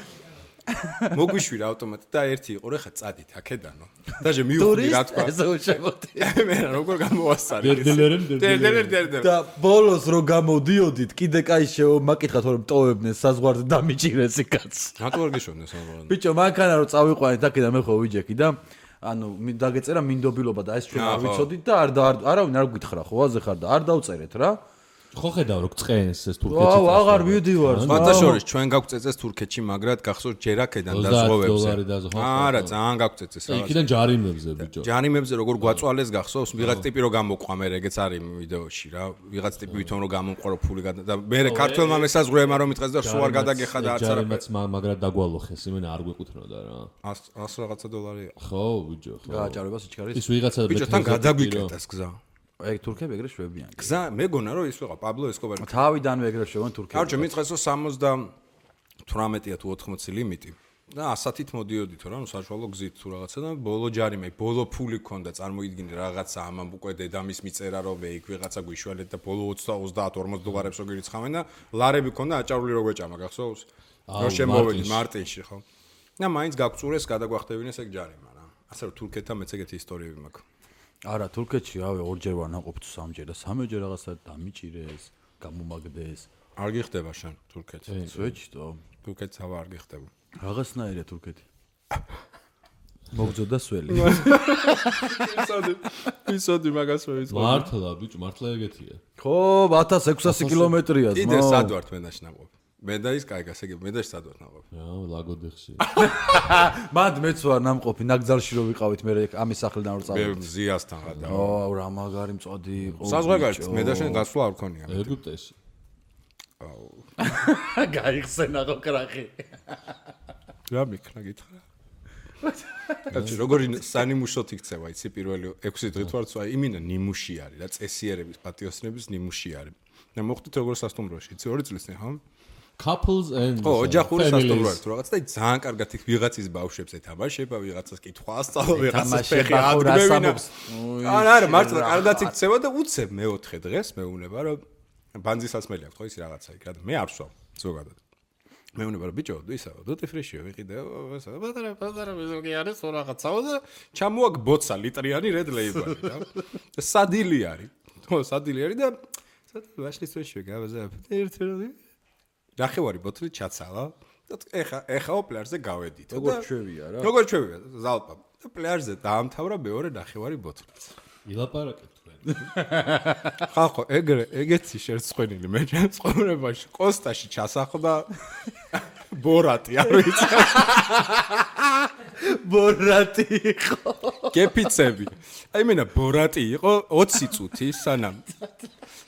მოგვიშვირა ავტომატი და ერთი იყო რა ხა წადით აქედანო დაჟე მივხვდი რა თქვა ესე უჩემოდი მე როგორ გამოვასწარი დერდელერენ და ბოლოს რო გამოდიოდით კიდე კაი მაკითხა თორემ ტოვებდნენ საზღვარზე დამიჭირეს იქაც რატო არ გეშოვნეს საზღვარზე ბიჭო მანქანა რო წავიყვანეთ აქედან მე ხო ვიჯექი და ანუ დაგეწერა მინდობილობა და ეს ჩვენ არ ვიცოდით და არავინ არ გითხრა ხო აზე ხარ და არ დავწერეთ რა ხო ხედავ რო წყენს ეს თურქეთში აუ აღარ მივდივარ მათაშორის ჩვენ გაგვწეწეს თურქეთში მაგრამ გახსოვთ ჯერ აქედან დაზღვევებზე არა ძალიან გაგვწეწეს რა იქიდან ჯარიმებზე ბიჭო ჯარიმებზე როგორ გვაწვალეს გახსოვს ვიღაც ტიპი რო გამოყვა მე ეგეც არის ვიდეოში რა ვიღაც ტიპი ვითომ რო გამომყარო ფული და მე ქართველმა მესაზღვრეებმა რომ მიტყეს და სულ არ გადაგეხა და არც არა ჯარიმაც მაგრამ დაგვალოხეს იმენა არ გვეკუთვნოდა რა 100 რაღაცა $. ხო ბიჭო ხო გააჭარებას იჩქარის ის ვიღაცა ბიჭო თან გადაგვიკეტეს გზა ეგ თურქები ეგრე შვებიან გზა მეგონა რომ ის ვიყავ პაბლო ესკობარი თავიდანვე ეგრე შვებიან თურქები კარჩო მიწესო 78-ია თუ 80 ლიმიტი და 100-ით მოდიოდით რა ნუ საშუალო გზით თუ რაღაცა და ბოლო ჯარიმე ბოლო ფული ქონდა წარმოიდგინე რაღაცა ამან უკვე დედამის მიწერა რომ მე იქ ვიღაცა გვიშველეთ და ბოლო 30-40 $-ს რო გირიცხავენ და ლარები ქონდა აჭარული რო გვეჭამა გახსოვს რომ შემოვედი მარტინში ხო და მაინც გაგწურეს გადაგვახტევინეს ეგ ჯარიმა რა ასე რომ თურქეთთან მეც ეგეთი ისტორიები მაქვს არა თურქეთში რავი ორჯერ ვარ ნაყოფ თუ სამჯერ და სამჯერ რაღაცა დამიჭირეს გამომაგდეს არ გიხდება შენ თურქეთი სვეჩტო თურქეთს ავა არ გიხდება რაღაცნაირია თურქეთი მოგძოდა სველი ისოდი მაგას ვეწყო მართლა ბიჭო მართლა ეგეთია ხო 1600 კილომეტრია ძმა კიდე სად ვართ მე დაშ ნაყოფ მე და ის კაი გასაგები მე და სად ვართ ნაყოფ რა ლაგოდეხში მანდ მეც ვარ ნამყოფი ნაგზალში რო ვიყავით მე ამის სახლიდან რო წავედი მე ზიასთან გადავ აუ რა მაგარი მწოდი იყო საზღვარგარეთ მე და შენ გასვლა არ ქონია ეგვიპტეში აუ გაიხსენა რო კრახი რა მიქნა გითხრა კაცი როგორი სანიმუშოთ იქცევა იცი პირველი 6 დღით ვარ წვა იმინა ნიმუში არის რა წესიერების პატიოსნების ნიმუში არის და მოხდით როგორ სასტუმროში იცი 2 წლისნი ხო couples and ო ოჯახური სასტუმრო თუ რაღაც და ძალიან კარგად იქ ვიღაცის ბავშვებს ეთამაშება ვიღაცას კითხვა ასწავლა ვიღაცას ფეხი ადგმევინა არა მართლა კარგად იქცევა და უცებ მეოთხე დღეს მეუბნება რომ ბანძისასმელი აქვს ხო ის რაღაცა იქ რა და მე არ ვსვამ ზოგადად მეუბნება რომ ბიჭო ისა დუტი ფრიშიო ვიყიდე ესა პატარა მეზოგი არის ხო რაღაცაო და ჩამოაგ ბოცა ლიტრიანი რედ ლეიბალი რა და სადილი არის ხო სადილი არის და ვაშლის ფრიშიო გავაზა ერთი ნახევარი ბოთლი ჩაცალა და ეხა პლაჟზე გავედით როგორ ჩვევია რა როგორ ჩვევია ზალპა და პლაჟზე დაამთავრა მეორე ნახევარი ბოთლიც ილაპარაკეთ თქვენ ხახო, ეგეთი შერცხვენილი მე ჩემს ცხოვრებაში კოსტაში ჩასახლდა ბორატი, არ ვიცი. ბორატი იყო. კეფიცები. აი მენა ბორატი იყო 20 წუთი სანამ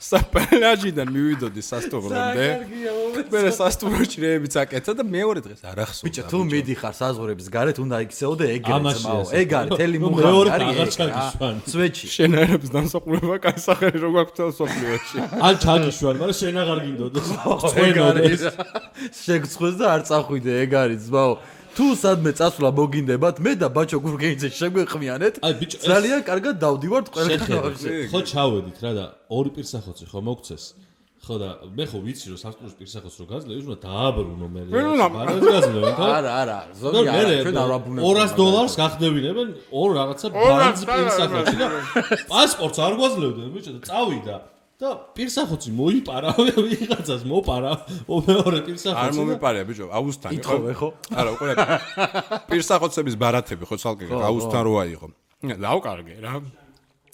საპლაჟიდან მივიდოდი სასტუმრომდე. მე სასტუმროში რეებიც აკეთა და მეორე დღეს არ ახსოვდა. ბიჭო, თუ მიდიხარ საზღვრების გარეთ, უნდა იქცეოდე ეგრეც მაო. ეგ არის თელი მუღამი არის. სვეჩი. შენაერების დამსახურება კაი სახელი რო გვაქვს თელ სოფლიოში. ან ჩაგიშვან, მაგრამ შენ აღარ გინდოდეს. წვენოდეს. შეგწხვეს და არ წახვიდე, ეგ არის ძმაო. თუ სადმე წასვლა მოგინდებათ, მე და ბაჩო გურგეიძე შეგვეყმიანეთ. ძალიან კარგად დავდივართ ყველგან. ხო ჩავედით რა და ორი პირსახოცი ხო მოგცეს. ხო და მე ხო ვიცი რომ სასტუმროს პირსახოც რო გაძლევ, უნდა დააბრუნო მე. ბარად გაძლევენ ხო? არა, ზოგი არა, ჩვენ არ ვაბრუნებთ. $200 გახდებინებენ ორ რაღაცა ბარდ პირსახოცი და პასპორტს არ გვაძლევდნენ ბიჭო და წავიდა. და პირსახოცი მოიპარა, ვიღაცას მოპარა, მეორე პირსახოცი. არ მომიპარია ბიჭო, აუსთან იყო. ითხოვე ხო? არა, უყურე. პირსახოცების ბარათები ხო ცალკე აუსთან როა იყო. დავკარგე რა.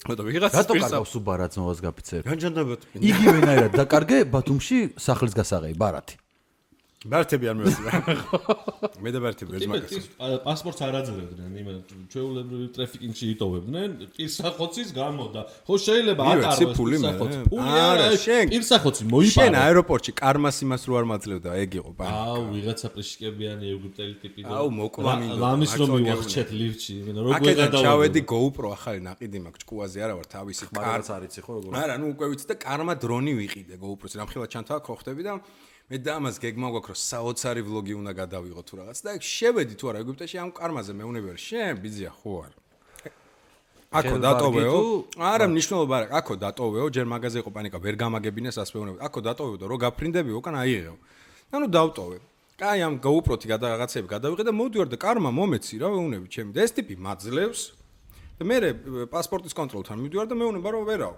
და ვიღაცას რატო კარგავს უბარათს მოვას გაფიცერ? განჯანდებოდ. იგივენაირად დაკარგე ბათუმში სახლის გასაღები ბარათი. ბარათები არ მევასება. მე და ბარათები ვერ მაგას. პასპორტს არ აძლევდნენ, იმენ ჩვეულებრივ ტრაფიკინგში იტოვებდნენ, პირსახოცის გამო და ხო შეიძლება ატაროს პირსახოცი. ფული არა, პირსახოცი მოიპარა. შენ აეროპორტში კარმას იმას რო არ მაძლევდა, ეგ იყო პანიკა. აუ, ვიღაცა პრიშკებიანი ეგვიპტელი ტიპი და აუ, მოკვლამინდო. ლამის რომ მივახჩეთ ლიფტში, იმენ როგორ აკეთა ჩავედი GoPro ახალი ნაყიდი მაქვს, ჭკუაზე არა ვარ, თავისი კარც არ იცი ხო როგორ. არა, ნუ უკვე ვიცი და კარმა დრონი ვიყიდე GoPro-ს, რამხელა ჩანთავა ხოხდები და მე და ამას გეგმა გვაქვს რომ საოცარი ვლოგი უნდა გადავიღო თუ რაღაც და შევედი თუ არა ეგვიპტეში ამ კარმაზე მეუნები ვარ შენ ბიზია ხო არ აკო დატოვეო არა მნიშვნელობა არა აკო დატოვეო ჯერ მაგაზე იყო პანიკა ვერ გამაგებინეს ასე მეუნები აკო დატოვეო და რო გაფრინდებიო უკან აიღეო ანუ დავტოვე კაი ამ GoPro-თი რაღაცები გადავიღე და მოვდივარ და კარმა მომეცი რა მეუნები ჩემი და ეს ტიპი მაძლევს და მე პასპორტის კონტროლთან მივდივარ და მეუნება რომ ვერაო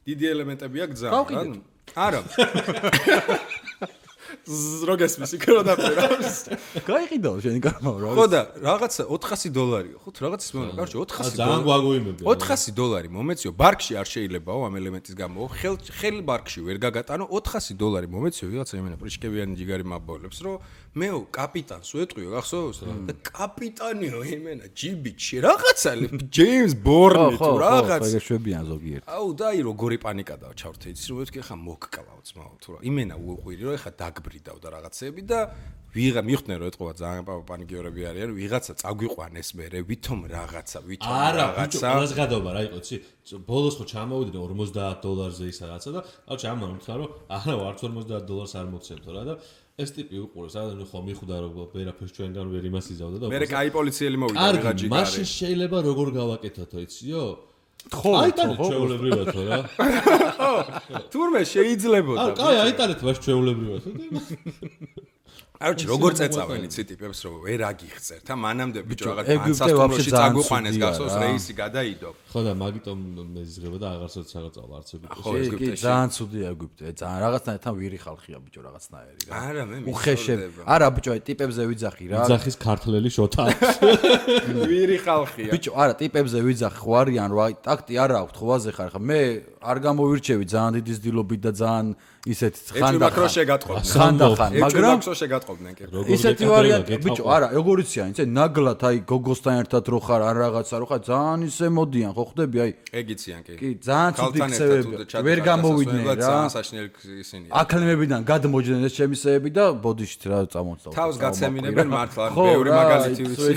დიდი ელემენტები აქვს ძალიან რა არა. ზროგესმის იქ რა დაფერავს. გაიყიდო შენი კარმა რა. ხო და რაღაცა $400 ხო თუ რაღაცას მეუბნა, კარჩე $400. ძალიან გვაგვიმებია. $400 მომეციო, ბარკში არ შეიძლებაო ამ ელემენტის გამო. ხელ ბარკში ვერ გაგატანო $400 მომეციო, ვიღაცა იმენა პრიშკევიანი ჯიგარი მაბოლებს, რომ მეო კაპიტანს ვეტყვიო, გახსოვს რა? და კაპიტანიო იმენა ჯიბიჩი რაღაცა ჯეიმს ბორნი თუ რაღაც. ხო, შვებიან ზოგიერთ. აუ და აი როგორი პანიკა დავჩავთ იცი რომ მეთქი ხა მოგკლავ ძმაო თუ რა იმენა უყვირი რომ ეხა დაგბრიდავ და რაღაცები და ვიღა მიხდნენ რომ ეთყობა ძალიან პანიკიორები არიან ვიღაცა წაგვიყვანეს მე ვითომ რაღაცა არა ბიჭო ყველას გადაობა რა იყო იცი ბოლოს ხო ჩამოვიდნენ $50-ზე ისა რაღაცა და აუჩი ამან უთხრა რომ არა არც $50 არ მოგცემთო რა და ეს ტიპი უყურეს რა ხო მიხვდა რომ ვერაფერს ჩვენგან ვერ იმას იზავდა და მე კაი პოლიციელი მოვიდა ვიღა ჯიგარი მაშინ შეიძლება როგორ გავაკეთოთო იციო ხო აიტანეთ ჩვეულებრივათო რა თურმე შეიძლებოდა კაი აიტანეთ მას ჩვეულებრივათო არჩი როგორ წეწავენ იცი ტიპებს რომ ვერ აგიხსერთ ა მანამდე ბიჭო რაღაც ანსასტუმროში წაგვიყვანეს გახსოვს რეისი გადაიდო ხო და მაგიტომ მე ზღება და აღარცოდ საღწავა არც ეგვიპტეში კი ძალიან ცუდია ეგვიპტე ძალიან რაღაცნაირად ვირი ხალხია ბიჭო რაღაცნაირი რა არა მე უხეშებ არა ბიჭო აი ტიპებზე ვიძახი რა ვიძახის ქართლელი შოთა ვირი ხალხია ბიჭო არა ტიპებზე ვიძახი ხო არიან რა აი ტაქტი არა აქვს ხო ვაზე ხარ ხა მე არ გამოვირჩევი ძალიან დიდი ძილობით და ძალიან ისეთი ხანდახან მაგრამ ისეთი ვარიანტი ბიჭო არა როგორ იციან იცი ნაგლად აი გოგოსთან ერთად რო ხარ ან რაღაცა რო ხარ ძალიან ისე მოდიან ხო ხვდები აი ეგ იციან კი კი ძალიან ცუდი ხსევები ვერ გამოვიდნენ რა ძალიან საშინელი ისინია აკლემებიდან გადმოჯდნენ ეს ჩემისეები და ბოდიშით რა წამოწავ თავს გაცემინებენ მართლა ბევრი მაგალითი ვიცი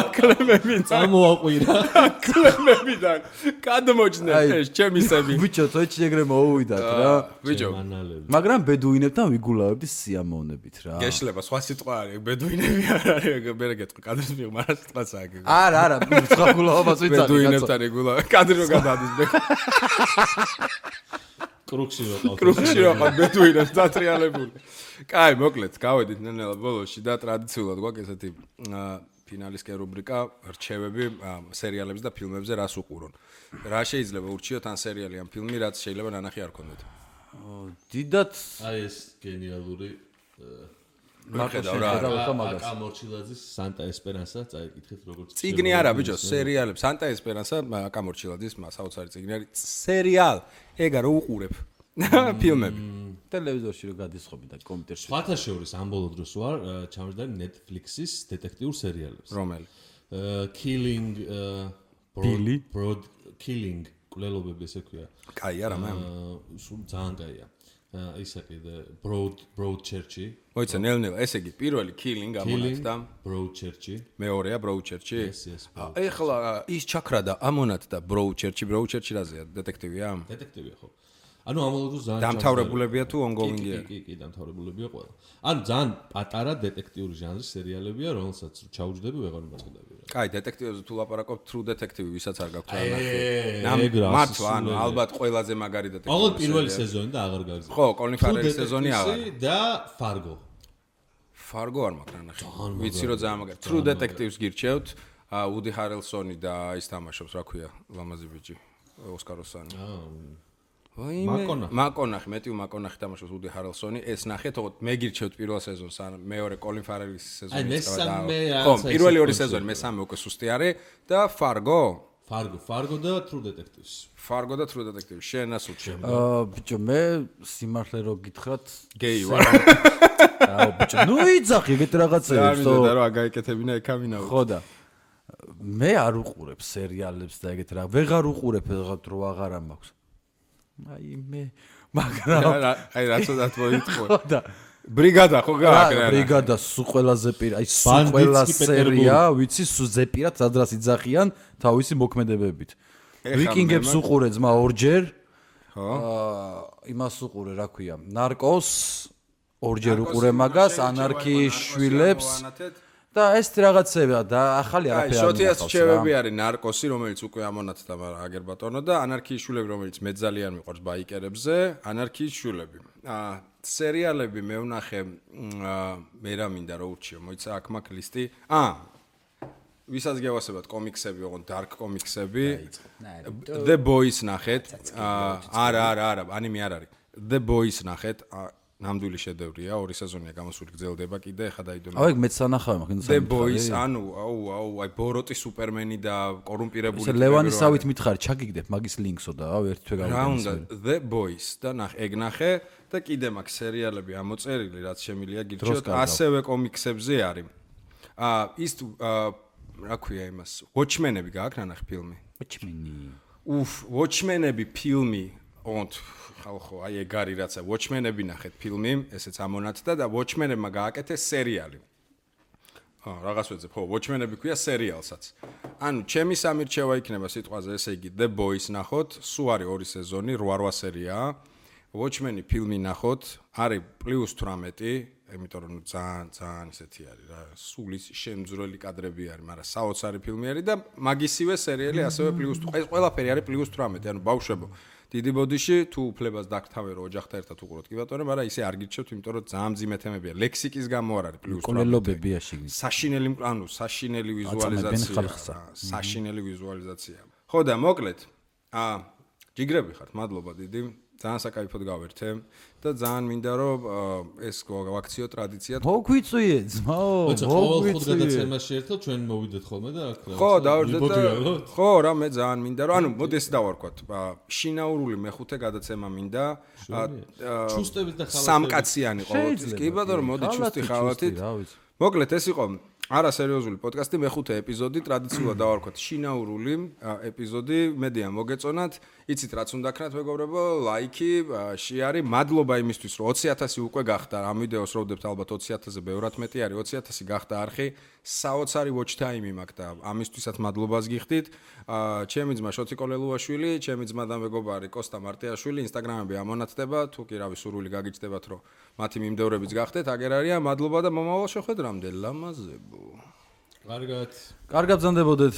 აკლემებიდან წამოაყვირა აკლემებიდან გადმოჯდნენ ეს ჩემისები ბიჭო თოჩი ეგრე მოუვიდათ რა ბიჭო მაგრამ ბედუინებთან ვიგულავებდი სიამოვნებით რა გეშლება სხვა სიტყვა არის ბედუინები არ არის მე გეტყვი კადრის მიღმა რა სიტყვაც აქვს არა არა სხვა გულავებას ვიცი ბედუინებთან იგულა კადრი რო გადადის მე კრუქში რო ყავ ბედუინებს დატრიალებული კაი მოკლედ გავედით ნენელა ბოლოში და ტრადიციულად გვაქვს ესეთი ფინალისკენ რუბრიკა რჩევები სერიალებზე და ფილმებზე რას უყურონ რა შეიძლება ურჩიოთ ან სერიალი ან ფილმი რაც შეიძლება ნანახი არ გქონდეთ დიდად აი ეს გენიალური აკა მორჩილაძის Santa Esperanza წაიკითხეთ როგორც წიგნი არა ბიჭო, სერიალები. Santa Esperanza აკა მორჩილაძის საოცარი წიგნი არის. სერიალ. ეგა რო უყურებ. ფილმები. ტელევიზორში რო გადისხობი და კომპიუტერში. სხვათა შორის ამ ბოლო დროს ვარ ჩამოჯდარი Netflix-ის დეტექტიურ სერიალებს. რომელი? Killing Broad Killing კვლელობები ესე ქვია. კაი არა მე. სულ ძალიან კაია. ისა კიდე Broadchurch-ი. მოიცა ნელ-ნელა, ესე იგი პირველი Killing ამონათდა. Broadchurch-ი. მეორეა Broadchurch-ი. Yes. ეხლა ის ჩაქრადა ამონათდა Broadchurch-ი რაზეა? დეტექტივია? დეტექტივია ხო. ანუ ამოლოდოს ძალიან დამთავრებულებია თუ ongoing-ია? კი, დამთავრებულებია ყველა. ანუ ძალიან პატარა დეტექტიური ჟანრის სერიალებია, რომელსაც ჩაუჯდები ვეღარ მომაწყდები. კაი, დეტექტივებზე თუ ლაპარაკობ, True Detective ვისაც არ გაქვთ ნახე. მართლა, ანუ ალბათ ყველაზე მაგარი დეტექტივი. ყოველ პირველი სეზონი და აღარ გაგზავნა. ხო, Colin Farrell-ის სეზონი აღარ. და Fargo. Fargo არ მაქვს რა ნახე. ვიცი რომ ძალიან მაგარი. True Detectives გირჩევთ. Woody Harrelson-ი და ის თამაშობს, რა ქვია, ლამაზი ბიჭი, ოსკაროსანი. მაკონახი, მეტიუ მაკონახი თამაშობს Woody Harrelson-ი. ეს ნახეთ, მე გირჩევთ პირველ სეზონს, მეორე Colin Farrell-ის სეზონი წავა და ხო, პირველი ორი სეზონი, მესამე უკვე სუსტი არის და Fargo და True Detectives. Fargo და True Detectives. შენ ასულ შენ. ბიჭო, მე სიმართლე რო გითხრათ, გეი ვარ. აუ ბიჭო, ნუ იძახი ეგეთ რაღაცებს, ხო. და რა გაიკეთებინა ეკამინა. ხო და მე არ უყურებ სერიალებს და ეგეთ რა. ვეღარ უყურებ რაღაც რო აღარა მაქვს. აი მე მაგრამ აი რაცოდათ მოიწყვე. ხო და ბრიგადა ხო გააკრა. ბრიგადა სულ ყველაზე აი სულ ყველა სერია, ვიცი სულ ზეპირად სადრას იძახიან თავისი მოქმედებებით. ვიკინგებს უყურე ძმა ორჯერ. ხო. იმას უყურე, რა ქვია, ნარკოს ორჯერ უყურე მაგას, ანარქიის შვილებს. და ეს რაღაცებია და ახალი არაფერი არ შოთიას რჩევები არის ნარკოსი, რომელიც უკვე ამონათდა აგერ ბატონო და ანარქიის შვილები, რომელიც მე ძალიან მიყვარს ბაიკერებზე, ანარქიის შვილები. სერიალები მე ვნახე, მე რა მინდა რა ურჩიო, მოიცა აქ მაქვს ლისტი. ვისაც გევასებათ კომიქსები, ოღონდ dark კომიქსები. The Boys ნახეთ. არა, ანიმე არ არის. The Boys ნახეთ. ნამდვილი შედევრია, ორი სეზონია გამოსული, გრძელდება კიდე, ხა დაიდო. აი, მეც სანახავი მაქვს. The Boys, აუ, აი ბოროტი სუპერმენი და კორუმპირებული. ეს ლევანისავით მითხარი, ჩაგიგდებ მაგის ლინკსო და აუ ერთ თვე გავიგე. რა უნდა The Boys და ეგ ნახე და კიდე მაქვს სერიალები ამოწერილი, რაც შემილია გირჩევთ, ასევე კომიქსებზე არის. ის რა ქვია იმას? Watchmen-ები გააქვს ნახე ფილმი? Watchmen-ები ფილმი, ოღონდ ხალხო, აი ეგ არის რაცა Watchmen-ები ნახეთ ფილმი, ესეც ამონათდა და Watchmen-ებმა გააკეთეს სერიალი. რაღაც ვეძებ, ხო, Watchmen-ები ქვია სერიალსაც. ანუ ჩემი სამირჩევა იქნება სიტყვაზე, ესე იგი The Boys ნახოთ, სულ არის ორი სეზონი, 8 სერიაა. Watchmen-ი ფილმი ნახოთ, არის +18, იმიტომ რომ ძალიან ისეთი არის რა, სულ ის შემძვრელი კადრები არის, მაგრამ საოცარი ფილმი არის და მაგისივე სერიალი ასევე +18. ეს ყველაფერი არის +18, ანუ ბავშვებო. დიდი ბოდიში თუ უფლებას დაგთავე რომ ოჯახთან ერთად უყუროთ კი ბატონო, მაგრამ ისე არ გირჩევთ, იმიტომ რომ ძალიან მძიმე თემებია. ლექსიკის გამო არ არის +18. კოლელობებია შიგნით. საშინელი ვიზუალიზაცია. საშინელი ვიზუალიზაცია. ხო და მოკლედ, ჯიგრები ხართ, მადლობა დიდი. ძალიან საკაიფოდ გავერთე და ძალიან მინდა რომ ეს ვაქციო ტრადიცია. მოგვიწვიე ძმაო, მოგვიწვიე. გადაცემაში ერთად ჩვენ მოვიდეთ ხოლმე და აქ ხო, დავერდეთ და ხო, რა მე ძალიან მინდა რომ ანუ მოდი ეს დავარქვათ. შინაურული მეხუთე გადაცემა მინდა. ჩუსტებით და ხალათებით. სამკაციანი ყოველთვის. კი ბატონო, მოდი ჩუსტი ხალათით. მოკლედ ეს იყო არა სერიოზული პოდკასტი, მეხუთე ეპიზოდი, ტრადიციულად დავარქვათ შინაურული ეპიზოდი, მედია მოგეწონათ, იცით რაც უნდა ქნათ მეგობრებო, ლაიქი, შეარი, მადლობა იმისთვის, რომ 20,000 უკვე გახდა, ამ ვიდეოს როვდებთ ალბათ 20,000-ზე ბევრად მეტი არის, 20,000 გახდა არხი, საოცარი watch time-ი მაქვს და ამისთვისაც მადლობას გიხდით. ჩემი ძმა შოთი კოლელუაშვილი, ჩემი ძმა და მეგობარი კოსტა მარტიაშვილი, Instagram-ები ამონათდება, თუ კი რავი სურვილი გაგიჩნდებათ, რომ მათი მიმდევრებიც გახდეთ, აგერ არიან, მადლობა და მომავალ შეხვედრამდე, ლამაზებო. კარგად. კარგად ბრძანდებოდეთ.